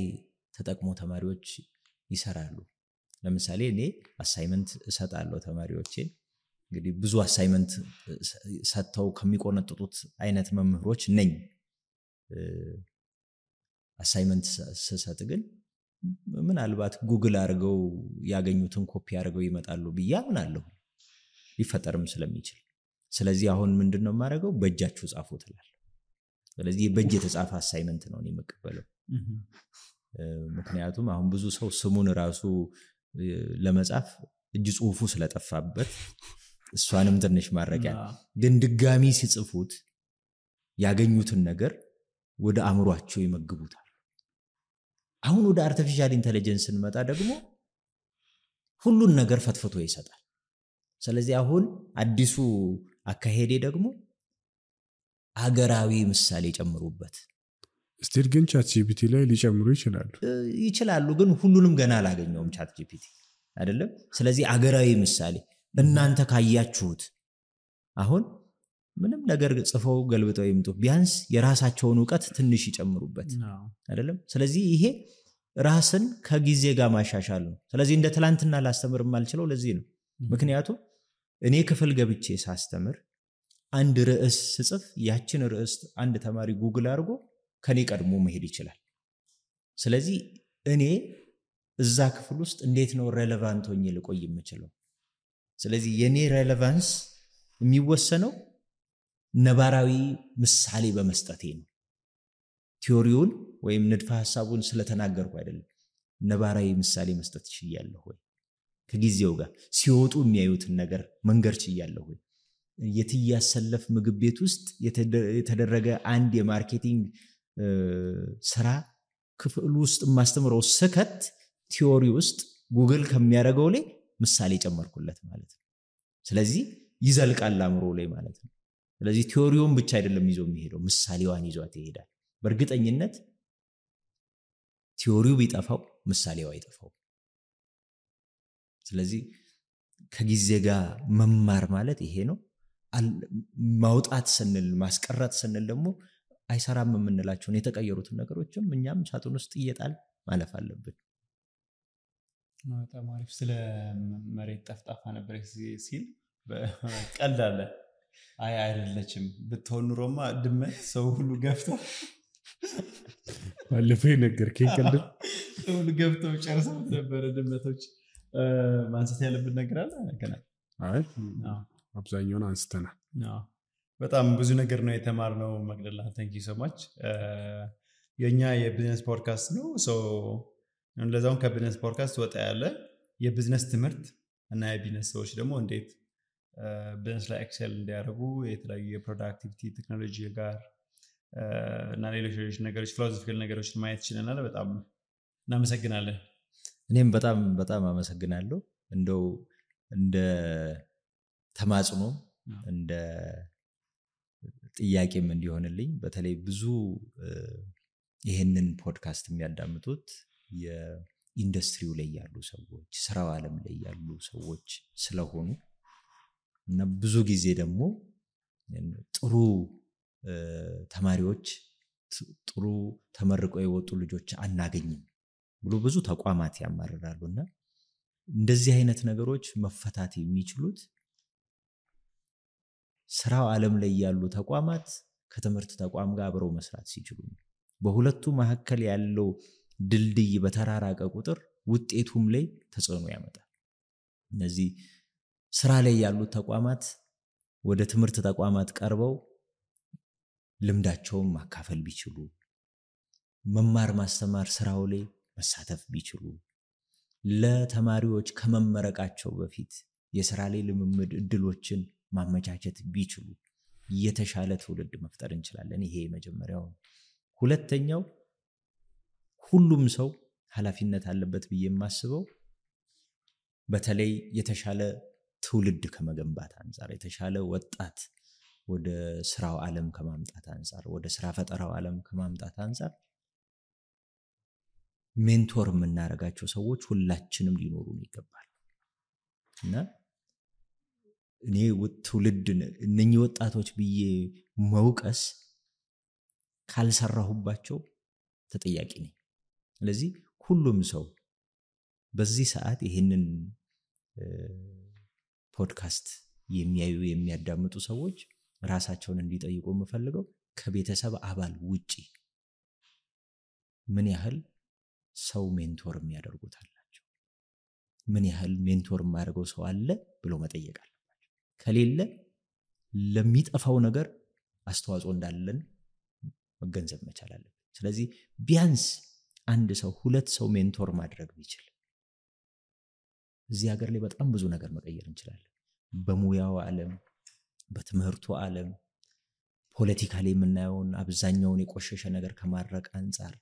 Speaker 1: ተጠቅሞ ተማሪዎች ይሰራሉ። ለምሳሌ እኔ አሳይመንት እሰጣለሁ ተማሪዎቼን። እንግዲህ ብዙ አሳይመንት ሰጥተው ከሚቆነጥጡት አይነት መምህሮች ነኝ። አሳይመንት ስሰጥ ግን ምናልባት ጉግል አድርገው ያገኙትን ኮፒ አድርገው ይመጣሉ ብዬ አምናለሁ፣ ሊፈጠርም ስለሚችል። ስለዚህ አሁን ምንድነው የማደርገው? በእጃችሁ ጻፉ ትላለህ። ስለዚህ በእጅ የተጻፈ አሳይመንት ነው እኔ የምቀበለው። ምክንያቱም አሁን ብዙ ሰው ስሙን ራሱ ለመጻፍ እጅ ጽሁፉ ስለጠፋበት እሷንም ትንሽ ማረቂያ፣ ግን ድጋሚ ሲጽፉት ያገኙትን ነገር ወደ አእምሯቸው ይመግቡታል። አሁን ወደ አርቲፊሻል ኢንተለጀንስ እንመጣ ደግሞ ሁሉን ነገር ፈትፍቶ ይሰጣል። ስለዚህ አሁን አዲሱ አካሄዴ ደግሞ አገራዊ ምሳሌ ጨምሩበት።
Speaker 4: ስቲል ግን ቻት ጂፒቲ ላይ ሊጨምሩ
Speaker 1: ይችላሉ፣ ግን ሁሉንም ገና አላገኘውም ቻት ጂፒቲ አይደለም። ስለዚህ አገራዊ ምሳሌ እናንተ ካያችሁት አሁን ምንም ነገር ጽፈው ገልብጠው ይምጡ፣ ቢያንስ የራሳቸውን ዕውቀት ትንሽ ይጨምሩበት አይደለም። ስለዚህ ይሄ ራስን ከጊዜ ጋር ማሻሻል ነው። ስለዚህ እንደ ትላንትና ላስተምር የማልችለው ለዚህ ነው። ምክንያቱም እኔ ክፍል ገብቼ ሳስተምር አንድ ርዕስ ስጽፍ ያችን ርዕስ አንድ ተማሪ ጉግል አድርጎ ከኔ ቀድሞ መሄድ ይችላል። ስለዚህ እኔ እዛ ክፍል ውስጥ እንዴት ነው ሬሌቫንት ሆኜ ልቆይ የምችለው? ስለዚህ የኔ ሬሌቫንስ የሚወሰነው ነባራዊ ምሳሌ በመስጠቴ ነው። ቲዮሪውን ወይም ንድፈ ሐሳቡን ስለተናገርኩ አይደለም ነባራዊ ምሳሌ መስጠት ይችላልሁ ወይ ከጊዜው ጋር ሲወጡ የሚያዩትን ነገር መንገር ይችላልሁ ወይ የትያሰለፍ ምግብ ቤት ውስጥ የተደረገ አንድ የማርኬቲንግ ስራ ክፍል ውስጥ ማስተምረው ስከት ቲዮሪ ውስጥ ጉግል ከሚያደርገው ላይ ምሳሌ ጨመርኩለት ማለት ነው ስለዚህ ይዘልቃል አምሮ ላይ ማለት ነው ስለዚህ ቲዮሪውን ብቻ አይደለም ይዞ የሚሄደው ምሳሌዋን ይዟት ይሄዳል በእርግጠኝነት ቲዮሪው ቢጠፋው ምሳሌው አይጠፋው ስለዚህ ከጊዜ ጋር መማር ማለት ይሄ ነው ማውጣት ስንል ማስቀረት ስንል ደግሞ አይሰራም የምንላቸውን የተቀየሩትን ነገሮችም እኛም ሳጥን ውስጥ እየጣል ማለፍ አለብን
Speaker 3: በጣም አሪፍ ስለ መሬት ጠፍጣፋ ነበር ሲል ቀልዳለ አይደለችም ብትሆን ኑሮማ ድመት ሰው ሁሉ ገፍተው
Speaker 4: ባለፈው ነገርከኝ ቀልድ
Speaker 3: ሰው ሁሉ ገፍተው ጨርሰው ነበር ድመቶች ማንሳት ያለብን ነገር አለ ገና
Speaker 4: አይ አብዛኛውን አንስተናል
Speaker 3: በጣም ብዙ ነገር ነው የተማርነው መቅደላ thank you so much የኛ የቢዝነስ ፖድካስት ነው ለዛውን ከቢዝነስ ፖድካስት ወጣ ያለ የቢዝነስ ትምህርት እና የቢዝነስ ሰዎች ደግሞ እንዴት ቢዝነስ ላይ ኤክሰል እንዲያደርጉ የተለያዩ የፕሮዳክቲቪቲ ቴክኖሎጂ ጋር እና ሌሎች ነገሮች ፊሎሶፊካል ነገሮችን ማየት ይችላል በጣም እናመሰግናለን
Speaker 1: እኔም በጣም አመሰግናለሁ እንደው እንደ ተማጽኖ እንደ ጥያቄም እንዲሆንልኝ በተለይ ብዙ ይሄንን ፖድካስት የሚያዳምጡት የኢንዱስትሪው ላይ ያሉ ሰዎች ስራው ዓለም ላይ ያሉ ሰዎች ስለሆኑ እና ብዙ ጊዜ ደግሞ ጥሩ ተማሪዎች ጥሩ ተመርቀው የወጡ ልጆች አናገኝም ብሎ ብዙ ተቋማት ያማርራሉና እንደዚህ አይነት ነገሮች መፈታት የሚችሉት ስራው ዓለም ላይ ያሉ ተቋማት ከትምህርት ተቋም ጋር አብረው መስራት ሲችሉ በሁለቱ መሐከል ያለው ድልድይ በተራራቀ ቁጥር ውጤቱም ላይ ተጽዕኖ ያመጣል እነዚህ ስራ ላይ ያሉ ተቋማት ወደ ትምህርት ተቋማት ቀርበው ልምዳቸውን ማካፈል ቢችሉ መማር ማስተማር ስራው ላይ መሳተፍ ቢችሉ ለተማሪዎች ከመመረቃቸው በፊት የሥራ ላይ ልምምድ እድሎችን ማመቻቸት ቢችሉ የተሻለ ትውልድ መፍጠር እንችላለን ይሄ መጀመሪያው ሁለተኛው ሁሉም ሰው ኃላፊነት አለበት ብዬ የማስበው በተለይ የተሻለ ትውልድ ከመገንባት አንፃር የተሻለ ወጣት ወደ ስራው ዓለም ከማምጣት አንፃር ወደ ስራ ፈጠራው ዓለም ከማምጣት አንፃር ሜንቶር የምናረጋቸው ሰዎች ሁላችንም ሊኖሩን ይገባል እና እኔ ትውልድ እነኚህ ወጣቶች ብዬ መውቀስ ካልሰራሁባቸው ተጠያቂ ነኝ ስለዚህ ሁሉም ሰው በዚህ ሰዓት ይሄንን ፖድካስት የሚያዩ የሚያዳምጡ ሰዎች ራሳቸውን እንዲጠይቁ የምፈልገው ከቤተሰብ አባል ውጪ ምን ያህል ሰው ሜንቶር የሚያደርጉታላቸው ምን ያህል ሜንቶር የማያደርገው ሰው አለ ብሎ መጠየቅ አለባቸው ከሌለ ለሚጠፋው ነገር አስተዋጽኦ እንዳለን መገንዘብ መቻል አለበት ስለዚህ ቢያንስ አንድ ሰው ሁለት ሰው ሜንቶር ማድረግ ቢችል እዚህ ሀገር ላይ በጣም ብዙ ነገር መቀየር እንችላለን በሙያው ዓለም በትምህርቱ ዓለም ፖለቲካሊ የምናየውን አብዛኛውን የቆሸሸ ነገር ከማድረቅ አንፃር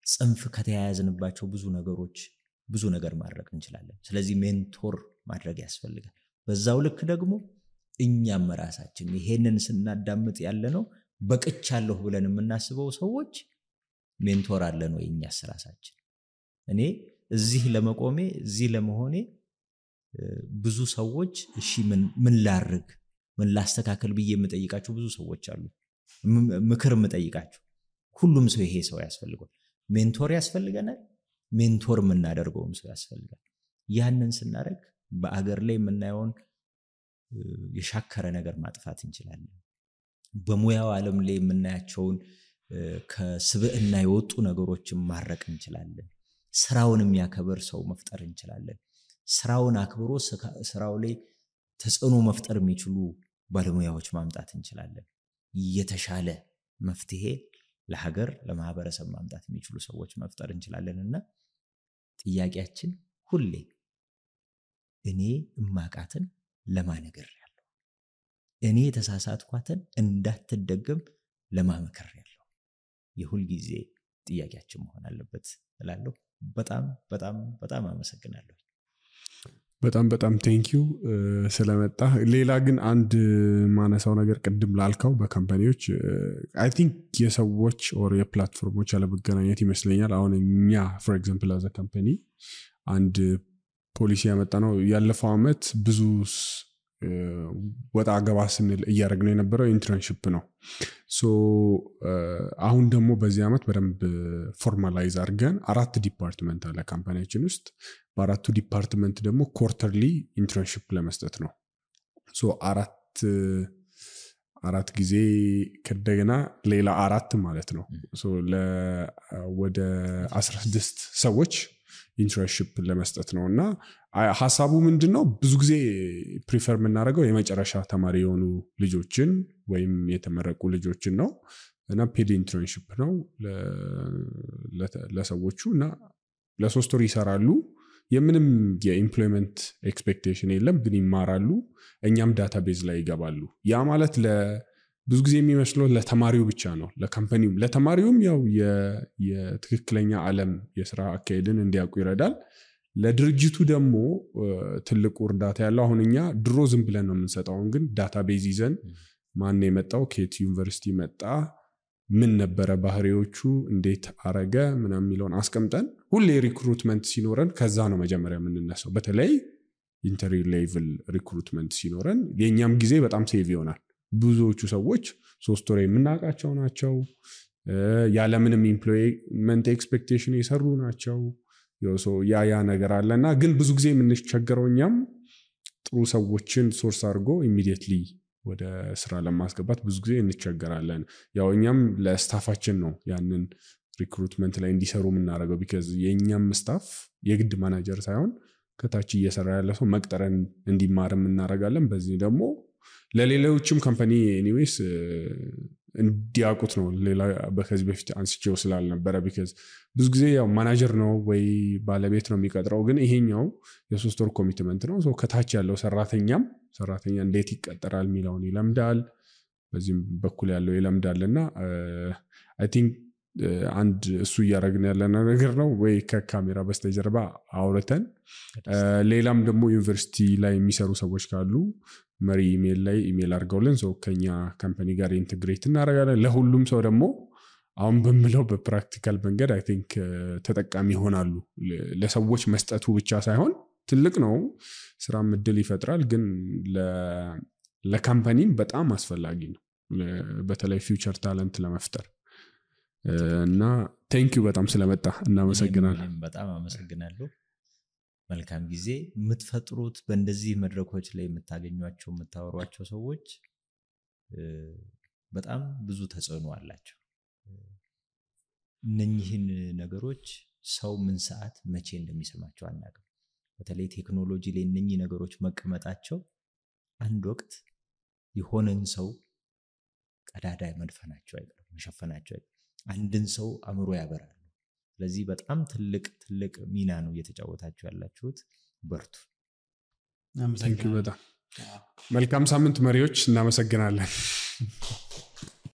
Speaker 1: ጽንፍ ከተያያዝንባቸው ብዙ ነገሮች ብዙ ነገር ማድረግ እንችላለን ስለዚህ ሜንቶር ማድረግ ያስፈልጋል በዛው ልክ ደግሞ እኛም ራሳችን ይሄንን ስናዳምጥ ያለነው በቅቻለሁ ብለን የምናስበው ሰዎች ሜንቶር አለን ወይ እኛስ ራሳችን እኔ እዚህ ለመቆሜ እዚህ ለመሆኔ ብዙ ሰዎች እሺ ምን ላርግ ምን ላስተካከል ብዬ የምጠይቃቸው ብዙ ሰዎች አሉ ምክር የምጠይቃቸው ሁሉም ሰው ይሄ ሰው ያስፈልጋል ሜንቶር ያስፈልገናል ሜንቶር የምናደርገውም ሰው ያስፈልጋል ያንን ስናደርግ በአገር ላይ የምናየውን የሻከረ ነገር ማጥፋት እንችላለን በሙያው ዓለም ላይ የምናያቸውን ከስብዕና የወጡ ነገሮችን ማረቅ እንችላለን ስራውን የሚያከብር ሰው መፍጠር እንችላለን ስራውን አክብሮ ስራው ላይ ተጽዕኖ መፍጠር የሚችሉ ባለሙያዎች ማምጣት እንችላለን የተሻለ መፍትሄ ለሀገር ለማህበረሰብ ማምጣት የሚችሉ ሰዎች መፍጠር እንችላለንና ጥያቄያችን ሁሌ እኔ እማቃትን ለማነገር ያለው እኔ የተሳሳትኳትን እንዳትደገም ለማመከር ያለው የሁል ጊዜ ጥያቄያችን መሆን አለበት እላለሁ። በጣም በጣም በጣም አመሰግናለሁ።
Speaker 4: በጣም ቴንኪዩ ስለመጣ። ሌላ ግን አንድ ማነሳው ነገር ቅድም ላልከው በካምፓኒዎች አይ ቲንክ የሰዎች ኦር የፕላትፎርሞች ያለመገናኘት ይመስለኛል። አሁን እኛ ፎር ኤግዛምፕል አዘ ካምፓኒ አንድ ፖሊሲ ያመጣ ነው ያለፈው አመት ብዙ ወጣ ገባ ስንል እያደረግነው የነበረው ኢንተርንሺፕ ነው። ሶ አሁን ደግሞ በዚህ አመት በደንብ ፎርማላይዝ አድርገን 4 ዲፓርትመንት አለ ካምፓኒያችን ውስጥ። በ4ቱ ዲፓርትመንት ደግሞ ኮርተርሊ ኢንተርንሺፕ ለመስጠት ነው። ሶ አራት ጊዜ ከደገና ሌላ 4 ማለት ነው። ሶ ወደ 16 ሰዎች ኢንተርንሺፕ ለመስጠት ነው። እና ሐሳቡ ምንድነው ብዙ ጊዜ ፕሪፈር የምናደርገው የመጨረሻ ተማሪ የሆኑ ልጆችን ወይም የተመረቁ ልጆችን ነው። እና ፔድ ኢንተርንሺፕ ነው ለሰዎቹ እና ለ3 ወር ይሰራሉ። የምንም የኢምፕሎይመንት ኤክስፔክቴሽን የለም፣ ግን ይማራሉ። እኛም ዳታቤዝ ላይ ይገባሉ። ያ ማለት ብዙ ጊዜ የሚመስለው ለተማሪው ብቻ ነው። ለካምፓኒውም ለተማሪውም ያው የትክክለኛ ዓለም የስራ አካሄድን እንዲያውቁ ይረዳል። ለድርጅቱ ደግሞ ትልቁ እርዳታ ያለው አሁን እኛ ድሮ ዝም ብለን ነው የምንሰጠው። ግን ዳታቤዝ ይዘን ማን የመጣው ከየት ዩኒቨርሲቲ መጣ፣ ምን ነበረ ባህሪዎቹ፣ እንዴት አረገ ምናምን የሚለውን አስቀምጠን ሁሌ ሪክሩትመንት ሲኖረን ከዛ ነው መጀመሪያ የምንነሳው። በተለይ ኢንተሪ ሌቭል ሪክሩትመንት ሲኖረን የኛም ጊዜ በጣም ሴቭ ይሆናል። ብዙዎቹ ሰዎች 3 ወር የምናውቃቸው ናቸው። ያለምንም ኢምፕሎይመንት ኤክስፔክቴሽን የሰሩ ናቸው። ያ ነገር አለና ግን ብዙ ጊዜ የምንቸገረው እኛም ጥሩ ሰዎችን ሶርስ አድርጎ ኢሚዲየትሊ ወደ ስራ ለማስገባት ብዙ ጊዜ እንቸገራለን። ያው እኛም ለስታፋችን ነው ያንን ሪክሩትመንት ላይ እንዲሰሩ የምናደርገው። ቢካዝ የኛም ስታፍ የግድ ማናጀር ሳይሆን ከታች እየሰራ ያለ ሰው መቅጠረን እንዲማርም እናደርጋለን። በዚህ ደግሞ ለሌሎችም ካምፓኒ ኤኒዌይስ እንዲያውቁት ነው። ሌላ ከዚህ በፊት አንስቼው ስላልነበረ ቢካዝ ብዙ ጊዜ ያው ማናጀር ነው ወይ ባለቤት ነው የሚቀጥረው፣ ግን ይሄኛው የ3 ወር ኮሚትመንት ነው። ሶ ከታች ያለው ሰራተኛ እንዴት ይቀጠራል የሚለውን ይለምዳል፣ በዚህም በኩል ያለው ይለምዳልና አይ ቲንክ አንድ እሱ እያደረግን ያለነው ነገር ነው። ወይ ከካሜራ በስተጀርባ አውርተን ሌላም ደግሞ ዩኒቨርሲቲ ላይ የሚሰሩ ሰዎች ካሉ መሪ ኢሜል ላይ ኢሜል አድርገውልን ሰው ከኛ ካምፓኒ ጋር ኢንተግሬት እናደርጋለን። ለሁሉም ሰው ደግሞ አሁን በምለው በፕራክቲካል መንገድ አይ ቲንክ ተጠቃሚ ይሆናሉ። ለሰዎች መስጠቱ ብቻ ሳይሆን ትልቅ ነው፣ ስራም እድል ይፈጥራል፣ ግን ለካምፓኒም በጣም አስፈላጊ ነው፣ በተለይ ፊውቸር ታለንት ለመፍጠር እና ቴንኪዩ በጣም ስለመጣ እናመሰግናለን።
Speaker 1: በጣም አመሰግናለሁ። መልካም ጊዜ። የምትፈጥሩት በእንደዚህ መድረኮች ላይ የምታገኟቸው የምታወሯቸው ሰዎች በጣም ብዙ ተጽዕኖ አላቸው። እነኚህን ነገሮች ሰው ምን ሰዓት መቼ እንደሚሰማቸው አናውቅም። በተለይ ቴክኖሎጂ ላይ እነኚህ ነገሮች መቀመጣቸው አንድ ወቅት የሆነን ሰው ቀዳዳ መድፈናቸው አይቀርም፣ መሸፈናቸው አይቀርም። አንድን ሰው አእምሮ ያበራሉ። ስለዚህ በጣም ትልቅ ሚና ነው እየተጫወታችሁ ያላችሁት። በርቱ።
Speaker 4: በጣም መልካም ሳምንት መሪዎች። እናመሰግናለን።